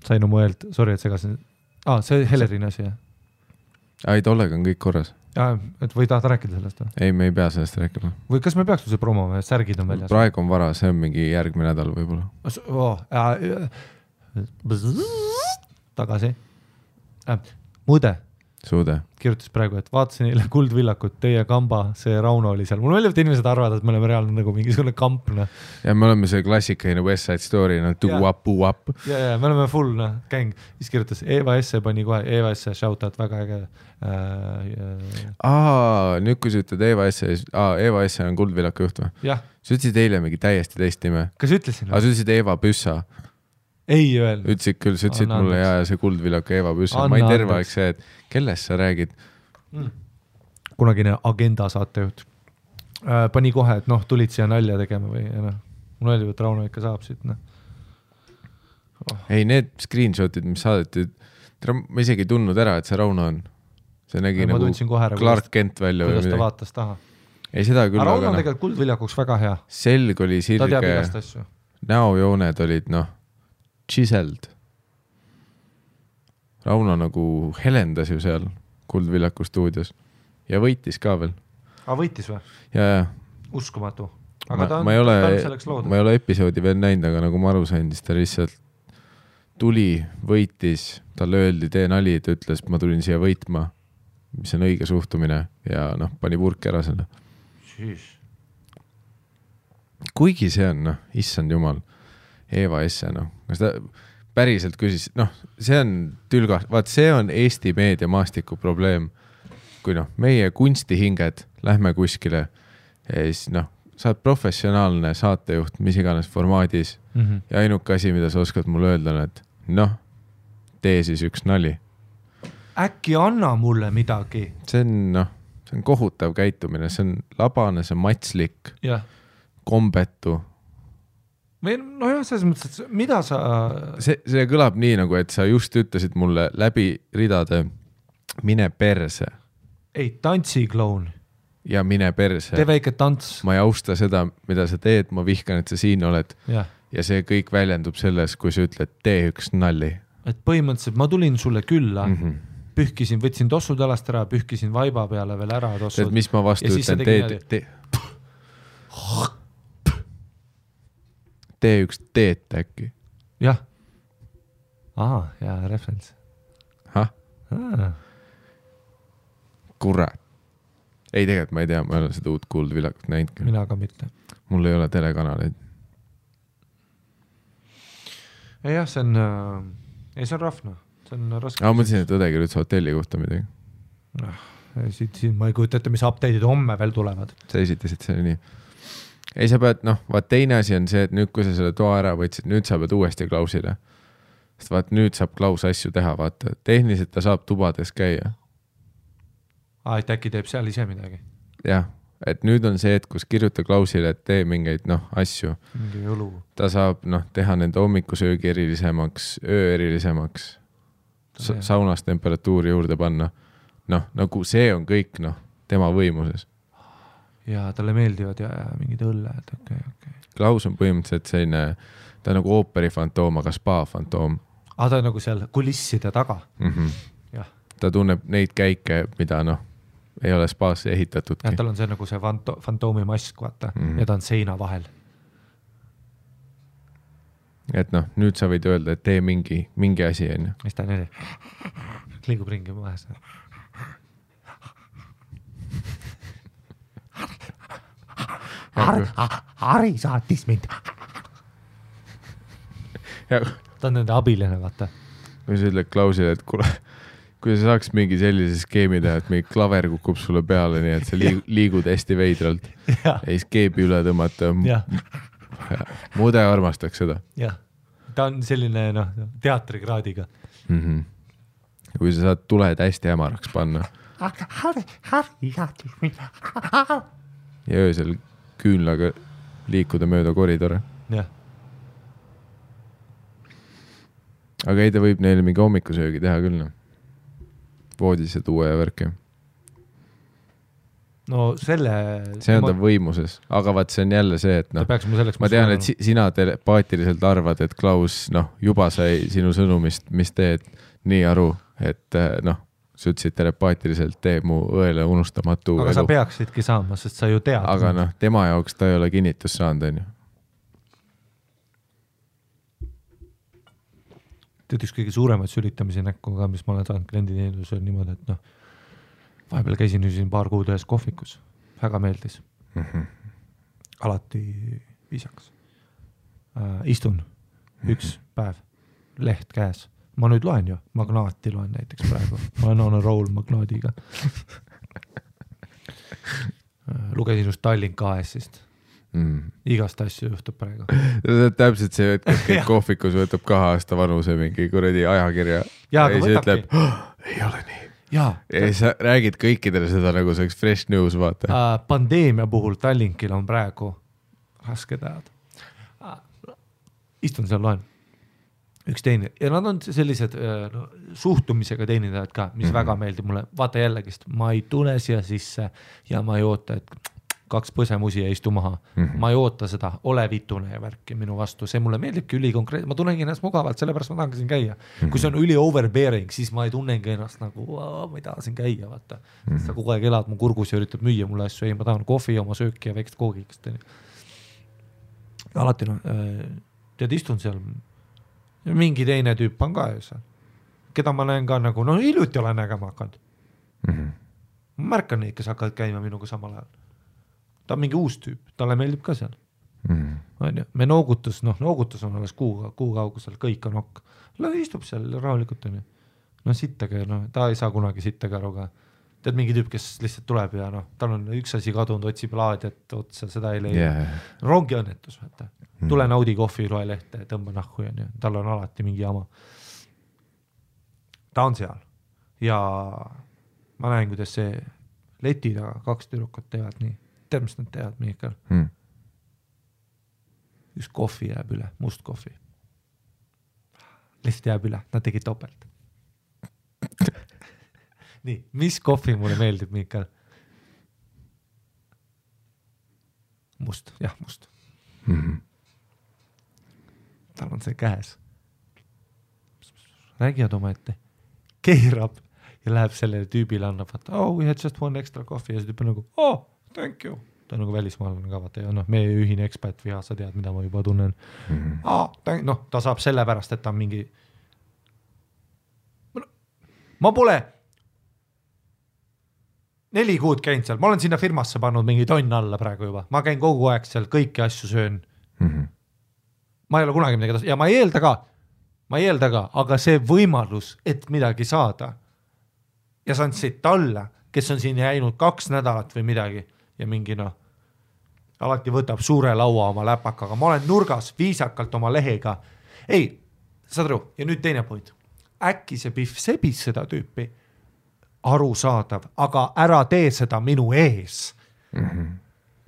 Sain oma öeld, sorry, et segasin. See Helerin asi, jah? Ei, tollega on kõik korras. Et või tahad rääkida sellest? Ei, me ei pea sellest rääkima. Või kas me peaks see promoma, särgid on väljas? Praegu on vara, see on mingi järgmine nädal võib-olla. Tagasi. Muide. Suude. Kirjutas praegu, et vaatasin eile Kuldvillakut, teie kamba, see Rauno oli seal. Mul meeldib, et inimesed arvavad, et me oleme reaalne nagu mingisugune kampna. Ja me oleme see klassikaline West Side Story, tuuap. Ja, me oleme full, gäng. Siis kirjutas Eva Esse, pani kohe Eva Esse, shoutout, väga äge. Nüüd kui sa ütled Eva Esse on Kuldvillaku juht või? Jah. Sa ütlesid eile mingi täiesti teist nime. Kas ütlesin? Sa ütlesid Eva Püssa. Ei öelnud. Ütlesid küll, sa ütlesid mulle ja see Kuldvillaku Eva Püssa. Ma ei terve aeg see, et kellest sa räägid? Kunagine agenda saatejuht. Pani kohe, et noh, tulid siia nalja tegema või noh. Mul öeldi, et Rauno ikka saab siit. Ei, need screenshotid, mis saadeti, ma isegi ei tundnud ära, et see Rauno on. See nägi nagu Clark Kent välja. Kuidas ta vaatas taha? ei seda küll, Rauno on tegelikult Kuldviljakuks väga hea. Selg oli Ta teab sirge, igast asju. näojooned olid chiseled. Rauno nagu helendas ju seal Kuldviljaku stuudios ja võitis ka veel. Võitis või? Ja. Uskumatu. Aga ma ei ole episoodi veel näinud, aga nagu ma aru sain, siis ta lihtsalt tuli, võitis, talle öeldi, tee nali, ta ütles, ma tulin siia võitma, mis on õige suhtumine ja pani purki ära selle. Kuigi see on, issand jumal, Eeva Esse, kas ta päriselt küsis, see on tülgas, vaat see on Eesti meediamaastiku probleem, kui meie kunstihinged lähme kuskile ja siis sa oled professionaalne saatejuht, mis iganes formaadis ja ainuke asi, mida sa oskad mulle öelda on, et tee siis üks nali. Äkki anna mulle midagi? See on kohutav käitumine, see on labane, see on matslik, kombetu. Või selles mõttes, et mida sa... See kõlab nii, nagu et sa just ütlesid mulle läbi ridade mine perse. Ei, tantsikloun. Ja mine perse. Tee väike tants. Ma ei austa seda, mida sa teed, ma vihkan, et sa siin oled. Ja see kõik väljendub selles, kui sa ütled, tee üks nalli. Et põhimõtteliselt ma tulin sulle külla, pühkisin, võtsin tossud alast ära, pühkisin vaiba peale veel ära tossud. Et mis ma vastu ütlen, tee üks teet äkki. Jah. Ja reference. Kurat. Ei, tegelikult ma ei tea, ma ei ole seda uut Kuldviljakut näinud. Mina ka mitte. Mul ei ole telekanaleid. Jah, see on rahvna. See on raske. Ma mõtlesin, et õdegi üldse hotelli kohta midagi. Siin ma ei kujuta ette, mis update'id homme veel tulevad. Sa esitasid see nii. Ei, sa pead, vaat teine asi on see, et nüüd, kui sa selle toa ära võtsid, nüüd sa pead uuesti Klausile. Sest vaat nüüd saab Klaus asju teha, vaata. Tehniliselt ta saab tubades käia. Et äkki teeb seal ise midagi. Jah, et nüüd on see, et kus kirjuta Klausile, et tee mingeid asju. Mingi õlu. Ta saab teha nende hommikusöögi erilisemaks, öö erilisemaks, saunas temperatuuri juurde panna. Nagu see on kõik tema võimuses. Ja talle meeldivad ja mingid õlled. Okay. Klaus on põhimõtteliselt selline, ta on nagu ooperifantoom, aga spa-fantoom. Ta on nagu seal kulisside taga. Ta tunneb neid käike, mida ei ole spaasse ehitatudki. Ja tal on see nagu see fantoomi mask, vaata, ja ta on seina vahel. Et nüüd sa võid öelda, et tee mingi asi, on ju. Mis ta nii? Liigub ringi vahel. Hari saatis mind. Ta on nende abiline, vaata. Või sa ütled Klausile, et kui sa saaks mingi sellise skeemi teha, et mingi klaver kukub sulle peale, nii et sa liigud hästi veidralt ja siis keebi üle tõmmata. Mude armastaks seda. Jah, ta on selline teatrikraadiga. Kui sa saad tuled hästi hämaraks panna. Ja öösel küünlaga liikuda mööda koridore. Jah. Aga ei, ta võib neile mingi hommikusöögi teha küll. Voodisse tuua ja värki. No selle... See on ta võimuses, aga vaat see on jälle see, et ma tean, et sina telepaatiliselt arvad, et Klaus juba sai sinu sõnumist, mis teed nii aru, et sa ütlesid telepaatiliselt tee mu õele unustamatu aga elu. Sa peaksidki saama, sest sa ju tead. Aga tema jaoks ta ei ole kinnitus saanud, on ju. Tead üks kõige suuremaid sülitamisi näkku ka, mis ma olen saanud klienditeenusel niimoodi, et vahepeal käisin siin paar kuud ühes kohvikus. Väga meeldis. Alati viisakas. Istun üks päev, leht käes. Ma nüüd loen ju, Magnaati loen näiteks praegu. Ma olen on a roll Magnaadiga. Lugesin just Tallink AS-ist. Igast asju juhtub praegu. Täpselt see, et kõik kohvikus võtab 2 aasta vanuse mingi kuradi ajakirja ja siis ütleb, ei ole nii. Ja sa räägid kõikidele seda nagu see fresh news, vaata. Pandeemia puhul Tallinkil on praegu raske teada. Istun seal loen. Üks teine. Ja nad on sellised suhtumisega teenindajad ka, mis väga meeldib mulle. Vaata jällegist, ma ei tule siia sisse ja ma ei oota, et 2 põsemusi ja istu maha. Ma ei oota seda, ole vitune ja värki minu vastu, see mulle meeldibki ülikonkreetselt, ma tunnengi ennast mugavalt, sellepärast ma tahangi siin käia. Kui see on üli overbearing, siis ma ei tunnengi ennast nagu, ma ei taha siin käia, vaata. Sa kogu aeg elad mu kurgus ja üritab müüa mulle asju, ei, ma tahan kohvi, oma sööki ja väikest koogikest. Alati tead, istun seal, mingi teine tüüp on ka seal, keda ma näen ka nagu, hiljuti olen nägema hakanud. Ma märkan neid, kes hakkavad käima minuga samal ajal. Ta on mingi uus tüüp, talle meeldib ka seal. Me noogutus on alles kuu kaugusel, kõik on okk. Istub seal rahulikult. Sittage, ta ei saa kunagi sittage aru ka. Tead mingi tüüp, kes lihtsalt tuleb ja tal on üks asi kadunud, otsib laadiat otsa, seda ei leia. Rongi õnnetus, vaata. Tule naudi kohvi, loe lehte, tõmba nahku ja tal on alati mingi jama. Ta on seal ja ma näen, kuidas see leti taga 2 tüdrukut teevad nii. Tead, mis nad teevad, Miikal? Üks kohvi jääb üle, must kohvi. Lihtsalt jääb üle, nad tegid topelt. Nii, mis kohvi mulle meeldib, Miikal? Must, jah, must. Tal on see käes. Räägivad oma ette. Keerab ja läheb sellele tüübile, annab, we had just one extra coffee ja see tüüp on nagu, thank you. Ta on nagu välismaalane ka, vaata, ja meie ühine ekspätt viha, sa tead, mida ma juba tunnen. Ta saab selle pärast, et ta on mingi... Ma pole 4 kuud käinud seal, ma olen sinna firmasse pannud mingi tonn alla praegu juba. Ma käin kogu aeg seal, kõiki asju söön. Ma ei ole kunagi midagi tasu. Ja ma ei eelda ka, aga see võimalus, et midagi saada ja saan siit talle, kes on siin jäinud 2 nädalat või midagi ja mingi alati võtab suure laua oma läpakaga. Ma olen nurgas viisakalt oma lehega. Ei, saad aru, ja nüüd teine point. Äkki see Pihv sebis seda tüüpi arusaadav, aga ära tee seda minu ees.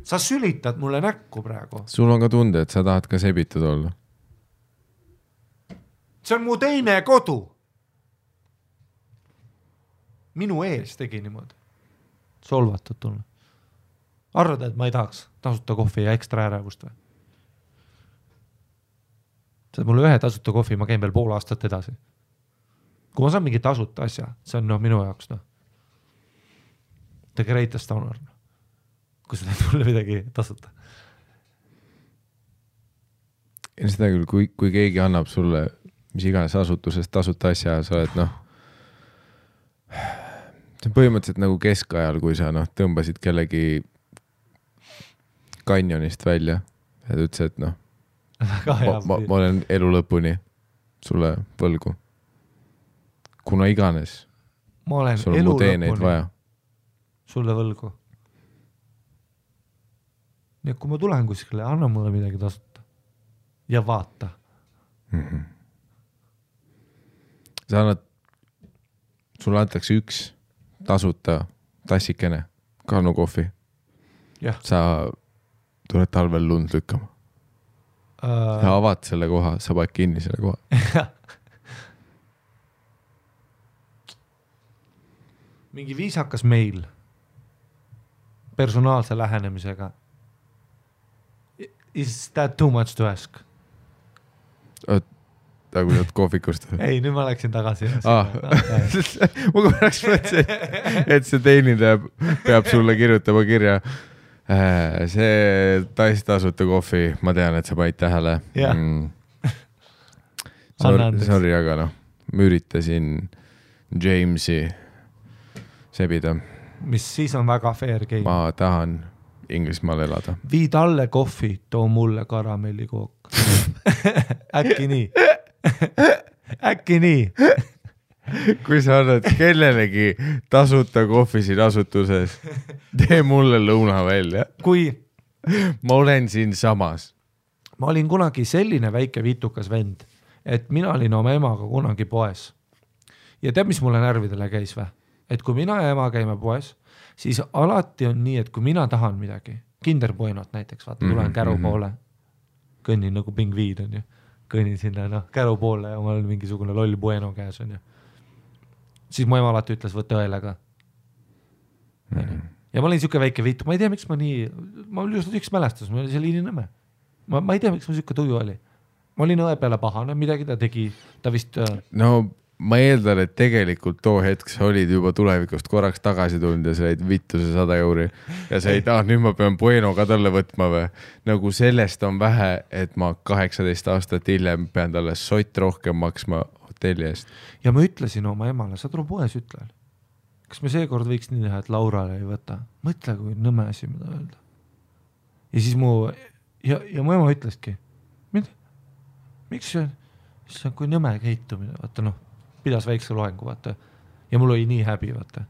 Sa sülitad mulle näkku praegu. Sul on ka tunde, et sa tahad ka sebitud olla. See on mu teine kodu. Minu ees tegi niimoodi. Solvatud tulla. Arvad, et ma ei tahaks tasuta kohvi ja ekstra ärevust või? Saad mulle 1 tasuta kohvi, ma käin veel pool aastat edasi. Kui ma saan mingi tasuta asja, see on minu jaoks. The greatest honor. Kui sa teed mulle midagi tasuta. Ja seda küll, kui keegi annab sulle mis iganes asutusest tasuta asja, sa oled see on põhimõtteliselt nagu keskajal, kui sa tõmbasid kellegi kanjonist välja ja ta ütles, et ma olen elu lõpuni sulle võlgu. Kuna iganes sul on mu teeneid vaja. Sulle võlgu. Nii, kui ma tulen kuskile, anna mulle midagi tasuta ja vaata. Sa annad, sulle antakse 1 tasuta tassikene Kannu kohvi. Sa tuled talvel lund lükkama. Ja avad selle koha, sa paned kinni selle koha. Mingi viisakas meil personaalse lähenemisega. Is that too much to ask? Nagu nüüd kohvikust. Ei, nüüd ma läksin tagasi. Ma korraks mõtlesin, et see teenindaja peab sulle kirjutama kirja. See tasuta kohvi, ma tean, et sa panid tähele. Sorry, aga ma üritasin Jamesi sebida. Mis siis on väga fair game. Ma tahan Inglismaal elada. Vii talle kohvi, too mulle karamellikook. Äkki nii. Äkki nii. Kui sa annad kellelegi tasuta kohvi siin asutuses, tee mulle lõuna välja. Kui ma olen siin samas. Ma olin kunagi selline väike vitukas vend, et mina olin oma emaga kunagi poes. Ja tead, mis mulle närvidele käis või? Et kui mina ja ema käime poes, siis alati on nii, et kui mina tahan midagi, kinderbuenot näiteks, vaata, tulen käru poole, kõnnin nagu pingviid on ju, kõnnin sinna käru poole ja mul on mingisugune loll bueno käes on ju. Siis mu ema alati ütles, võtta õelega. ja ma olin siuke väike viitu, ma ei tea, miks ma oli just üks mälestus, ma oli seal Ininõmme. Ma ei tea, miks ma siuke tuju oli. Ma olin õe peale pahane, midagi ta tegi, ta vist... No ma eeldan, et tegelikult too hetk sa olid juba tulevikust korraks tagasi tulnud ja sa jäid vittu see 100 euri ja sa ei taha, nüüd ma pean Bueno ka talle võtma või. Nagu sellest on vähe, et ma 18 aastat hiljem pean talle sott rohkem maksma hotelli eest. Ja ma ütlesin oma emale, sa tule poes ütlel. Kas me seekord võiks nii teha, et Laurale ei võta? Mõtle, kui nõme asi, mida öelda. Ja siis mu ema ütleski, miks see on kui nõme käitumine, vaata pidas väikse loengu, vaata. Ja mul oli nii häbi, vaata.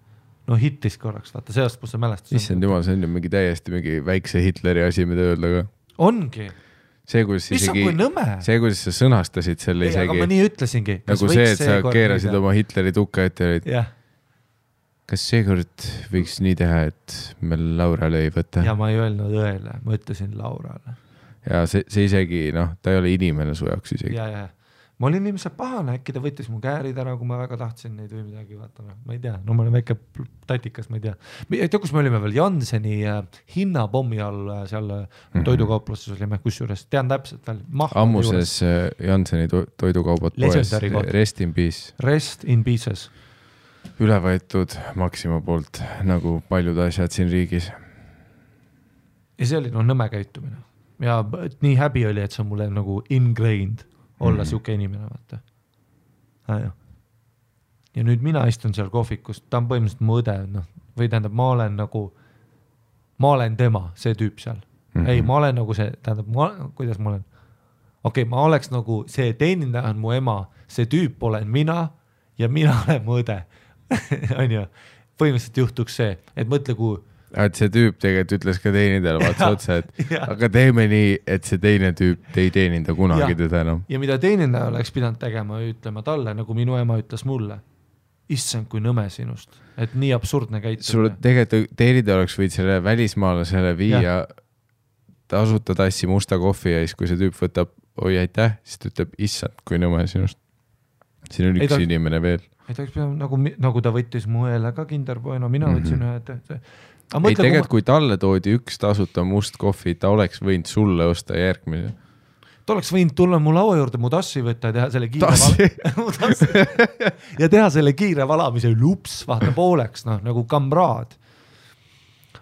No hittis korraks, vaata, sellest kus see mälestus. Issand jumal, see on ju mingi täiesti mingi väikse Hitleri asi, mida öelda ka. Ongi. See, kuidas sa sõnastasid selle isegi. Aga ma nii ütlesingi. Nagu see, et sa keerasid oma Hitleri tukka ette. Kas seekord võiks nii teha, et me Laurale ei võta? Ja ma ei öelnud õele, ma ütlesin Laurale. Ja see isegi, ta ei ole inimene su jaoks isegi. Ja. Ma olin inimesed pahane, äkki ta võttis mu käärid ära, kui ma väga tahtsin neid või midagi, vaata, ma ei tea, ma olen väike tatikas, ma ei tea. Ei tea, kus me olime veel, Janseni hinnapommi all seal toidukauploses olime, kusjuures, tean täpselt veel. Ammuses Janseni toidukaubad poes, Rest in Peace. Rest in Pieces. Üle võetud Maxima poolt, nagu paljud asjad siin riigis. Ja see oli nõme käitumine. Ja nii häbi oli, et see on mulle nagu ingrained olla siuke inimene, vaata. Ja nüüd mina istun seal kohvikus, ta on põhimõtteliselt mu õde, või tähendab, ma olen tema, see tüüp seal. Ei, ma olen nagu see, tähendab, kuidas ma olen? Okei, ma oleks nagu, see teenindaja on mu ema, see tüüp olen mina ja mina olen mu õde. On ju, põhimõtteliselt juhtuks see, et mõtle, kui et see tüüp tegelikult ütles ka teenindajale vaatsa otsa, et aga teeme nii, et see teine tüüp ei teeninda kunagi teda enam. Ja mida teenindaja oleks pidanud tegema, ütlema talle, nagu minu ema ütles mulle, issand kui nõme sinust, et nii absurdne käitumine. Sul tegelikult teenindaja oleks võid selle välismaalasele viia tasuta tassi musta kohvi ja siis, kui see tüüp võtab, oi aitäh, siis ta ütleb, issand kui nõme sinust. Siin on üks inimene veel. Ei ta oleks pidanud, nagu ta võttis mu õele ka Kinder Bueno, mina võtsin ühe, ei tegelikult, kui talle toodi üks tasuta must kohvi, ta oleks võinud sulle osta järgmine. Ta oleks võinud tulla mu laua juurde, mu tassi võtta ja teha selle ja teha selle kiire valamise lups, vaata pooleks, nagu kamraad.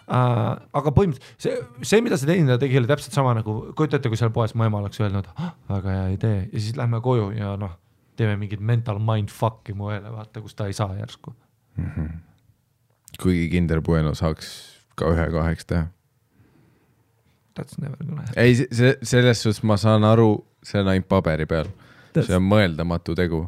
Aga põhimõtteliselt see, mida see teenindaja tegi, oli täpselt sama nagu, kujutate, kui seal poes mu ema oleks öelnud, väga hea idee, ja siis lähme koju ja teeme mingid mental mindfuck'i mu õele, vaata, kus ta ei saa järsku. Kuigi Kinder Bueno saaks ka 1-2 teha. That's never gonna happen. Ei, selles suhtes ma saan aru, see on ainult paberi peal. See on mõeldamatu tegu.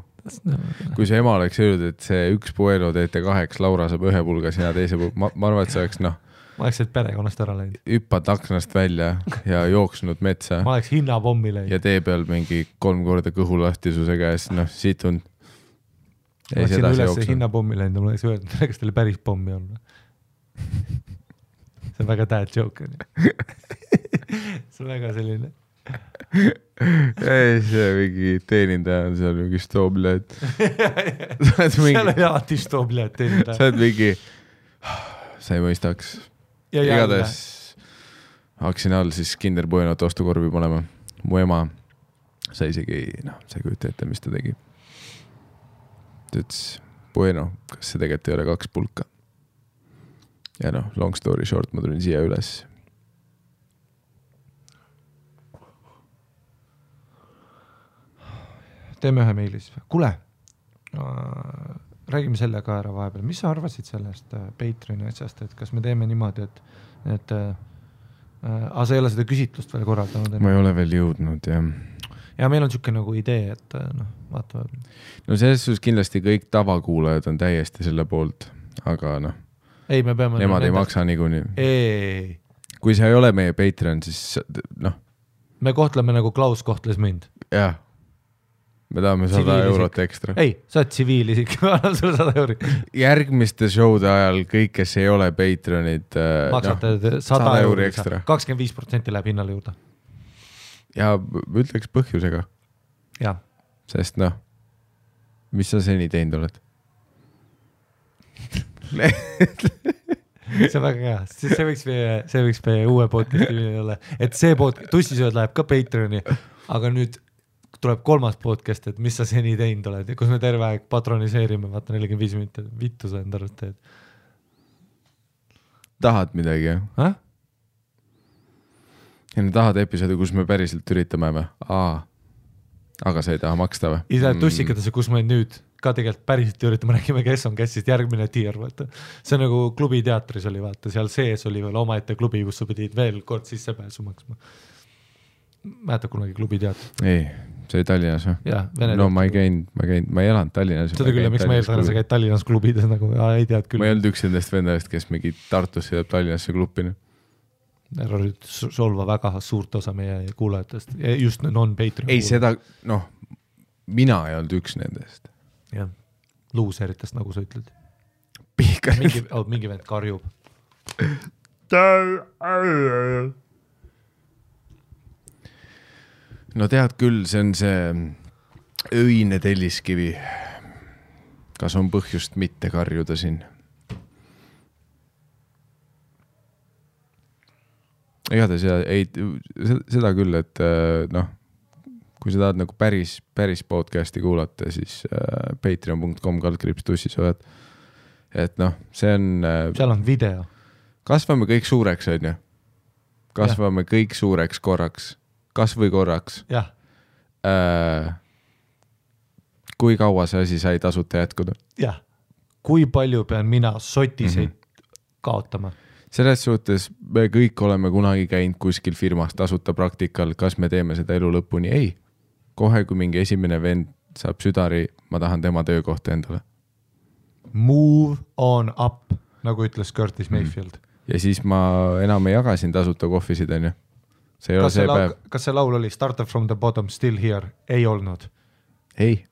Kui see ema oleks öelnud, et see üks Bueno teete 2, Laura saab 1 pulga, sina teise pulga. Ma arvan, et see oleks, ma oleks et perekonnast ära läinud. Hüppad aknast välja ja jooksnud metsa. Ma oleks hinnapommi läinud. Ja tee peal mingi 3 korda kõhulastisuse käes, siit on ma läksin üles hinnapommi läinud ja ma oleks öelnud, kas teile päris pommi on. See on väga dad joke. See on väga selline. Ei, see mingi teenindaja on seal mingi stoobled. Seal on alati stoobled teenindaja. Sa oled mingi, sa ei mõistaks. Igades hakkasin all siis Kinder Buenot ostukorvi panema. Mu ema, sa isegi sa ei kujuta ette, mis ta tegi. Ta ütles, Bueno, kas see tegelikult ei ole 2 pulka? Ja long story short, ma tulin siia üles. Teeme ühe meilis. Kule, räägime selle ka ära vahepeal. Mis sa arvasid sellest Patreoni asjast, et kas me teeme niimoodi, et sa ei ole seda küsitlust veel korraldanud? Ma ei ole veel jõudnud, jah. Ja meil on siuke nagu idee, et vaata. No selles suhtes kindlasti kõik tavakuulajad on täiesti selle poolt, aga ei, me peame nemad ei maksa niikuinii. Ei. Kui sa ei ole meie Patreon, siis me kohtleme nagu Klaus kohtles mind. Jah. Me tahame 100 eurot ekstra. Ei, sa oled tsiviilisik, ma annan sulle 100 euri. Järgmiste showde ajal kõik, kes ei ole Patreonid, maksate 100 euri ekstra. 25% läheb hinnale juurde. Ja ütleks põhjusega. Ja. Sest mis sa seni teinud oled? see on väga hea, see võiks meie uue podcasti olla, et see tussisööd läheb ka Patreoni, aga nüüd tuleb kolmas podcast, et mis sa seni teinud oled, kus me terve aeg patroniseerime, vaata 45 minutit, vittu sa enda arust teed. Tahad midagi, jah? Ja ne tahad episoodi, kus me päriselt üritame või? Aga sa ei taha maksta või? Ise tussikatesse, kus me nüüd ka tegelikult päriselt üritame, räägime, kes on käsist järgmine tier, vaata. See nagu klubi teatris oli, vaata, seal sees oli veel omaette klubi, kus sa pidid veel kord sissepääsu maksma. Mäletad kunagi klubi teatri? Ei, see oli Tallinnas või? Jah, no ma ei elanud Tallinnas. Seda küll, miks ma eeldan, sa käid Tallinnas klubides nagu, ei tead küll. Ma ei olnud üks endast vendavast, kes mingi Tartus sõidab Tallinnasse klupina. Ära nüüd solva väga suurt osa meie kuulajatest, just non-Patreon. Ei, seda, mina ei olnud üks nendest. Jah, luuseritest, nagu sa ütled. Mingi vend karjub. No tead küll, see on see öine telliskivi. Kas on põhjust mitte karjuda siin? Igatahes seda küll, et kui sa tahad nagu päris podcasti kuulata, siis patreon.com/tussisööd. Et see on... Seal on video. Kasvame kõik suureks, on ju? Kasvame kõik suureks korraks. Kas või korraks. Jah. Kui kaua see asi sai tasuta jätkuda? Jah. Kui palju pean mina sotiseid kaotama? Selles suhtes me kõik oleme kunagi käinud kuskil firmas tasuta praktikal, kas me teeme seda elu lõpuni? Ei. Kohe, kui mingi esimene vend saab südari, ma tahan tema töökohta endale. Move on up, nagu ütles Curtis Mayfield. Ja siis ma enam ei jagasin tasuta kohvisid, on ju? See ei ole see päev. Kas see laul oli Started from the bottom, still here? Ei olnud. Ei.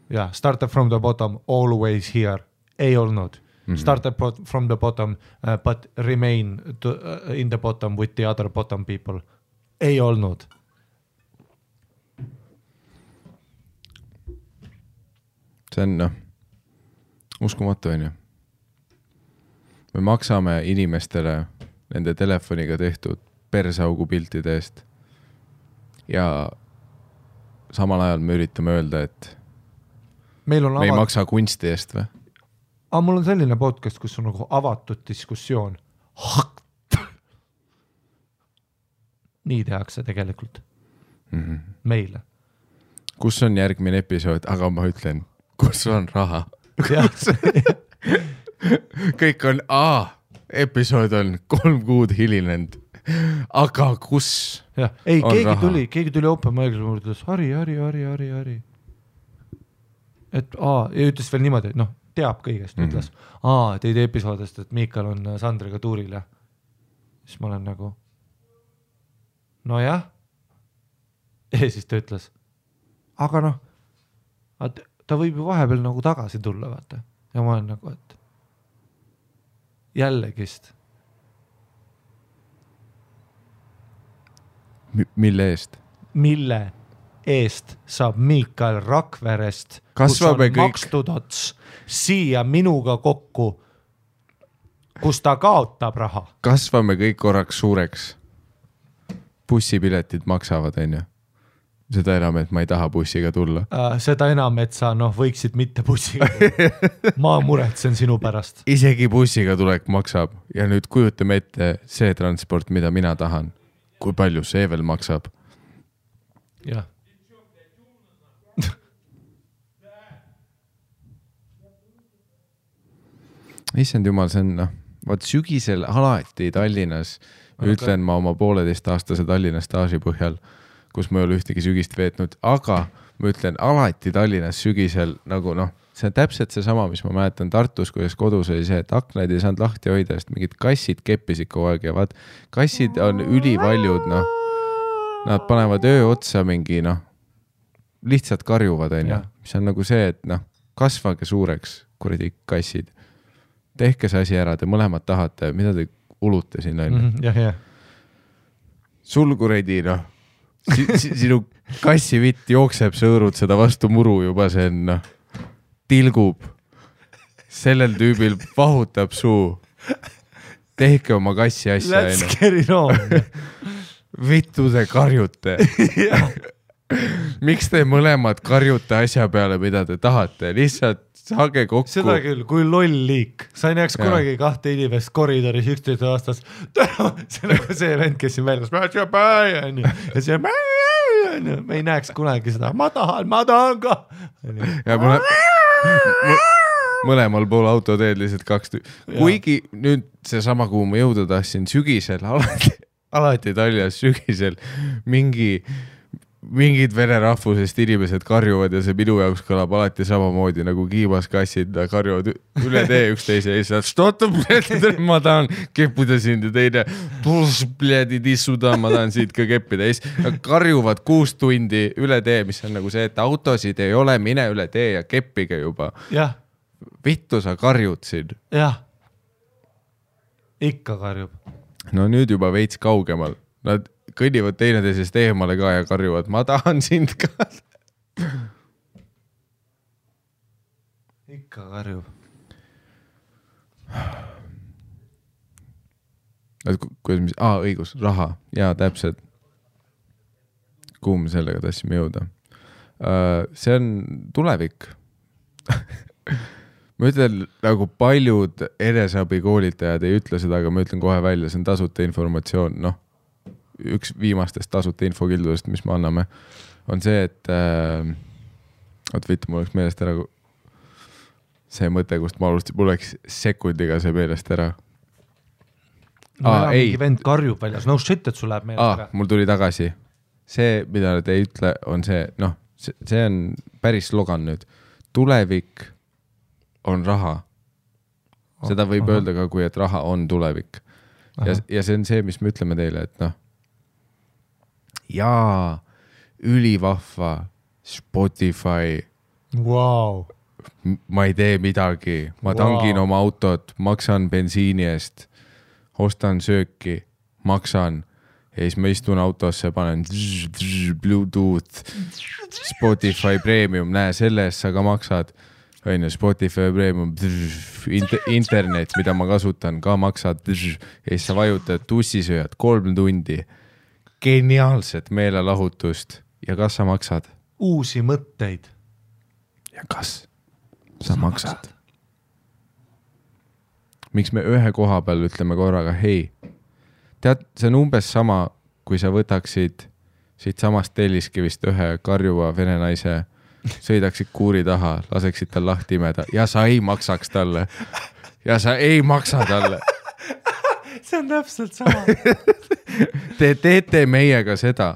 Ja, Started from the bottom, always here. Ei olnud. Started from the bottom, but remain in the bottom with the other bottom people. Ei olnud. See on, uskumatu, on ju. Me maksame inimestele nende telefoniga tehtud persaugu piltide eest. Ja samal ajal me üritame öelda, et me ei maksa kunsti eest või? Aga mul on selline podcast, kus on nagu avatud diskussioon. Nii tehakse tegelikult. Meile. Kus on järgmine episood? Aga ma ütlen, kus on raha? Kõik on, episood on 3 kuud hilinenud. Aga kus ei, keegi tuli open mic'is ja ütles, Hari. Et ja ütles veel niimoodi, et teab kõigest, ütles, teid episoodest, et Miikal on Sandriga tuuril ja siis ma olen nagu no jah ja siis ta ütles aga ta võib ju vahepeal nagu tagasi tulla, vaata ja ma olen nagu, et jällegist mille eest saab Miikal Rakverest, kus on makstud ots siia minuga kokku, kus ta kaotab raha. Kasvame kõik korraks suureks. Bussipiletid maksavad, on ju? Seda enam, et ma ei taha bussiga tulla. Seda enam, et sa võiksid mitte bussiga tulla. Ma muretsen sinu pärast. Isegi bussiga tulek maksab ja nüüd kujutame ette see transport, mida mina tahan. Kui palju see veel maksab? Jah. Issand jumal, see on, vaat sügisel alati Tallinnas, ütlen ma oma 1,5-aastase Tallinna staaži põhjal, kus ma ei ole ühtegi sügist veetnud, aga ma ütlen alati Tallinnas sügisel nagu see on täpselt see sama, mis ma mäletan Tartus, kuidas kodus oli see, et aknaid ei saanud lahti hoida, sest mingid kassid keppisid kogu aeg ja vaat kassid on ülivaljud, nad panevad öö otsa mingi, lihtsalt karjuvad, on ju, mis on nagu see, et kasvage suureks, kuradi kassid. Tehke see asi ära, te mõlemad tahate, mida te ulute siin, on ju. Sul kuradi, sinu kassivitt jookseb, sõõrud seda vastu muru juba, see on, tilgub. Sellel tüübil vahutab suu. tehke oma kassi asja. Let's get it on. Vittu te karjute. Miks te mõlemad karjute asja peale, mida te tahate? Lihtsalt saage kokku. Seda küll, kui loll liik. Sa ei näeks kunagi 2 inimest koridoris 11 aastas. See nagu see vend, kes siin väljas. Ja see me ei näeks kunagi seda. Ma tahan ka. Ja mõlemal pool autoteed lihtsalt 2 Kuigi nüüd see sama, kuhu ma jõuda tahtsin sügisel, alati Taljas sügisel mingid vene rahvusest inimesed karjuvad ja see minu jaoks kõlab alati samamoodi nagu kiibaskassid karjuvad üle tee üksteise ja siis ma tahan keppida sind ja teine ma tahan siit ka keppida ja siis karjuvad 6 tundi üle tee, mis on nagu see, et autosid ei ole, mine üle tee ja keppige juba. Vittu sa karjud siin. Jah, ikka karjub. No nüüd juba veits kaugemal. Nad kõnnivad teineteisest eemale ka ja karjuvad, ma tahan sind ka. Ikka karjub. Õigus, raha. Jaa, täpselt. Kuhu me sellega tahtsime jõuda? See on tulevik. Ma ütlen, nagu paljud eneseabikoolitajad ei ütle seda, aga ma ütlen kohe välja, see on tasuta informatsioon, üks viimastest tasuta infokildudest, mis me anname, on see, et mul oleks meelest ära see mõte, kust ma alustasin, mul oleks sekundiga see meelest ära. Mingi vend karjub väljas, no shit, et sul läheb meelest ära. Mul tuli tagasi. See, mida te ei ütle, on see, see on päris slogan nüüd. Tulevik on raha. Seda võib öelda ka, kui et raha on tulevik. Ja see on see, mis me ütleme teile, et jaa, ülivahva Spotify. Wow. Ma ei tee midagi. Ma tangin oma autot, maksan bensiini eest, ostan sööki, maksan ja siis ma istun autosse, panen Bluetooth, Spotify Premium, näe, selle eest sa ka maksad. Spotify Premium, internet, mida ma kasutan, ka maksad ja siis sa vajutad tussisööjad 3 tundi. Geniaalset meelelahutust. Ja kas sa maksad? Uusi mõtteid. Ja kas sa maksad? Miks me ühe koha peal ütleme korraga, hei, tead, see on umbes sama, kui sa võtaksid siit samast Telliskivist ühe karjuva vene naise, sõidaksid kuuri taha, laseksid tal lahti imeda ja sa ei maksaks talle. Ja sa ei maksa talle. See on täpselt sama. Te teete meiega seda.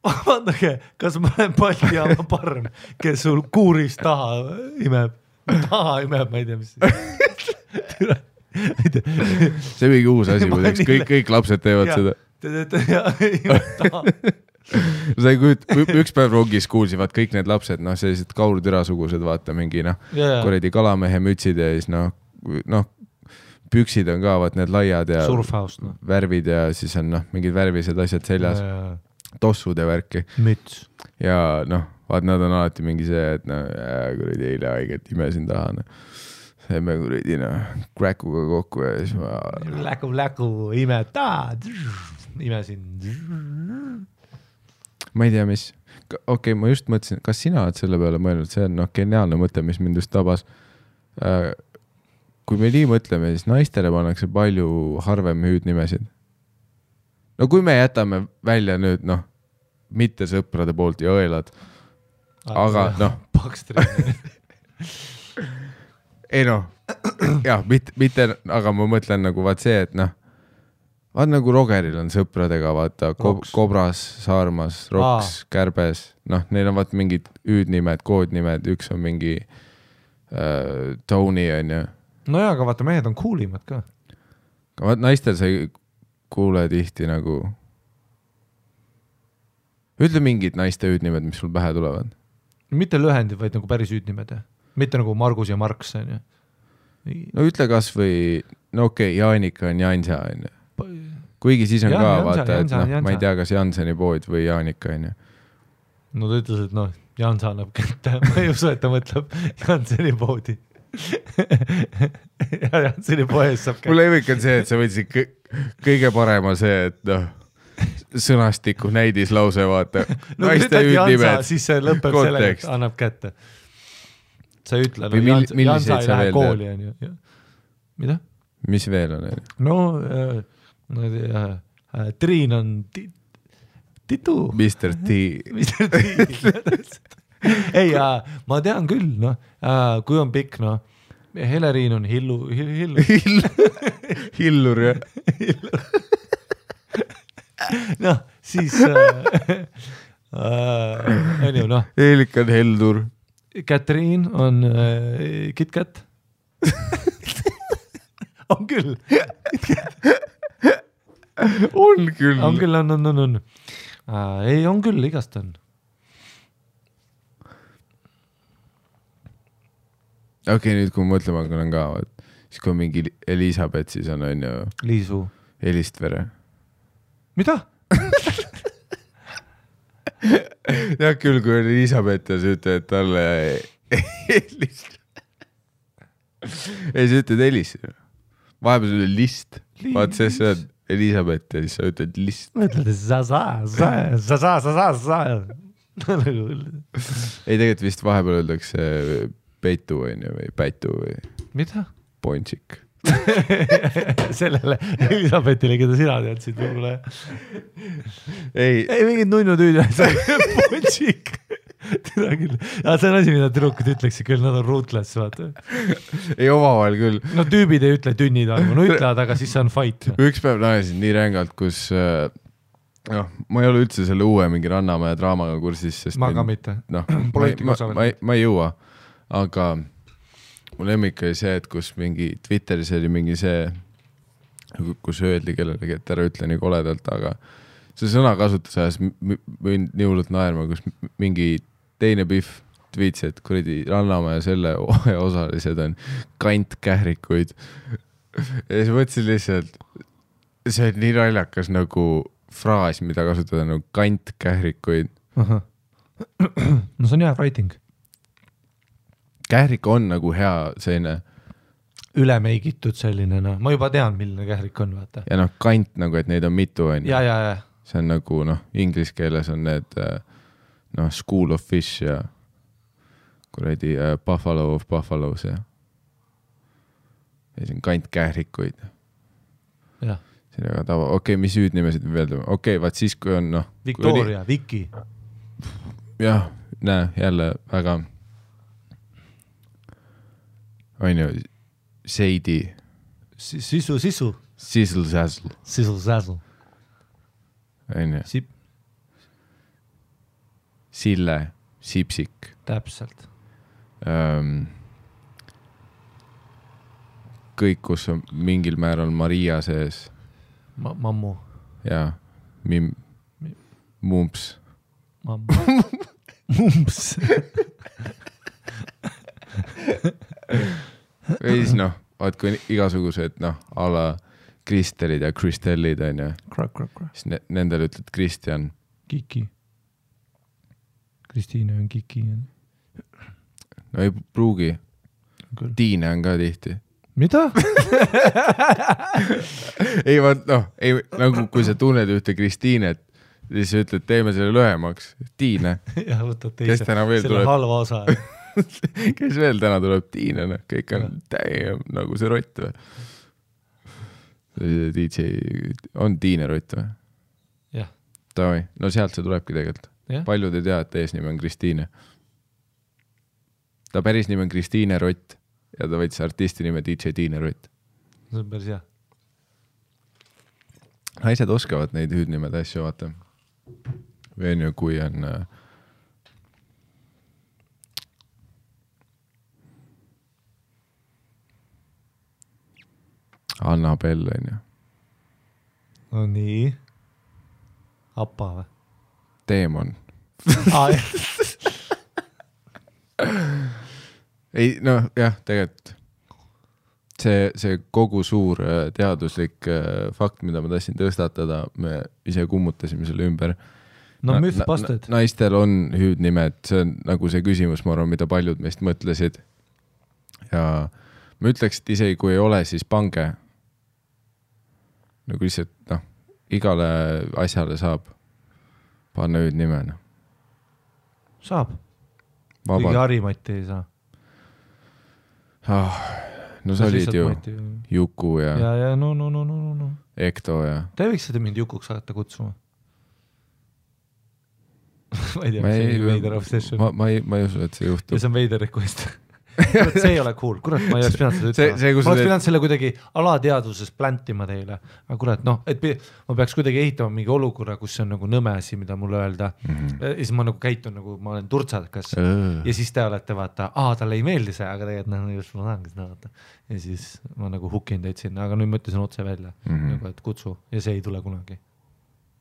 Vaadake, kas ma olen Baltijaama parm, kes sul kuuris taha imeb, ma ei tea, mis see mingi uus asi, kõik lapsed teevad seda. Sa ei kujut, üks päev rongis kuulsivad kõik need lapsed, sellised kaurtürasugused, vaata mingi, kuredi kalamehe mütsid ja siis püksid on ka, vaat need laiad ja surfhouse, värvid ja siis on mingid värvised asjad seljas, tossud ja värki. Müts. Ja vaat nad on alati mingi see, et kuredi eile haiget imesin taha. Seeme kuredi kräkuga kokku ja siis ma... Läku, ime, imesin. Ma ei tea, mis. Okei, ma just mõtlesin, kas sina oled selle peale mõelnud? See on geniaalne mõte, mis mind just tabas. Kui me nii mõtleme, siis naistele pannakse palju harvem hüüdnimesid. No kui me jätame välja nüüd, mitte sõprade poolt ja õelad, aga Pakstrid. Ei jah, mitte, aga ma mõtlen nagu vaat see, et vaat nagu Rogeril on sõpradega, vaata, Kobras, Saarmas, Roks, Kärbes, neil on vaat mingid hüüdnimed, koodnimed, üks on mingi Tony on ju. No jaa, aga vaata, mehed on kuulimad ka. Vaat naistel sa ei kuule tihti nagu... Ütle mingid naiste hüüdnimed, mis sul pähe tulevad. Mitte lühendid, vaid nagu päris hüüdnimed. Mitte nagu Margus ja Marks. No ütle kas või... No okei, Jaanika on Jansa. Kuigi siis on ka, vaata, et ma ei tea, kas Janseni pood või Jaanika on. No ta ütles, et Jansa annab kätte. Ma ei usu, et ta mõtleb Janseni poodi. ja see oli poes saab mul lemmik on see, et sa võtsid kõige parema see, et noh, sõnastiku näidislause, vaata. No naiste hüüdnimed. Siis see lõpeb sellega, et annab kätte. Sa ei ütle, no Jansa ei lähe kooli, on ju. Mida? Mis veel on? No, Triin on Titu. Mr. T. Mr. T. Ei, ma tean küll, noh, kui on pikk, noh, Heleriin on Hillur, jah. Noh, siis on ju, noh. Eelik on Heldur. Katriin on KitKat. On küll. On küll. On küll, on. Ei, on küll, igast on. Okei, nüüd kui mõtlema hakkan ka, siis kui on mingi Elisabeth, siis on ju Liisu. Elistvere. Mida? Ja küll, kui on Elisabeth ja sa ütled talle Elistvere. Ei, sa ütled Elistvere. Vahepeal sul oli list. Vaat see on Elisabeth ja siis sa ütled list. Ma ütled, sa. Ei, tegelikult vist vahepeal öeldakse peitu või päitu või mida? Pončik. Sellele Elisabethile, keda sina teadsid võib-olla. Ei, mingid nunnutüüd. Pončik. Teda küll. Ja see on asi, mida tüdrukud ütleksid küll, nad on ruthless, vaata. Ei, omavahel küll. No tüübid ei ütle tünnid arvu, no ütlevad, aga siis see on fight. Üks päev naesin nii rängalt, kus ma ei ole üldse selle uue mingi Rannamäe draamaga kursis, sest ma ka mitte. Ma ei jõua. Aga mul lemmik oli see, et kus mingi Twitteris oli mingi see, kus öeldi kellelegi, et ära ütle nii koledalt, aga see sõna kasutas ajas võin nii hullult naerma, kus mingi teine Pihv tweets, et kuradi Rannamäe selle osalised on kantkährikuid. Ja siis mõtlesin lihtsalt, see on nii naljakas nagu fraas, mida kasutada nagu kantkährikuid. No see on hea writing. Kährik on nagu hea selline ülemeigitud selline, no ma juba tean, milline kährik on, vaata. Ja noh, kant nagu, et neid on mitu, on. Ja. See on nagu, noh, inglise keeles on need school of fish ja kuradi buffalo of buffaloes ja see on kant kährikuid. Jah. See on väga tava. Okei, mis hüüdnimesid veel teeme? Okei, vaat siis, kui on, noh. Victoria, Viki. Jah, näe, jälle väga on ju, Seidi. Sisu. Sizzle-sazzle. On ju. Sille, Sipsik. Täpselt. Kõik, kus on mingil määral Maria sees. Mammu. Ja, Mumps. Mammu. Mumps. Või siis noh, vaat kui igasugused ala Kristelid ja Kristellid on ju. Siis nendel ütled Kristjan. Kiki. Kristiine on Kiki. No ei pruugi. Tiine on ka tihti. Mida? Ei vaat nagu kui sa tunned ühte Kristiinet, siis ütled, teeme selle lühemaks. Tiine. Ja võtad teise. Selle halva osa. Kes veel täna tuleb? Tiine, kõik on täiem nagu see rott või? DJ on Tiine rott või? Jah. Tavai, no sealt see tulebki tegelikult. Paljud ei tea, et eesnimi on Kristiine. Ta päris nimi on Kristiine Rott ja ta võttis artisti nime DJ Tiine Rott. See on päris hea. Naised oskavad neid hüüdnimed asju vaata. Või on ju, kui on Annabel, on ju. No nii. Appa või? Teemon. Ei, noh, jah, tegelikult see kogu suur teaduslik fakt, mida ma tahtsin tõstatada, me ise kummutasime selle ümber. No mythbusted. Naistel on hüüdnimed, see on nagu see küsimus, ma arvan, mida paljud meist mõtlesid. ja ma ütleks, et isegi kui ei ole, siis pange nagu lihtsalt, noh, igale asjale saab panna hüüdnime. Saab. Kõigi Harimati ei saa. No sa olid ju Juku ja no. Ekto ja... Te võiks seda mind Jukuks hakata kutsuma. Ma ei tea, see on veider obsession. Ma ei usu, et see juhtub. Ja see on veider request. Kurat, see ei ole cool. Kurat, ma ei oleks pidanud seda ütlema. Ma oleks pidanud selle kuidagi alateaduses pläntima teile. Aga kurat, noh, et ma peaks kuidagi ehitama mingi olukorra, kus see on nagu nõmesi, mida mulle öelda. Ja siis ma nagu käitun nagu, ma olen turtsakas. Ja siis te olete vaata, talle ei meeldi see, aga tegelikult just ma tahangi seda vaata. Ja siis ma nagu hukin teid sinna, aga nüüd mõtlesin otse välja, nagu, et kutsu ja see ei tule kunagi.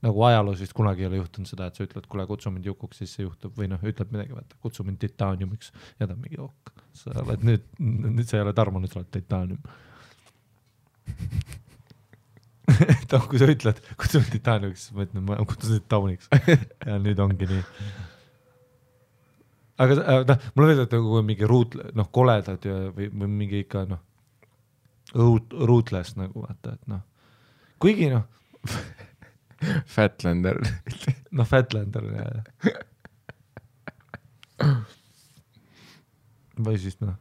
Nagu ajaloos vist kunagi ei ole juhtunud seda, et sa ütled, kuule, kutsu mind Jukuks, siis see juhtub või noh, ütled midagi, vaata, kutsu mind Titaniumiks ja ta on mingi ok. Sa oled nüüd sa ei ole Tarmo, nüüd sa oled Titanium. Kui sa ütled, kutsu mind Titaniumiks, siis ma ütlen, ma kutsun sind Tauniks ja nüüd ongi nii. Aga mulle veelda, et kui mingi koledad või mingi ikka rootless nagu vaata, et kuigi Fatlander. Fatlander, jah. Või siis nagu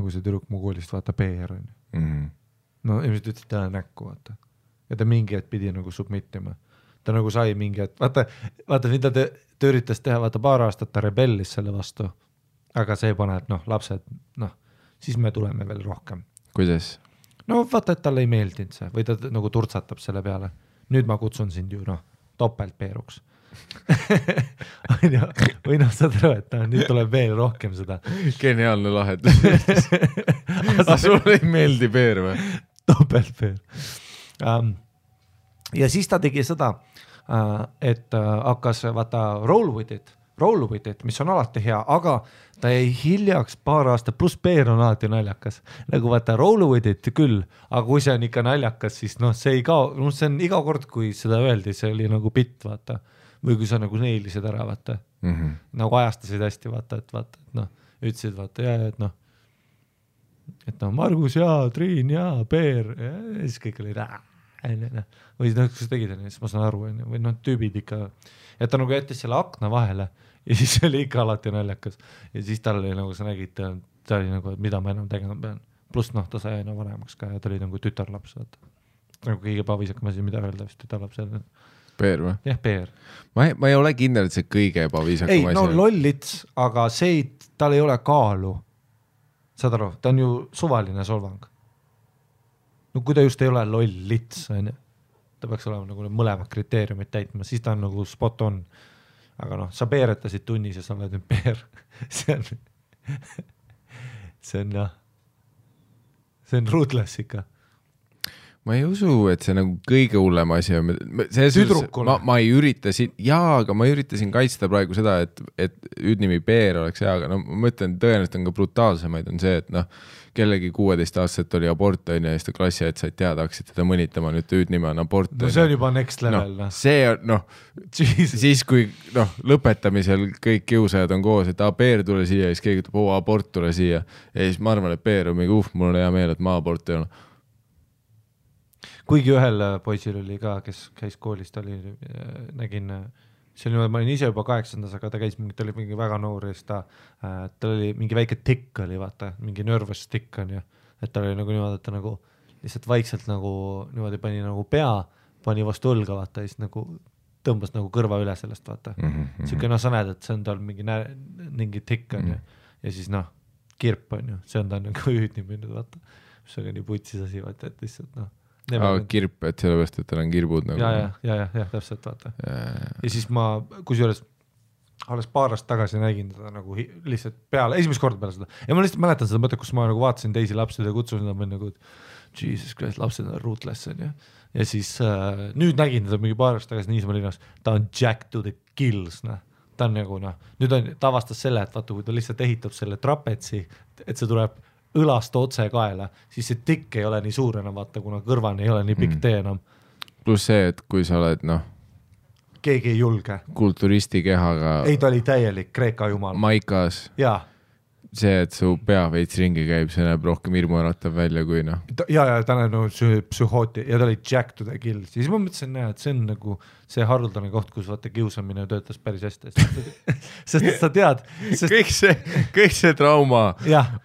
see tüdruk mu koolist vaata PR on. No ilmselt ütlesid täna näkku, vaata. Ja ta mingi hetk pidi nagu submittima. Ta nagu sai mingi hetk, vaata mida ta üritas teha, vaata paar aastat ta rebellis selle vastu. Aga see paneb, lapsed, siis me tuleme veel rohkem. Kuidas? No vaata, et talle ei meeldinud see või ta nagu turtsatab selle peale. Nüüd ma kutsun sind ju topeltpeeruks. või saad aru, et nüüd tuleb veel rohkem seda. Geniaalne lahendus. Sulle ei meeldi peer või? Topeltpeer. Ja siis ta tegi seda, et hakkas vaata roll with it, mis on alati hea, aga ta jäi hiljaks paar aastat, pluss peer on alati naljakas. Nagu vaata roll with it küll, aga kui see on ikka naljakas, siis see ei kao, see on iga kord, kui seda öeldi, see oli nagu bitt, vaata. Või kui sa nagu neilisid ära, vaata. Nagu ajastasid hästi, vaata, et ütlesid, vaata, et Margus ja Triin ja Peer ja siis kõik oli või kus tegid, siis ma saan aru, või tüübid ikka, et ta nagu jättis selle akna vahele ja siis oli ikka alati naljakas ja siis tal oli nagu sa nägid, ta oli nagu, mida ma enam tegema pean, pluss ta sai aina vanemaks ka ja ta oli nagu tütarlaps, vaata. Nagu kõige pavisakam asi, mida öelda vist tütarlaps. Peer või? Jah, Peer. Ma ei ole kindel, et see kõige pavisakam asi. Ei, lollits, aga tal ei ole kaalu. Saad aru, ta on ju suvaline solvang. No kui ta just ei ole lollits, ta peaks olema nagu mõlemad kriteeriumid täitma, siis ta on nagu spot on. Aga sa peeretasid tunnis ja sa oled nüüd peer. See on rootless ikka. Ma ei usu, et see nagu kõige hullem asi on. Ma ei ürita aga ma üritasin kaitsta praegu seda, et hüüdnimi Peer oleks hea, aga ma mõtlen, tõenäoliselt on ka brutaalsemaid on see, et kellegi 16-aastaselt oli abort ja siis ta klassi, et said teada, hakkasid teda mõnitama, nüüd hüüdnime on abort. No see on juba next level. See on, siis kui lõpetamisel kõik kiusajad on koos, et Peer tule siia ja siis keegi ütleb, abort tule siia ja siis ma arvan, et Peer on mingi mul on hea meel, et ma abort ei ole. Kuigi ühel poisil oli ka, kes käis koolist, nägin, ma olin ise juba 8. aga ta käis ta oli mingi väga noor ja ta oli mingi väike tikk oli, vaata, mingi nervous tikk on ju, et ta oli nagu niimoodi, et ta nagu lihtsalt vaikselt nagu niimoodi pani nagu pea, pani vastu õlga, vaata, ja siis nagu tõmbas nagu kõrva üle sellest, vaata. Siuke sa näed, et see on tal mingi tikk on ju, ja siis kirp on ju, see on ta nagu hüüdnimi, vaata, mis on nii putsis asi, vaata, et lihtsalt kirp, et sellepärast, et tal on kirbud nagu. Ja, täpselt, vaata. Ja siis ma, kusjuures alles paar aastat tagasi nägin teda nagu lihtsalt peale, esimest korda peale seda. Ja ma lihtsalt mäletan seda mõtet, kus ma nagu vaatasin teisi lapsed ja kutsusin nad nagu, et Jesus Christ, lapsed on rootless on ju. Ja siis nüüd nägin teda mingi paar aastat tagasi Niismaa linnas, ta on jack to the kills, ta on nagu nüüd ta avastas selle, et vaata, kui ta lihtsalt ehitab selle trapetsi, et see tuleb õlast otse kaela, siis see tikk ei ole nii suur enam, vaata, kuna kõrvani ei ole nii pikk tee enam. Plus see, et kui sa oled, keegi ei julge. Kulturisti kehaga. Ei, ta oli täielik Kreeka jumal. Maikas. Jaa. see, et su pea veits ringi käib, see näeb rohkem hirmuäratav välja kui noh. Ja ta on nagu psühhooti ja ta oli Jack to the kill. Siis ma mõtlesin, et see on nagu see haruldane koht, kus vaata kiusamine töötas päris hästi. Sest sa tead. Kõik see trauma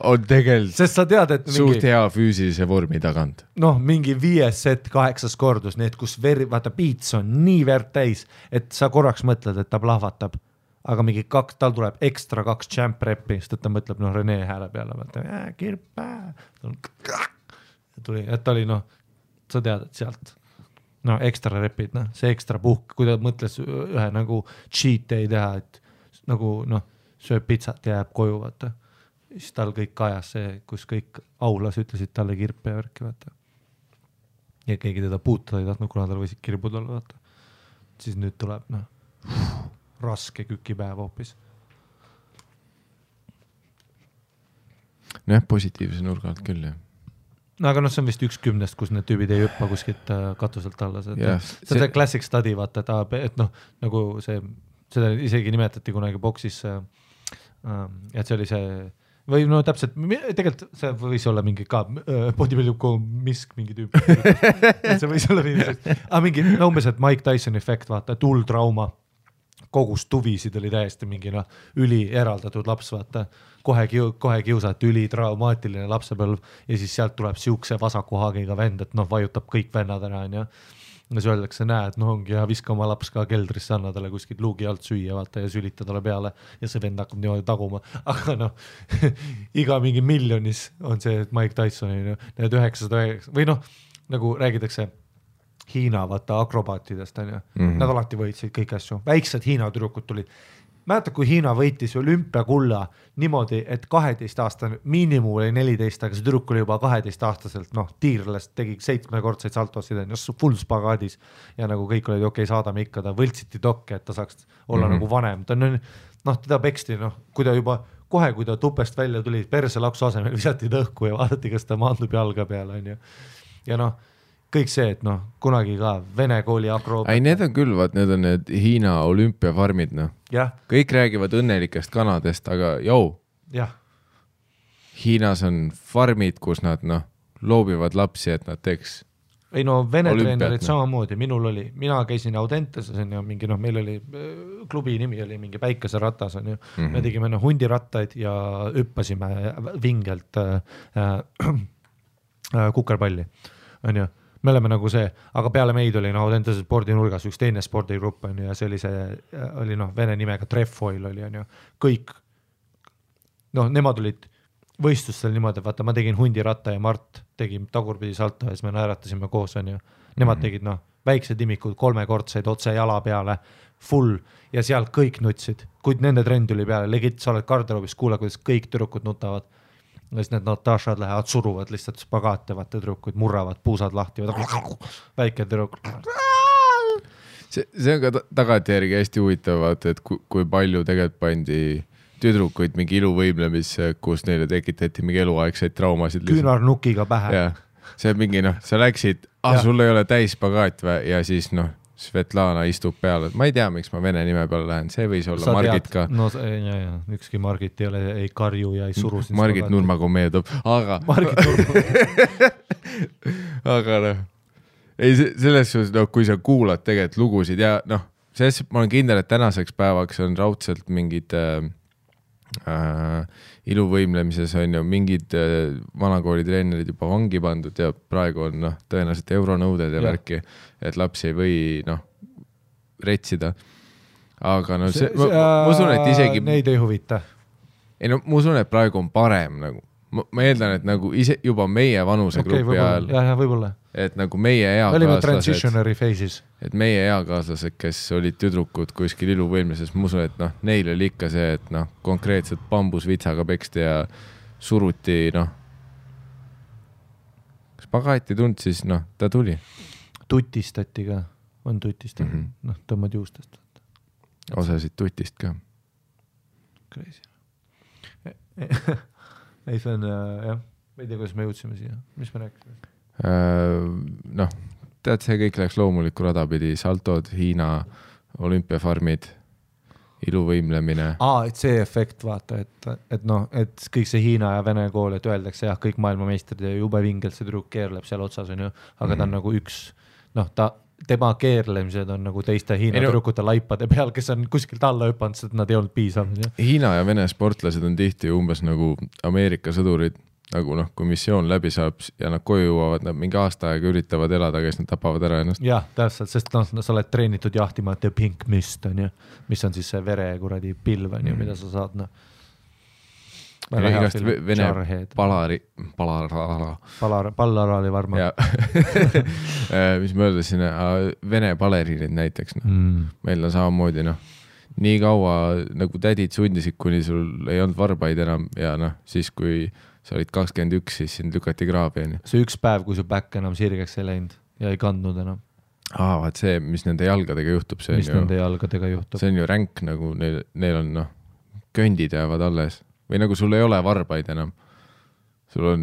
on tegelikult sest sa tead, et suht hea füüsilise vormi tagant. Noh, mingi 5 set 8 kordus, need kus vaata piits on nii verd täis, et sa korraks mõtled, et ta plahvatab. Aga mingi tal tuleb ekstra 2 champ repi, sest et ta mõtleb Rene hääle peale, vaata, kirpa, tuli, et ta oli sa tead, et sealt, ekstra repid, see ekstra puhk, kui ta mõtles ühe nagu cheat day teha, et nagu sööb pitsat ja jääb koju, vaata, siis tal kõik kajas see, kus kõik aulas ütlesid talle kirpe ja värki, vaata. Ja keegi teda puutada ei tahtnud, kuna tal võisid kirbud olla, vaata. Siis nüüd tuleb, raske kükipäev hoopis. Jah, positiivse nurga alt küll, jah. No aga see on vist 1 10, kus need tüübid ei hüppa kuskilt katuselt alla. See classic study, vaata, et nagu seda isegi nimetati kunagi boksis, et see oli see, või täpselt, tegelikult see võis olla mingi ka bodybuilding mingi tüüp. See võis olla mingi, umbes, et Mike Tyson efekt, vaata, et trauma. Kogus tuvisid oli täiesti mingi üli eraldatud laps, vaata, kohe kiusat, üli traumaatiline lapsepõlv ja siis sealt tuleb siukse vasaku haagiga vend, et vajutab kõik vennad ära, ja siis öeldakse, näed, ongi ja viska oma laps ka keldrisse, anna talle kuskilt luugi alt süüa, vaata, ja sülita talle peale ja see vend hakkab niimoodi taguma, aga iga mingi miljonis on see Mike Tysoni, need 909 või nagu räägitakse Hiina, vaata, akrobaatidest, on ju. Nad alati võitsid kõik asju. Väiksed Hiina tüdrukud tulid. Mäletad, kui Hiina võitis olümpiakulla niimoodi, et 12 aastane miinimum oli 14, aga see tüdruk oli juba 12-aastaselt, tiirlest tegi 7-kordseid saltosid, full spagaadis ja nagu kõik olid okei, saadame ikka, ta võltsiti dokke, et ta saaks olla nagu vanem. Ta on, teda peksti, kui ta juba kohe, kui ta tupest välja tuli, perse laksu asemel visati tõhku ja vaadati, kas ta maandub jalga peale, on ju. Ja kõik see, et kunagi ka Vene kooli akroobet. Ei, need on küll, need on need Hiina olümpiafarmid, Kõik räägivad õnnelikest kanadest, aga Hiinas on farmid, kus nad loobivad lapsi, et nad teeks ei Vene treenerid samamoodi, minul oli, mina käisin Audentes, mingi, meil oli, klubi nimi oli mingi Päikeseratas, on ju. Me tegime hundirattaid ja hüppasime vingelt kukerpalli, on ju. Me oleme nagu see, aga peale meid oli Audentese spordinurgas üks teine spordigrupp, on ju, ja see oli vene nimega Trefoil oli, on ju. Kõik, nemad olid võistlustel niimoodi, vaata, ma tegin hundiratta ja Mart tegi tagurpidi salto ja siis me naeratasime koos, on ju. Nemad tegid, väiksed imikud, 3-kordseid otse jala peale, full, ja seal kõik nutsid. Kuid nende trend tuli peale, legit, sa oled garderoobis, kuule, kuidas kõik tüdrukud nutavad. Ja siis need Natashad lähevad, suruvad lihtsalt spagaate, vaata tüdrukud, murravad, puusad lahti, väike tüdruk. See on ka tagantjärgi hästi huvitav, vaata, et kui palju tegelikult pandi tüdrukuid mingi iluvõimlemisse, kus neile tekitati mingi eluaegseid traumasid. Küünarnukiga pähe. Ja, see on mingi, sa läksid, sul ei ole täis spagaat ja siis Svetlana istub peale, et ma ei tea, miks ma vene nime peale lähen, see võis olla Margit ka. Ükski Margit ei ole, ei karju ja ei suru. Margit Nurmaga meeldub, aga Margit Nurmaga aga ei, selles suhtes, kui sa kuulad tegelikult lugusid ja selles ma olen kindel, et tänaseks päevaks on raudselt mingid iluvõimlemises on ju mingid vanakooli treenerid juba vangi pandud ja praegu on tõenäoliselt euronõuded ja värki, et lapsi ei või retsida. Aga ma usun, et isegi neid ei huvita. Ei ma usun, et praegu on parem nagu. Ma eeldan, et nagu ise juba meie vanusegrupi ajal, võibolla. Et nagu meie eakaaslased, et meie eakaaslased, kes olid tüdrukud kuskil iluvõimlises, ma usun, et neil oli ikka see, et konkreetselt bambusvitsaga peksti ja suruti, spagaati tund, siis ta tuli. Tutistati ka, on tutistati, tõmmad juustest. Osasid tutist ka. Crazy. Ei, see on, jah, ma ei tea, kuidas me jõudsime siia, mis me rääkisime? Tead, see kõik läks loomulikku rada pidi, saltod, Hiina olümpiafarmid iluvõimlemine. Et see efekt, vaata, et noh, et kõik see Hiina ja Vene kool, et öeldakse jah, kõik maailmameistrid ja jube vingelt see tüdruk keerleb seal otsas, on ju, aga ta on nagu üks, noh, tema keerlemised on nagu teiste Hiina tüdrukute laipade peal, kes on kuskilt alla hüpanud, sest nad ei olnud piisavad. Hiina ja Vene sportlased on tihti umbes nagu Ameerika sõdurid, nagu noh, kui missioon läbi saab ja nad koju jõuavad, nad mingi aasta aega üritavad elada, kes nad tapavad ära ennast. Jah, täpselt, sest noh, sa oled treenitud jahtima The Pink Mist, on ju, mis on siis see vere kuradi pilv, on ju, mida sa saad, noh. Igast Vene Pallaraali varma. Mis ma öeldasin, Vene baleriinid näiteks, noh. Meil on samamoodi, noh, nii kaua nagu tädid sundisid, kuni sul ei olnud varbaid enam ja noh, siis kui sa olid 21, siis sind lükati kraabi. See üks päev, kui su päkk enam sirgeks ei läinud ja ei kandnud enam. Vaat see, mis nende jalgadega juhtub, see nende jalgadega juhtub. See on ju ränk, nagu neil on, noh, köndid jäävad alles. Või nagu sul ei ole varbaid enam. Sul on,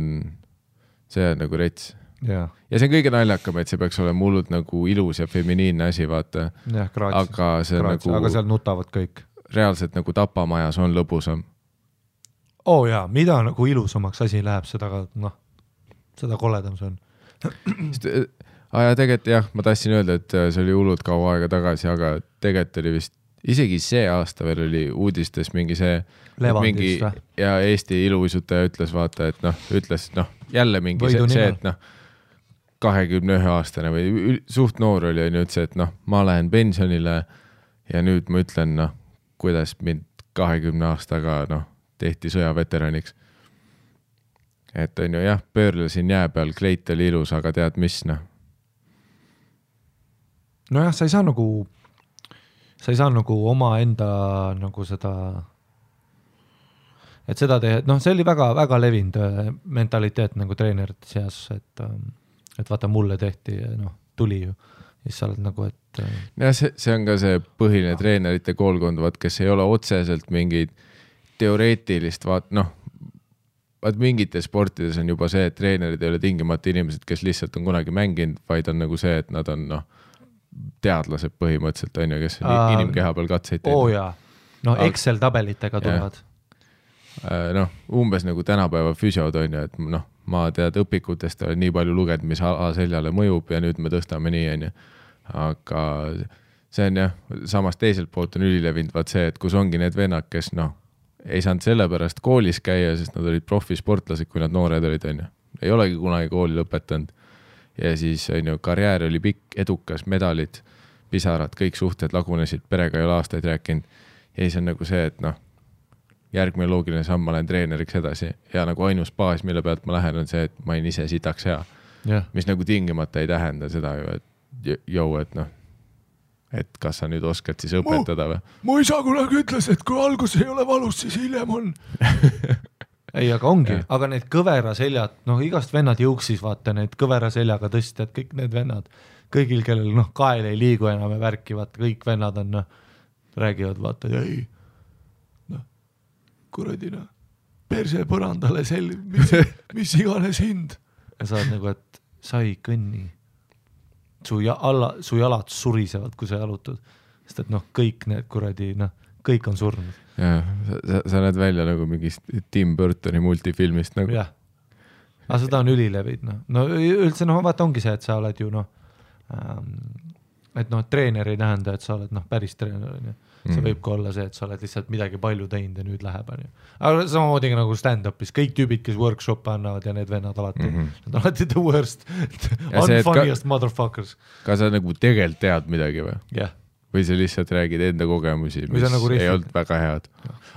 see on nagu rets. Ja see on kõige naljakam, et see peaks olema hullult nagu ilus ja feminiinne asi, vaata. Aga seal nutavad kõik. Reaalselt nagu tapamajas on lõbusam. Jaa, mida nagu ilusamaks asi läheb, seda koledam see on. Ja tegelikult jah, ma tahtsin öelda, et see oli hullult kaua aega tagasi, aga tegelikult oli vist, isegi see aasta veel oli uudistes mingi see Levandis, ja Eesti iluuisutaja ütles, vaata, et jälle mingi see, et 21-aastane või suht noor oli, on ütles, et ma lähen pensionile ja nüüd ma ütlen, kuidas mind 20 aastaga, tehti sõjaveteraniks. Et on ju jah, pöörlesin jää peal, kleit oli ilus, aga tead mis, Nojah, sa ei saa nagu oma enda nagu seda, et seda teha, see oli väga levinud mentaliteet nagu treenerite seas, et vaata mulle tehti, tuli ju, siis sa oled nagu, et ja see on ka see põhiline treenerite koolkond, kes ei ole otseselt mingid teoreetilist, vaat mingites sportides on juba see, et treenerid ei ole tingimata inimesed, kes lihtsalt on kunagi mänginud, vaid on nagu see, et nad on teadlased põhimõtteliselt, on ju, kes on inimkeha peal katseid teinud. jaa, Excel tabelitega tulevad. Umbes nagu tänapäeva füsiod on ju, et ma tead õpikutest olen nii palju lugenud, mis seljale mõjub ja nüüd me tõstame nii, on ju. Aga see on jah, samas teiselt poolt on ülilevinud vaat see, et kus ongi need vennad, kes ei saanud selle pärast koolis käia, sest nad olid profisportlased, kui nad noored olid, on ju. Ei olegi kunagi kooli lõpetanud. Ja siis on ju, karjäär oli pikk, edukas, medalid, pisarad, kõik suhted lagunesid, perega ei ole aastaid rääkinud. Ja siis on nagu see, et järgmine loogiline samm, ma lähen treeneriks edasi. Ja nagu ainus baas, mille pealt ma lähen, on see, et ma olen ise sitaks hea. Mis nagu tingimata ei tähenda seda ju, et et kas sa nüüd oskad siis õpetada või? Mu isa kunagi ütles, et kui algus ei ole valus, siis hiljem on. Ei, aga ongi, aga need kõvera seljad, igast vennad jõuksis, vaata, need kõvera seljaga tõstjad, kõik need vennad, kõigil, kellel kael ei liigu enam ja värki, vaata, kõik vennad on, räägivad, vaata, ei, kuradi, perse põrandale mis iganes hind. Ja sa oled nagu, et sa ei kõnni. Su jalad surisevad, kui sa jalutad. Sest et kõik need kuradi, kõik on surnud. Sa näed välja nagu mingist Tim Burtoni multifilmist. Nagu. Jah. Aga seda on ülilevid. Üldse, vaata ongi see, et sa oled ju, et treener ei tähenda, et sa oled päris treener. See võib ka olla see, et sa oled lihtsalt midagi palju teinud ja nüüd läheb. Aga samamoodi nagu stand-upis, kõik tüübid, kes workshop'e annavad ja need vennad alati, nad alati the worst, unfunniest motherfuckers. Ka sa nagu tegelikult tead midagi või? Jah. Või sa lihtsalt räägid enda kogemusi, mis nagu ei olnud väga head.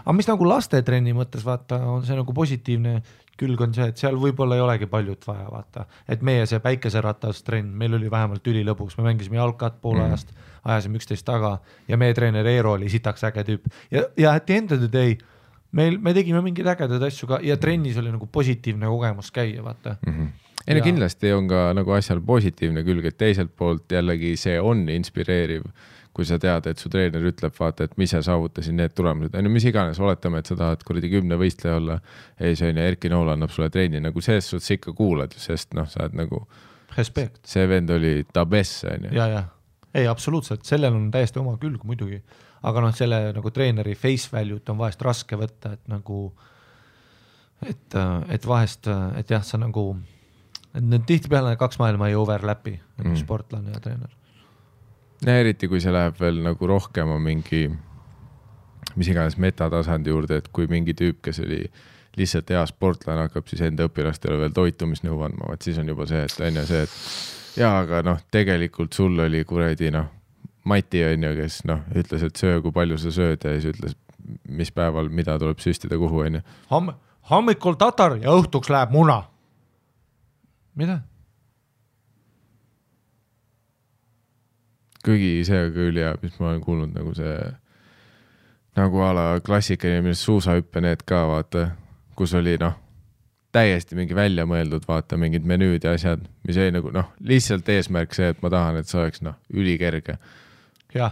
Aga mis nagu lastetrenni mõttes, vaata, on see nagu positiivne külg on see, et seal võib-olla ei olegi paljut vaja, vaata. Et meie see päikeseratas trenn, meil oli vähemalt ülilõbus, me mängisime jalkat poole ajast, ajasime 11 taga ja meie treener Eero oli sitaks äge tüüp. Ja at the end of the day, me tegime mingid ägedad asju ka ja trennis oli nagu positiivne kogemus käia, vaata. Ei, kindlasti on ka nagu asjal positiivne külg, et teiselt poolt jällegi see on inspireeriv, kui sa tead, et su treener ütleb, vaata, et mis sa saavutasid need tulemused. Mis iganes, oletame, et sa tahad kuradi 10 võistleja olla, ei see on ja Erki Nool annab sulle treeni, nagu selles suhtes ikka kuulad, sest sa oled nagu respekt. See vend oli tabess, on ju. Ja. ei, absoluutselt, sellel on täiesti oma külg muidugi, aga noh, selle nagu treeneri face value't on vahest raske võtta, et nagu et vahest, et jah, sa nagu need tihtipeale 2 maailma ei overlapi, sportlane ja treener. Ja eriti, kui see läheb veel nagu rohkem on mingi mis iganes metatasandi juurde, et kui mingi tüüp, kes oli lihtsalt hea sportlane, hakkab siis enda õpilastele veel toitumisnõu andma, vaat siis on juba see, et on ju see, et jaa, aga noh, tegelikult sul oli kuredi Mati on ju, kes ütles, et söö, kui palju sa sööd ja siis ütles, mis päeval, mida tuleb süstida kuhu on ju. Hommikul tatar ja õhtuks läheb muna. Mida? Kuigi see küll ja mis ma olen kuulnud nagu see nagu ala klassikaline, millest suusahüppe need ka vaata, kus oli täiesti mingi välja mõeldud vaata mingid menüüd ja asjad, mis ei nagu lihtsalt eesmärk see, et ma tahan, et see oleks ülikerge. Ja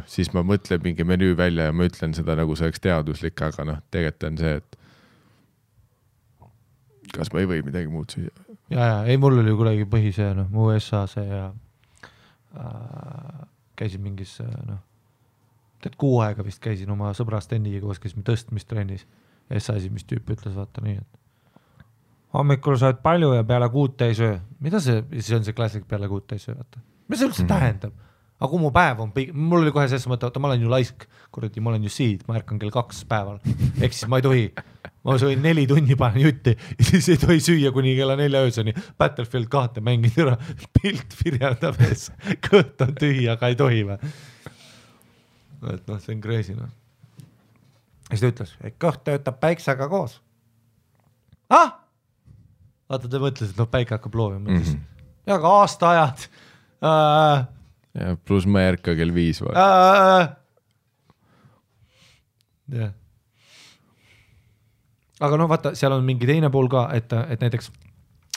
siis ma mõtlen mingi menüü välja ja ma ütlen seda nagu see oleks teaduslik, aga tegelikult on see, et kas ma ei või midagi muud süüa. Ja, ei, mul oli kuidagi põhisee, mu USA see ja käisin mingis, kuu aega vist käisin oma sõbra Steniga koos, käisime tõstmistrennis. Ja see mis tüüp ütles, vaata nii, et hommikul saad palju ja peale 6 ei söö. Mida see on see klassik peale 6 ei söö, vaata? Mis see üldse tähendab? Aga kui mu päev on, mul oli kohe selles mõte, ma olen ju laisk, kuradi, ma olen ju siid, ma ärkan kell 2 päeval. Ehk siis ma ei tohi, ma sõin 4 tunni panen jutti ja siis ei tohi süüa kuni kella 4 ööseni. Battlefield 2 mängid ära, pilt virjandab ees, kõht on tühi, aga ei tohi või. Et see on crazy. Ja siis ta ütles, et kõht töötab päiksega koos. Vaata, ta mõtles, et päike hakkab loovima. Ja ka aastaajad. Ja pluss ma ei ärka kell 5 või. Yeah. Aga vaata, seal on mingi teine pool ka, et näiteks,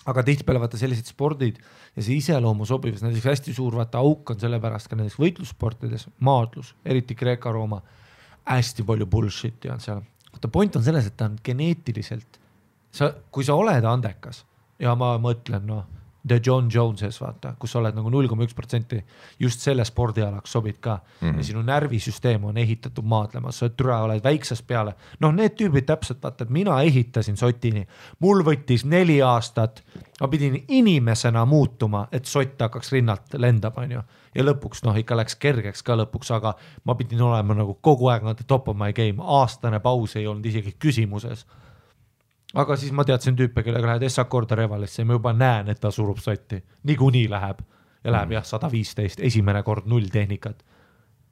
aga tihtipeale vaata sellised spordid ja see iseloomu sobivus, näiteks hästi suur vaata auk on sellepärast ka näiteks võitlussportides, maadlus, eriti Kreeka-Rooma, hästi palju bullshit on seal. Vaata, point on selles, et ta on geneetiliselt, kui sa oled andekas ja ma mõtlen, The John Joneses, vaata, kus sa oled nagu 0,1% just selle spordialaks sobid ka. Ja sinu närvisüsteem on ehitatud maadlema, sa oled väiksest peale. Need tüübid täpselt, vaata, et mina ehitasin sotini. Mul võttis 4 aastat, ma pidin inimesena muutuma, et sott hakkaks rinnalt lendab, on ju. Ja lõpuks, ikka läks kergeks ka lõpuks, aga ma pidin olema nagu kogu aeg top of my game. Aastane paus ei olnud isegi küsimuses. Aga siis ma teadsin tüüpe, kellega lähed S-akkorda revalisse ja ma juba näen, et ta surub sotti. Niikuinii läheb. Ja läheb 115, esimene kord 0 tehnikat.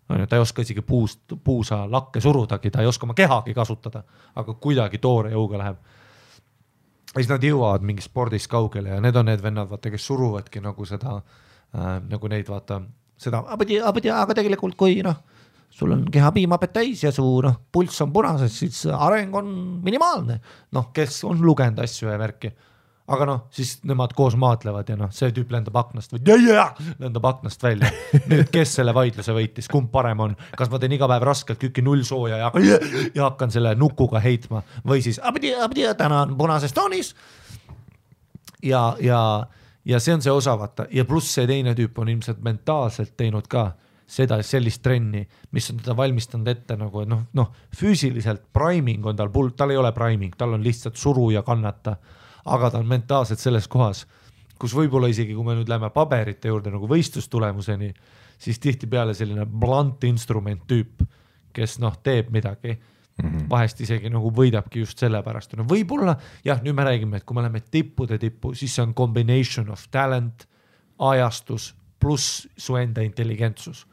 Ta ei oska isegi puusa lakke surudagi, ta ei oska oma kehagi kasutada, aga kuidagi toore jõuga läheb. Ja siis nad jõuavad mingi spordis kaugele ja need on need vennad, vaata, kes suruvadki nagu seda, nagu neid vaata, seda, aga tegelikult kui sul on keha piimapet täis ja su pulss on punases, siis areng on minimaalne. Kes on lugenud asju ja värki. Aga siis nemad koos maatlevad ja see tüüp lendab aknast lendab aknast välja. Nüüd, kes selle vaidluse võitis, kumb parem on? Kas ma teen iga päev raskelt küki 0 sooja ja hakkan selle nukuga heitma või siis täna on punases toonis ja see on see osa, vaata. Ja pluss see teine tüüp on ilmselt mentaalselt teinud ka seda sellist trenni, mis on teda valmistanud ette nagu, füüsiliselt priming on tal ei ole priming, tal on lihtsalt suru ja kannata, aga ta on mentaalselt selles kohas, kus võib-olla isegi, kui me nüüd läheme paberite juurde nagu võistlustulemuseni, siis tihti peale selline blunt instrument tüüp, kes teeb midagi, vahest isegi nagu võidabki just selle pärast. Võib-olla, jah, nüüd me räägime, et kui me läheme tippude tippu, siis see on combination of talent, ajastus, pluss su enda intelligentsus.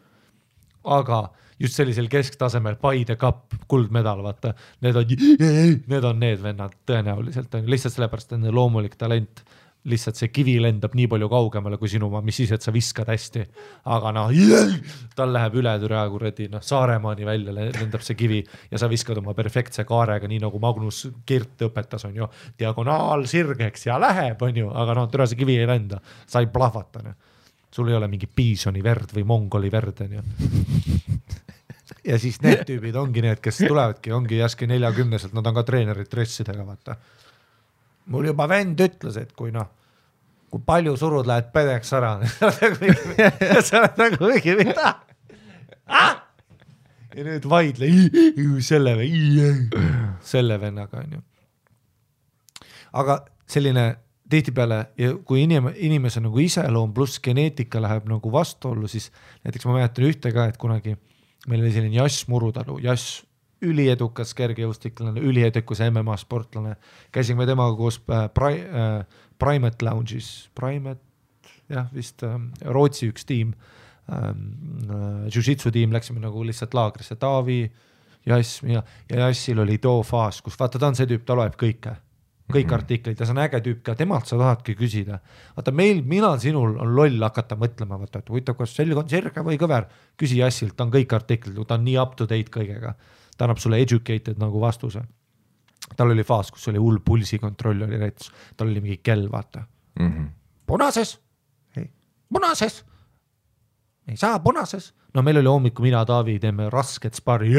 Aga just sellisel kesktasemel Paide Cup, kuldmedal, vaata, need on need vennad tõenäoliselt, lihtsalt sellepärast on loomulik talent, lihtsalt see kivi lendab nii palju kaugemale kui sinu, mis siis, et sa viskad hästi, aga tal läheb üle kuradi, Saaremaani välja lendab see kivi ja sa viskad oma perfektse kaarega, nii nagu Magnus Kirt õpetas, on ju, diagonaal sirgeks ja läheb, on ju, aga türa see kivi ei lenda, sa ei plahvata, sul ei ole mingi piisoni verd või mongoli verd, on ju. Ja siis need tüübid ongi need, kes tulevadki, ongi jäski 40-selt, nad on ka treenerid dressidega, vaata. Mul juba vend ütles, et kui kui palju surud lähed pedeks ära. Sa oled nagu mingi mida? Ja nüüd vaidle selle vennaga on ju. Aga selline tihtipeale, kui inimese nagu iseloom pluss geneetika läheb nagu vastuollu, siis näiteks ma mäletan ühte ka, et kunagi meil oli selline Jass Murutalu, Jass üliedukas kergejõustiklane, üliedukas MMA sportlane, käisime temaga koos Primate Lounge'is, jah vist Rootsi üks tiim, jiu-jitsu tiim, läksime nagu lihtsalt laagrisse, Taavi, Jass ja Jassil oli too faas, kus vaata ta on see tüüp, ta loeb kõik artiklid ja see on äge tüüp ka, temalt sa tahadki küsida. Vaata mina sinul on loll hakata mõtlema, vaata, et huvitav, kas selg on sirge või kõver, küsi Jassilt, ta on kõik artiklid, ta on nii up to date kõigega, ta annab sulle educated nagu vastuse. Tal oli faas, kus oli hull pulsikontroll oli näitus, tal oli mingi kell, vaata. Punases, ei saa punases. No meil oli hommiku mina, Taavi, teeme rasket spari,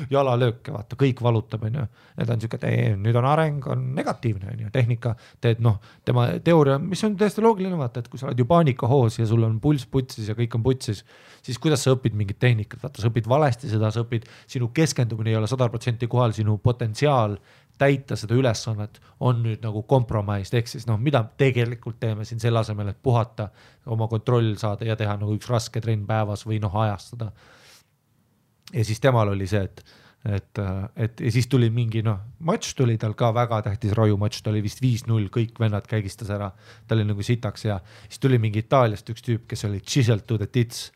jalalööke, vaata, kõik valutab, on ju. Need on siuke, nüüd on areng, on negatiivne, on ju, tehnika, teed, tema teooria, mis on täiesti loogiline, vaata, et kui sa oled ju paanikahoos ja sul on pulss putsis ja kõik on putsis, siis kuidas sa õpid mingit tehnikat, vaata, sa õpid valesti seda, sa õpid, sinu keskendumine ei ole 100% kohal, sinu potentsiaal täita seda ülesannet on nüüd nagu kompromaist, ehk siis mida tegelikult teeme siin selle asemel, et puhata, oma kontroll saada ja teha nagu üks raske trenn päevas või ajastada. Ja siis temal oli see, et ja siis tuli mingi matš tuli tal ka väga tähtis rajumatš, ta oli vist 5-0, kõik vennad käigistas ära, ta oli nagu sitaks ja siis tuli mingi Itaaliast üks tüüp, kes oli chiseled to the tits,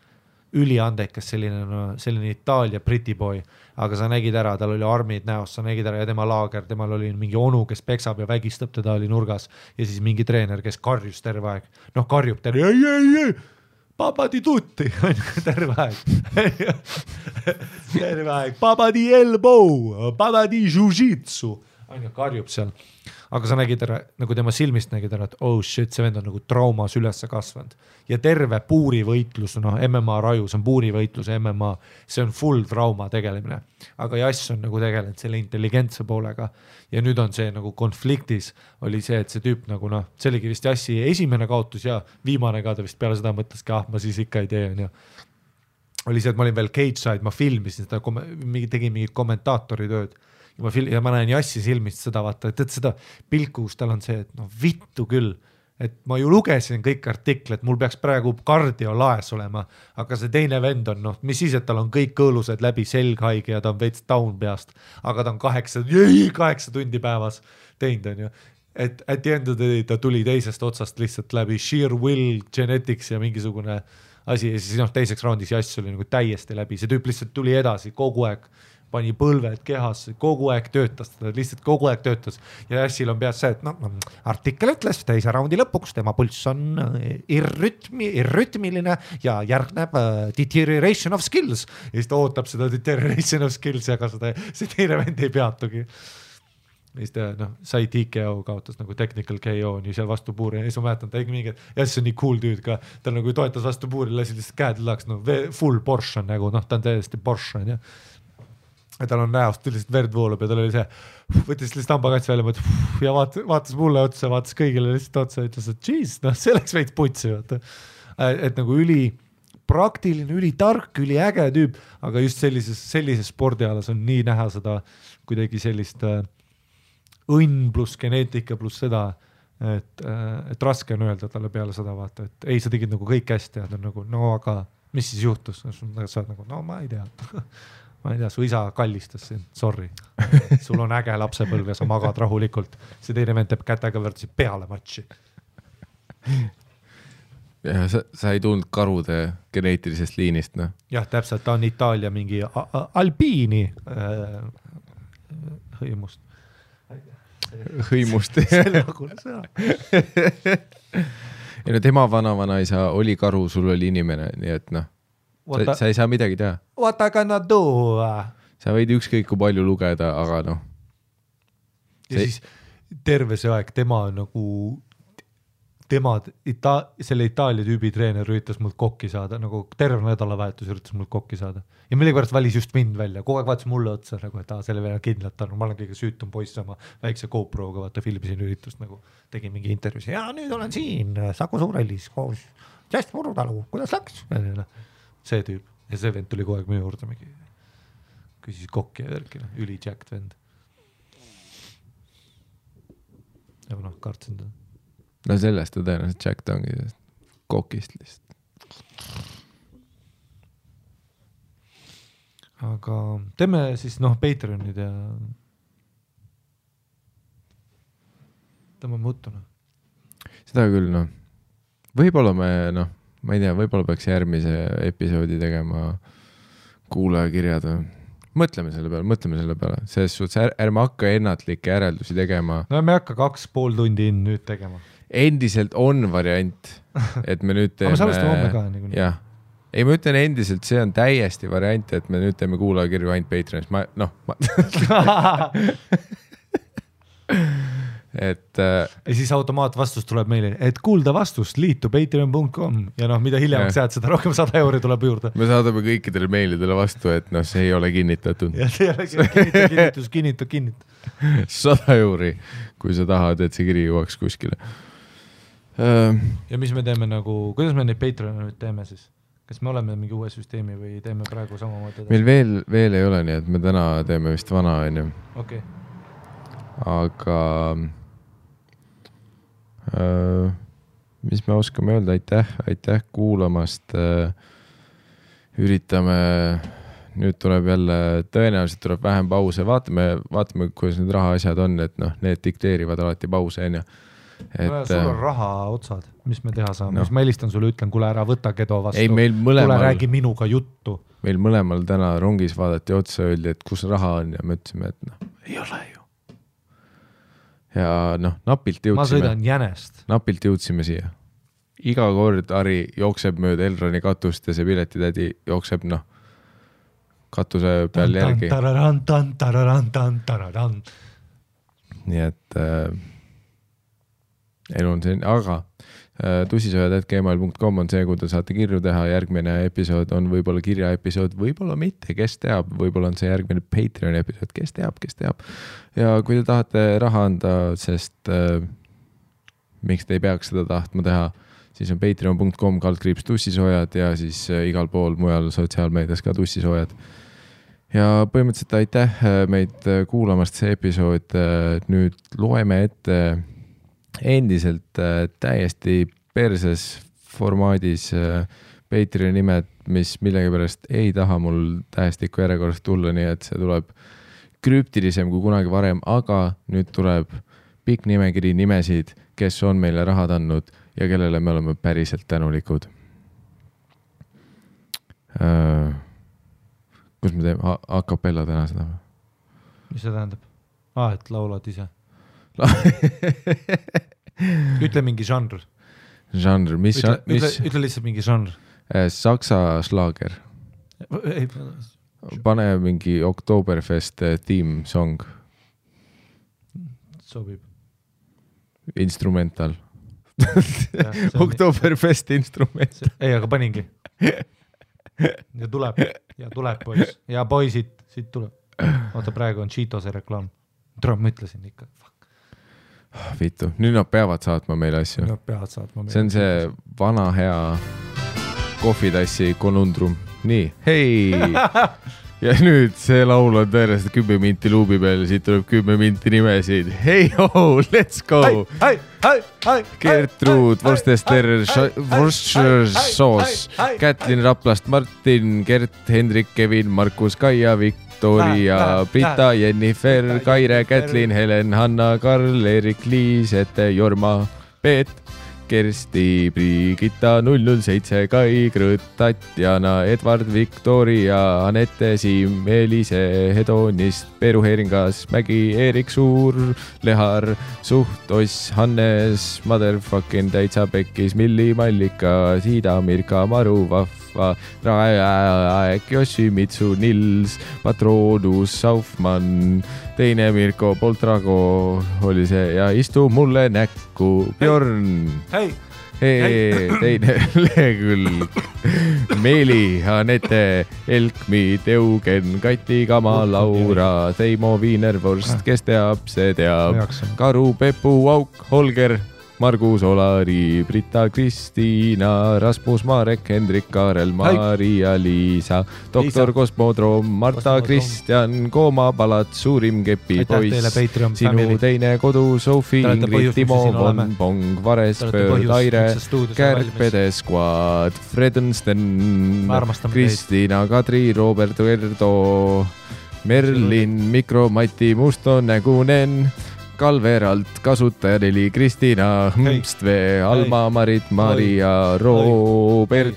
üliandekas selline Itaalia Briti boy, aga sa nägid ära, tal oli armid näos, sa nägid ära ja tema laager, temal oli mingi onu, kes peksab ja vägistab, teda oli nurgas ja siis mingi treener, kes karjus terve aeg, karjub terve, ei, papa di tutti, terve aeg, papa di elbow, papa di jiu-jitsu, karjub seal. Aga sa nägid ära, nagu tema silmist nägid ära, et oh shit, see vend on nagu traumas ülesse kasvanud. Ja terve puurivõitlus, MMA raju, see on puurivõitlus, MMA, see on full trauma tegelemine. Aga Jass on nagu tegelenud selle intelligentse poolega. Ja nüüd on see nagu konfliktis, oli see, et see tüüp nagu see oligi vist Jassi esimene kaotus ja viimane ka ta vist peale seda mõtleski, ma siis ikka ei tee. Oli see, et ma olin veel cage side, ma filmisin seda, tegin mingid kommentaatori tööd. Ja ma näen Jassi silmist seda, vaata, et seda pilku, kus tal on see, et vittu küll, et ma ju lugesin kõik artiklet, mul peaks praegu kardio laes olema, aga see teine vend on, mis siis, et tal on kõik kõõlused läbi selghaige ja ta on veits down peast, aga ta on 8 tundi päevas teinud, on ju. Et at the end of the day ta tuli teisest otsast lihtsalt läbi sheer will, genetics ja mingisugune asi ja siis teiseks raundis Jass oli nagu täiesti läbi, see tüüp lihtsalt tuli edasi kogu aeg, pani põlved kehas, kogu aeg töötas, ta lihtsalt kogu aeg töötas ja Jassil on peas see, et artikkel ütles teise raundi lõpuks, tema pulss on irrütmiline ja järgneb deterioration of skills ja siis ta ootab seda deterioration of skills ja ka see teine vend ei peatugi. Ja siis ta sai TKO, kaotas nagu technical KO nii seal vastu puuri ja siis ma mäletan, ta tegi mingi, Jass on nii cool tüüd ka, ta nagu toetas vastu puuri, lasi lihtsalt käed laks, full Porsche on nagu, ta on täiesti Porsche on ja tal on näost lihtsalt verd voolub ja tal oli see, võttis lihtsalt hambakats välja ja vaatas mulle otsa, vaatas kõigile lihtsalt otsa ja ütles, et geez, see läks veits putsi, et nagu üli praktiline, üli tark, üli äge tüüp, aga just sellises spordialas on nii näha seda kuidagi sellist õnn pluss geneetika pluss seda, et raske on öelda talle peale seda vaata, et ei, sa tegid nagu kõik hästi ja ta on nagu, aga mis siis juhtus? Sa oled nagu, ma ei tea. Ma ei tea, su isa kallistas sind, sorry. Sul on äge lapsepõlv ja sa magad rahulikult. See teine vend teeb kätega võrdsi peale matši. Ja sa ei tulnud karude geneetilisest liinist, Jah, täpselt, ta on Itaalia mingi albiini hõimust. Hõimust. Ja tema vana-vanaisa oli karu, sul oli inimene, nii et sa ei saa midagi teha. What I gonna do? Sa võid ükskõik kui palju lugeda, aga Ja siis terve see aeg tema on nagu selle Itaalia tüübi treener üritas mult kokki saada, nagu terve nädalavahetus üritas mult kokki saada. Ja millegipärast valis just mind välja, kogu aeg vaatas mulle otsa, nagu, et selle veel kindlalt on, ma olen kõige süütum poiss oma väikse GoProga, vaata filmisin üritust, nagu tegin mingi intervjuusi, ja nüüd olen siin Saku Suurhallis koos Just Murutalu, kuidas läks? See tüüp, ja see vend tuli kogu aeg minu juurde mingi, küsis kokki ja värkina, üli jacked vend. Ja noh, kartsin ta. No sellest ta tõenäoliselt jacked ongi kokist lihtsalt. Aga teeme siis Patreonid ja tõmbame uttu. Seda küll, Võib-olla ma ei tea, võib-olla peaks järgmise episoodi tegema kuulajakirjad. Mõtleme selle peale. Selles suhtes ärme hakka ennatlikke järeldusi tegema. No me hakka 2,5 tundi nüüd tegema. Endiselt on variant, et me nüüd teeme... Aga me salvestame homme ka niikuinii. Jah. Ei, ma ütlen endiselt, see on täiesti variant, et me nüüd teeme kuulajakirju ainult Patreonis. Ja siis automaatvastus tuleb meile, et kuulda vastust, liitu patreon.com ja mida hiljemaks jääd, seda rohkem 100 euri tuleb juurde. Me saadame kõikidele meilidele vastu, et see ei ole kinnitatud. Ja see ei ole kinnita. 100 euri, kui sa tahad, et see kiri jõuaks kuskile. Ja mis me teeme kuidas me neid Patreone nüüd teeme siis? Kas me oleme mingi uue süsteemi või teeme praegu samamoodi? Meil veel ei ole nii, et me täna teeme vist vana, on ju. Okei. Aga mis me oskame öelda, aitäh kuulamast. Üritame, nüüd tuleb jälle, tõenäoliselt tuleb vähem pause, vaatame, kuidas need raha asjad on, et need dikteerivad alati pause, on ju. Sul on raha otsad, mis me teha saame, mis ma helistan sulle, ütlen, kuule ära võta Kedo vastu, tule räägi minuga juttu. Meil mõlemal täna rongis vaadati otsa, öeldi, et kus raha on ja me ütlesime, et ei ole ju. Ja napilt jõudsime. Ma sõidan Jänest. Napilt jõudsime siia. Iga kord Ari jookseb mööda Elroni katust ja see piletitädi jookseb katuse peal järgi. Nii et elu on selline, aga tussisojad@gmail.com on see, kuhu te saate kirju teha. Järgmine episood on võib-olla kirjaepisood, võib-olla mitte, kes teab, võib-olla on see järgmine Patreon episood, kes teab. Ja kui te tahate raha anda, sest miks te ei peaks seda tahtma teha, siis on patreon.com/tussisojad ja siis igal pool mujal sotsiaalmeedias ka tussisojad. Ja põhimõtteliselt aitäh meid kuulamast see episood. Nüüd loeme ette endiselt täiesti perses formaadis Patreoni nimed, mis millegipärast ei taha mul tähestiku järjekorrast tulla, nii et see tuleb krüptilisem kui kunagi varem, aga nüüd tuleb pikk nimekiri nimesid, kes on meile rahad andnud ja kellele me oleme päriselt tänulikud. Kus me teeme? A cappella täna seda? Mis see tähendab? Et laulad ise. Ütle mingi žanr. Žanr, mis? Ütle lihtsalt mingi žanr. Saksa slaager. Pane mingi Oktoberfest theme song. Sobib. Instrumental. Oktoberfest instrumental. Ei, aga paningi. Ja tuleb poiss. Ja poisid, siit tuleb. Oota, praegu on Cheetose reklaam. Ma ütlesin ikka. Vitu, nüüd nad peavad saatma meile asju. See on see vana hea kohvitassi konundrum. Nii, hei! Ja nüüd see laul on tõenäoliselt 10 minti luubi peal, siit tuleb 10 minti nimesid. Hei, let's go! Gertrud, Worcester Soos, Kätlin Raplast, Martin, Gert, Hendrik, Kevin, Markus, Kaia, Victoria, Brita, Jennifer, Kaire, Kätlin, Helen, Hanna, Karl, Erik, Liis, Ette, Jorma, Peet, Kersti, Brigitta, 007, Kai, Krõõt, Tatjana, Edvard, Victoria, Anette, Siim, Elise, Hedonist, Peeru Heeringas, Mägi, Erik Suur, Lehar, Suht, Oss, Hannes, Motherfucking Täitsa Pekkis, Milli, Mallika, Siida, Mirka, Maru, Vahv, Rasva, Raek, Yoshimitsu, Nils, Patronus, Saufmann, teine Mirko Poltrago oli see ja istu mulle näkku, Bjorn. Teine lehekülg, Meeli, Anette, Elkmi, Eugen, Kati, Kama, Laura, Teimo, Wienervorst, kes teab, see teab, Karu, Pepu, Auk, Holger, Margus, Olari, Brita, Kristiina, Rasmus, Marek, Hendrik, Kaarel, Maria, Liisa, Doktor Kosmodroom, Marta, Kristjan, Kooma, Palat, Suurim Kepi, Poiss, sinu teine kodu, Sofi, Ingrid, Timo, Von, Pong, Varespöör, Taire, Kärpede Squad, Fredensten, Kristiina, Kadri, Robert Verdo, Merlin, Mikro, Mati, Mustonägunen, Kalveralt, kasutaja 4, Kristiina, Hmpstvee, Alma, Marit, Maria, Robert,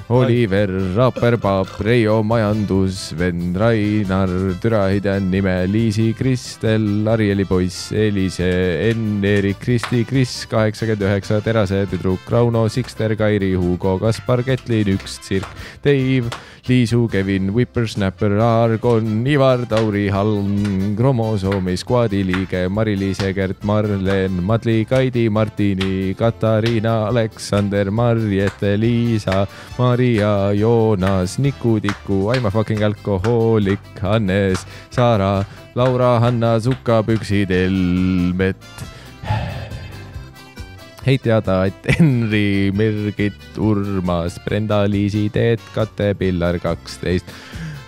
Oliver, Raperpaap, Reijo, Majandus, Ven, Rainar, Türahidjan, Nime, Liisi, Kristel, Arieli poiss, Elise, Enn, Erik, Kristi, Kris, 89, Terase, tüdruk, Rauno, Sikster, Kairi, Hugo, Kaspar, Ketlin, 1, Tsirk, Dave, Liisu, Kevin, Whippersnapper, Argon, Ivar, Tauri, Halm, Kromosoomi, Squadi liige, Mari-Liise, Gert, Marlen, Madli, Kaidi, Martini, Katariina, Aleksander, Marjete, Liisa, Maria, Joonas, Niku, Tiku, I'm a fucking alkohoolik, Hannes, Saara, Laura, Hanna, Suka, Püksid, Elmet. Hei teada, et Henri, Mirgit, Urmas, Brenda, Liisi, Teet, Kate, Pillar 12,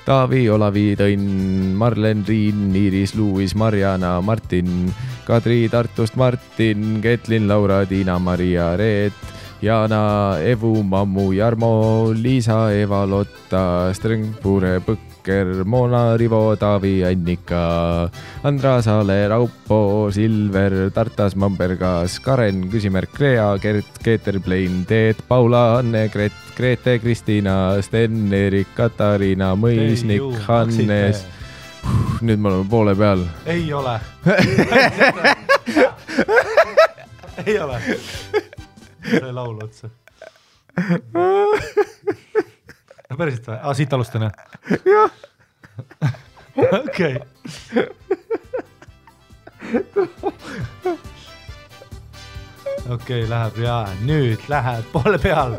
Taavi, Olavi, Tõnn, Marlen, Riin, Iiris, Luis, Mariana, Martin, Kadri, Tartust, Martin, Ketlin, Laura, Tiina, Maria, Reet, Jana, Evu, Mammu, Jarmo, Liisa, Eva, Lotta, Strengpure, Põkker, Mona, Rivo, Taavi, Annika, Andra, Saale, Raupo, Silver, Tartas, Mambergas, Karen, küsimärk Rea, Gert, Keeter, Plein, Teet, Paula, Anne, Grete, Kristiina, Sten, Erik, Katariina, Mõisnik, Hannes. Nüüd me oleme poole peal. Ei ole. Ei ole. See laul otsa. Päriselt või? Siit alustan, jah? Jah. Okei. Okei, läheb ja nüüd läheb poole peal.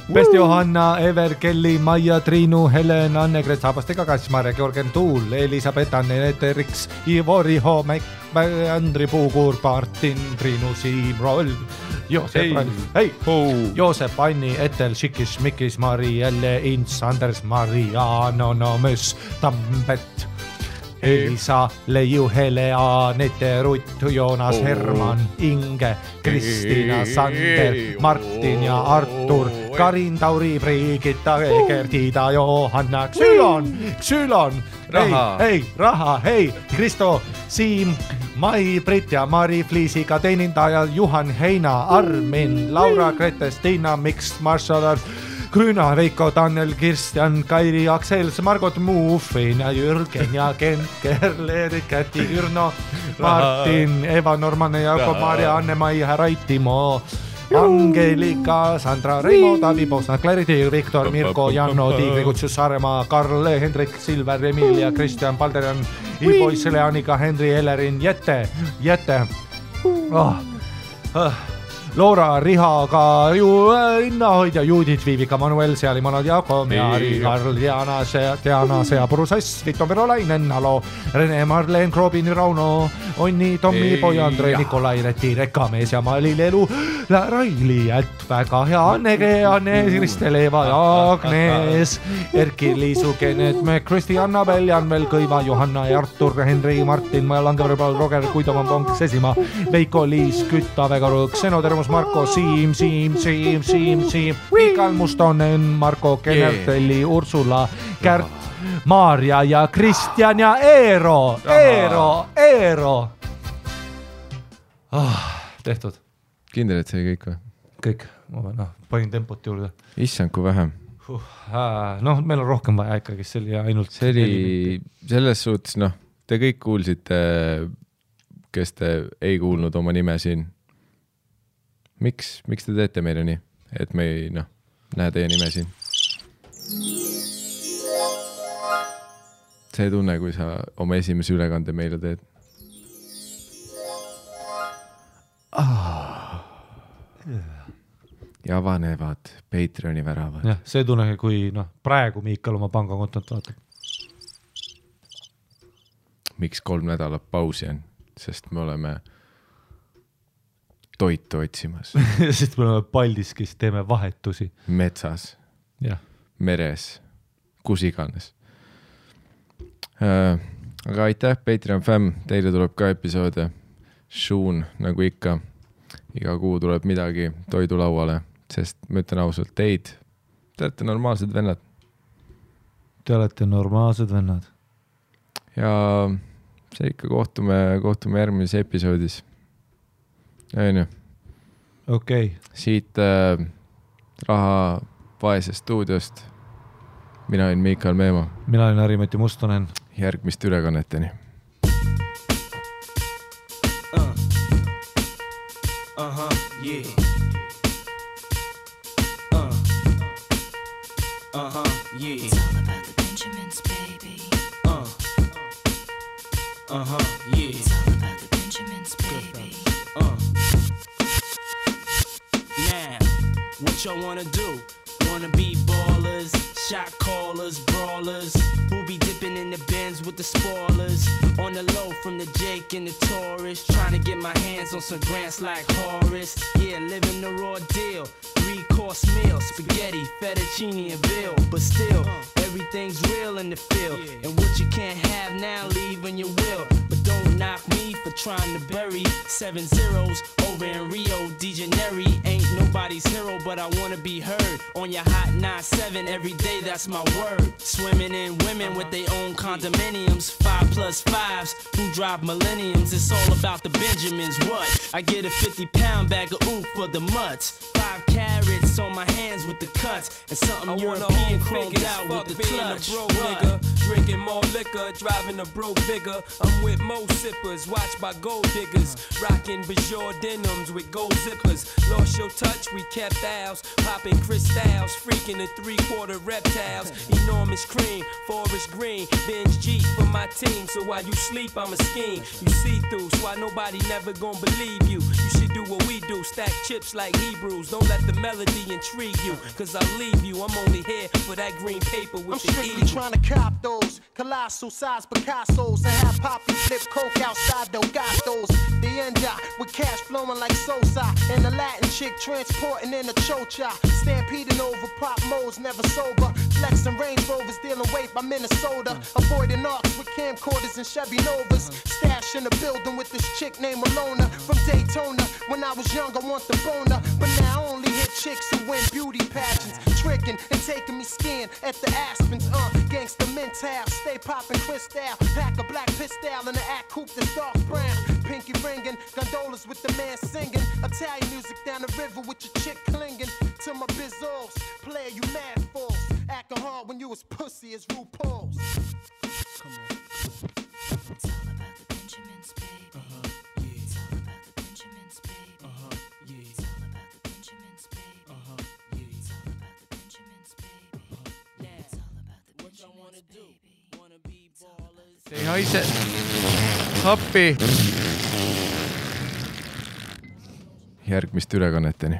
Best Johanna, Ever, Kelly, Maia, Triinu, Helen, Anne-Gret, Saabastega, Kassmar, Georgen Tuul, Elisabeth, Anne-Nete, Riks, Ivori, Homek, Andri Puukuur, Martin, Triinu, Siim, Roll, Joosep, Anni, Etel, Šikis, Mikis, Mari, Jälle, Ints, Anders, Mariano, Nomös, Tambet, Elisa, Leiu, Helea, Nete, Rutt, Joonas, Herman, Inge, Kristiina, Sander, Martin ja Artur, Karin, Tauri, Brigitta, Gertida, Johanna, Xylon, Raha, Kristo, Siim, Mai, Brit ja Mari, Fliisiga teenindaja, Juhan, Heina, Armin, Laura, Gretes, Tiina, Miks, Marshall, Grüna, Veiko, Daniel, Kirstjan, Kairi, Aksel, Margot, Muufin ja Jürgen ja Kent, Kerler, Käti, Kürno, Martin, Eva, Norman, Jakob, Maria, Anne-Mai, Raitimo, Angelika, Sandra, Reimo, Tavi, Bosna, Clarity, Viktor, Mirko, Janno, Tiigri, Kutsus, Saaremaa, Karl, Hendrik, Silver, Emilia, Kristjan, Palderjan, Ibois, Leanika, Henri, Ellerin, Jette. Loora, Rihaga, Innahoidja, Juudit, Viivika, Manuel, Sealimonod, Jaako, Meari, Karl, Diana, Sea, Purusass, Vito, Verolainen, Alo, Rene, Marleen, Krobin, Rauno, Onni, Tommi, Poja, Andre, Nikolai, Reti, Rekamees ja Mali, Lelu, Raili, väga hea, Anne, Kristel, Eva ja Agnes, Erki, Liisu, Kennet, Kristi, Annabel, Janvel, Kõiva, Johanna ja Artur, Henri, Martin, Langeverbal, Roger, Kuidoman, Ponk, Sesimaa, Veiko, Liis, Kütta, Vegaru, Xenotermus, Marko, Siim, Mikal Mustonen, Marko, Kenertelli, Ursula, Kärt, Maarja ja Kristjan ja Eero. Tehtud. Kindel, et see kõik või? Kõik, ma panin tempot juurde. Issand, kui vähem. Meil on rohkem vaja ikkagi, see oli ainult... See oli selles suhtes, te kõik kuulsite, kes te ei kuulnud oma nime siin. Miks te teete meile nii? et me ei näe teie nime siin. See tunne, kui sa oma esimese ülekande meile teed. Ja avanevad Patreoni väravad. Jah, see tunne, kui praegu Miikal oma pangakontot vaatab. Miks 3 nädalat pausi on? Sest me oleme toitu otsimas. Sest me oleme Paldiskis, teeme vahetusi. Metsas, ja. Meres, kus iganes. Aga aitäh, Patreon fam, teile tuleb ka episoode. Šuun, nagu ikka, iga kuu tuleb midagi toidulauale, sest ma ütlen ausalt, te olete normaalsed vennad. Te olete normaalsed vennad. Ja see ikka kohtume järgmises episoodis. Aine. Okei. Siit Raha Vaese stuudiost. Mina olen Miikal Meema. Mina olen Harimati Mustonen. Järgmist ülekanneteni. Yeah. Yeah. It's all about the Benjamins, baby. Yeah. It's all about the Benjamins, baby. Now, what y'all wanna do? Wanna be ballers, shot callers, brawlers, who be dipping in the Benz with the spoilers, on the low from the Jake and the Taurus, trying to get my hands on some grants like Horace. Yeah, living the raw deal, 3-course meal, spaghetti, fettuccine and veal, but still everything's real in the field, and what you can't have now, leave when you will. But don't knock me for trying to bury 7 zeros over in Rio de Janeiro. Ain't nobody's hero, but I wanna be heard on your hot 9-7 every day, that's my word. Swimming in women with their own condominiums, 5+5s who drive millenniums. It's all about the Benjamins. What? I get a 50-pound bag of oof for the mutts, 5 carats on my hands with the cuts, and something European chromed out with the clutch. Nigga, drinking more liquor, driving a broke bigger. I'm with Mo sippers, watched by gold diggers, rocking Bajor denims with gold zippers. Lost your touch, we kept ours, popping crystals, freaking the 3/4 reptiles. Enormous cream, forest green, binge G for my team. So while you sleep, I'm a scheme. You see through, so why nobody never gonna believe you. You should do what we do, stack chips like Hebrews. Don't let the melody intrigue you, cause I'll leave you. I'm only here for that green paper with the I'm strictly trying to cop those colossal size Picassos and have Poppy flip coke outside Delgados. The end with cash flowing like Sosa, and the Latin chick transporting in a chocha, stampeding over pop modes, never sober, flexing Range Rovers, dealing weight by Minnesota, avoiding arcs with camcorders and Chevy Novas, stash in the building with this chick named Malona from Daytona. When I was young, I want the boner, but now I only hit chicks who win beauty pageants, tricking and taking me skiing at the Aspens. Gangsta mental, stay popping crystal, pack a black pistol in the act coupe that's dark brown, pinky ringing, gondolas with the man singing, Italian music down the river with your chick clinging to my bizzles. Player, you mad fools, acting hard when you as pussy as RuPaul's. Come on. It's all about the Benjamins, baby. Yeah. It's all about the Benjamins, baby. Yeah. It's all about the Benjamins, baby. Yeah. It's all about the Benjamins, baby. Yeah. It's all about the what y'all wanna do? Wanna be ballers? Ei haise. Appi. Järgmist ülekanneteni.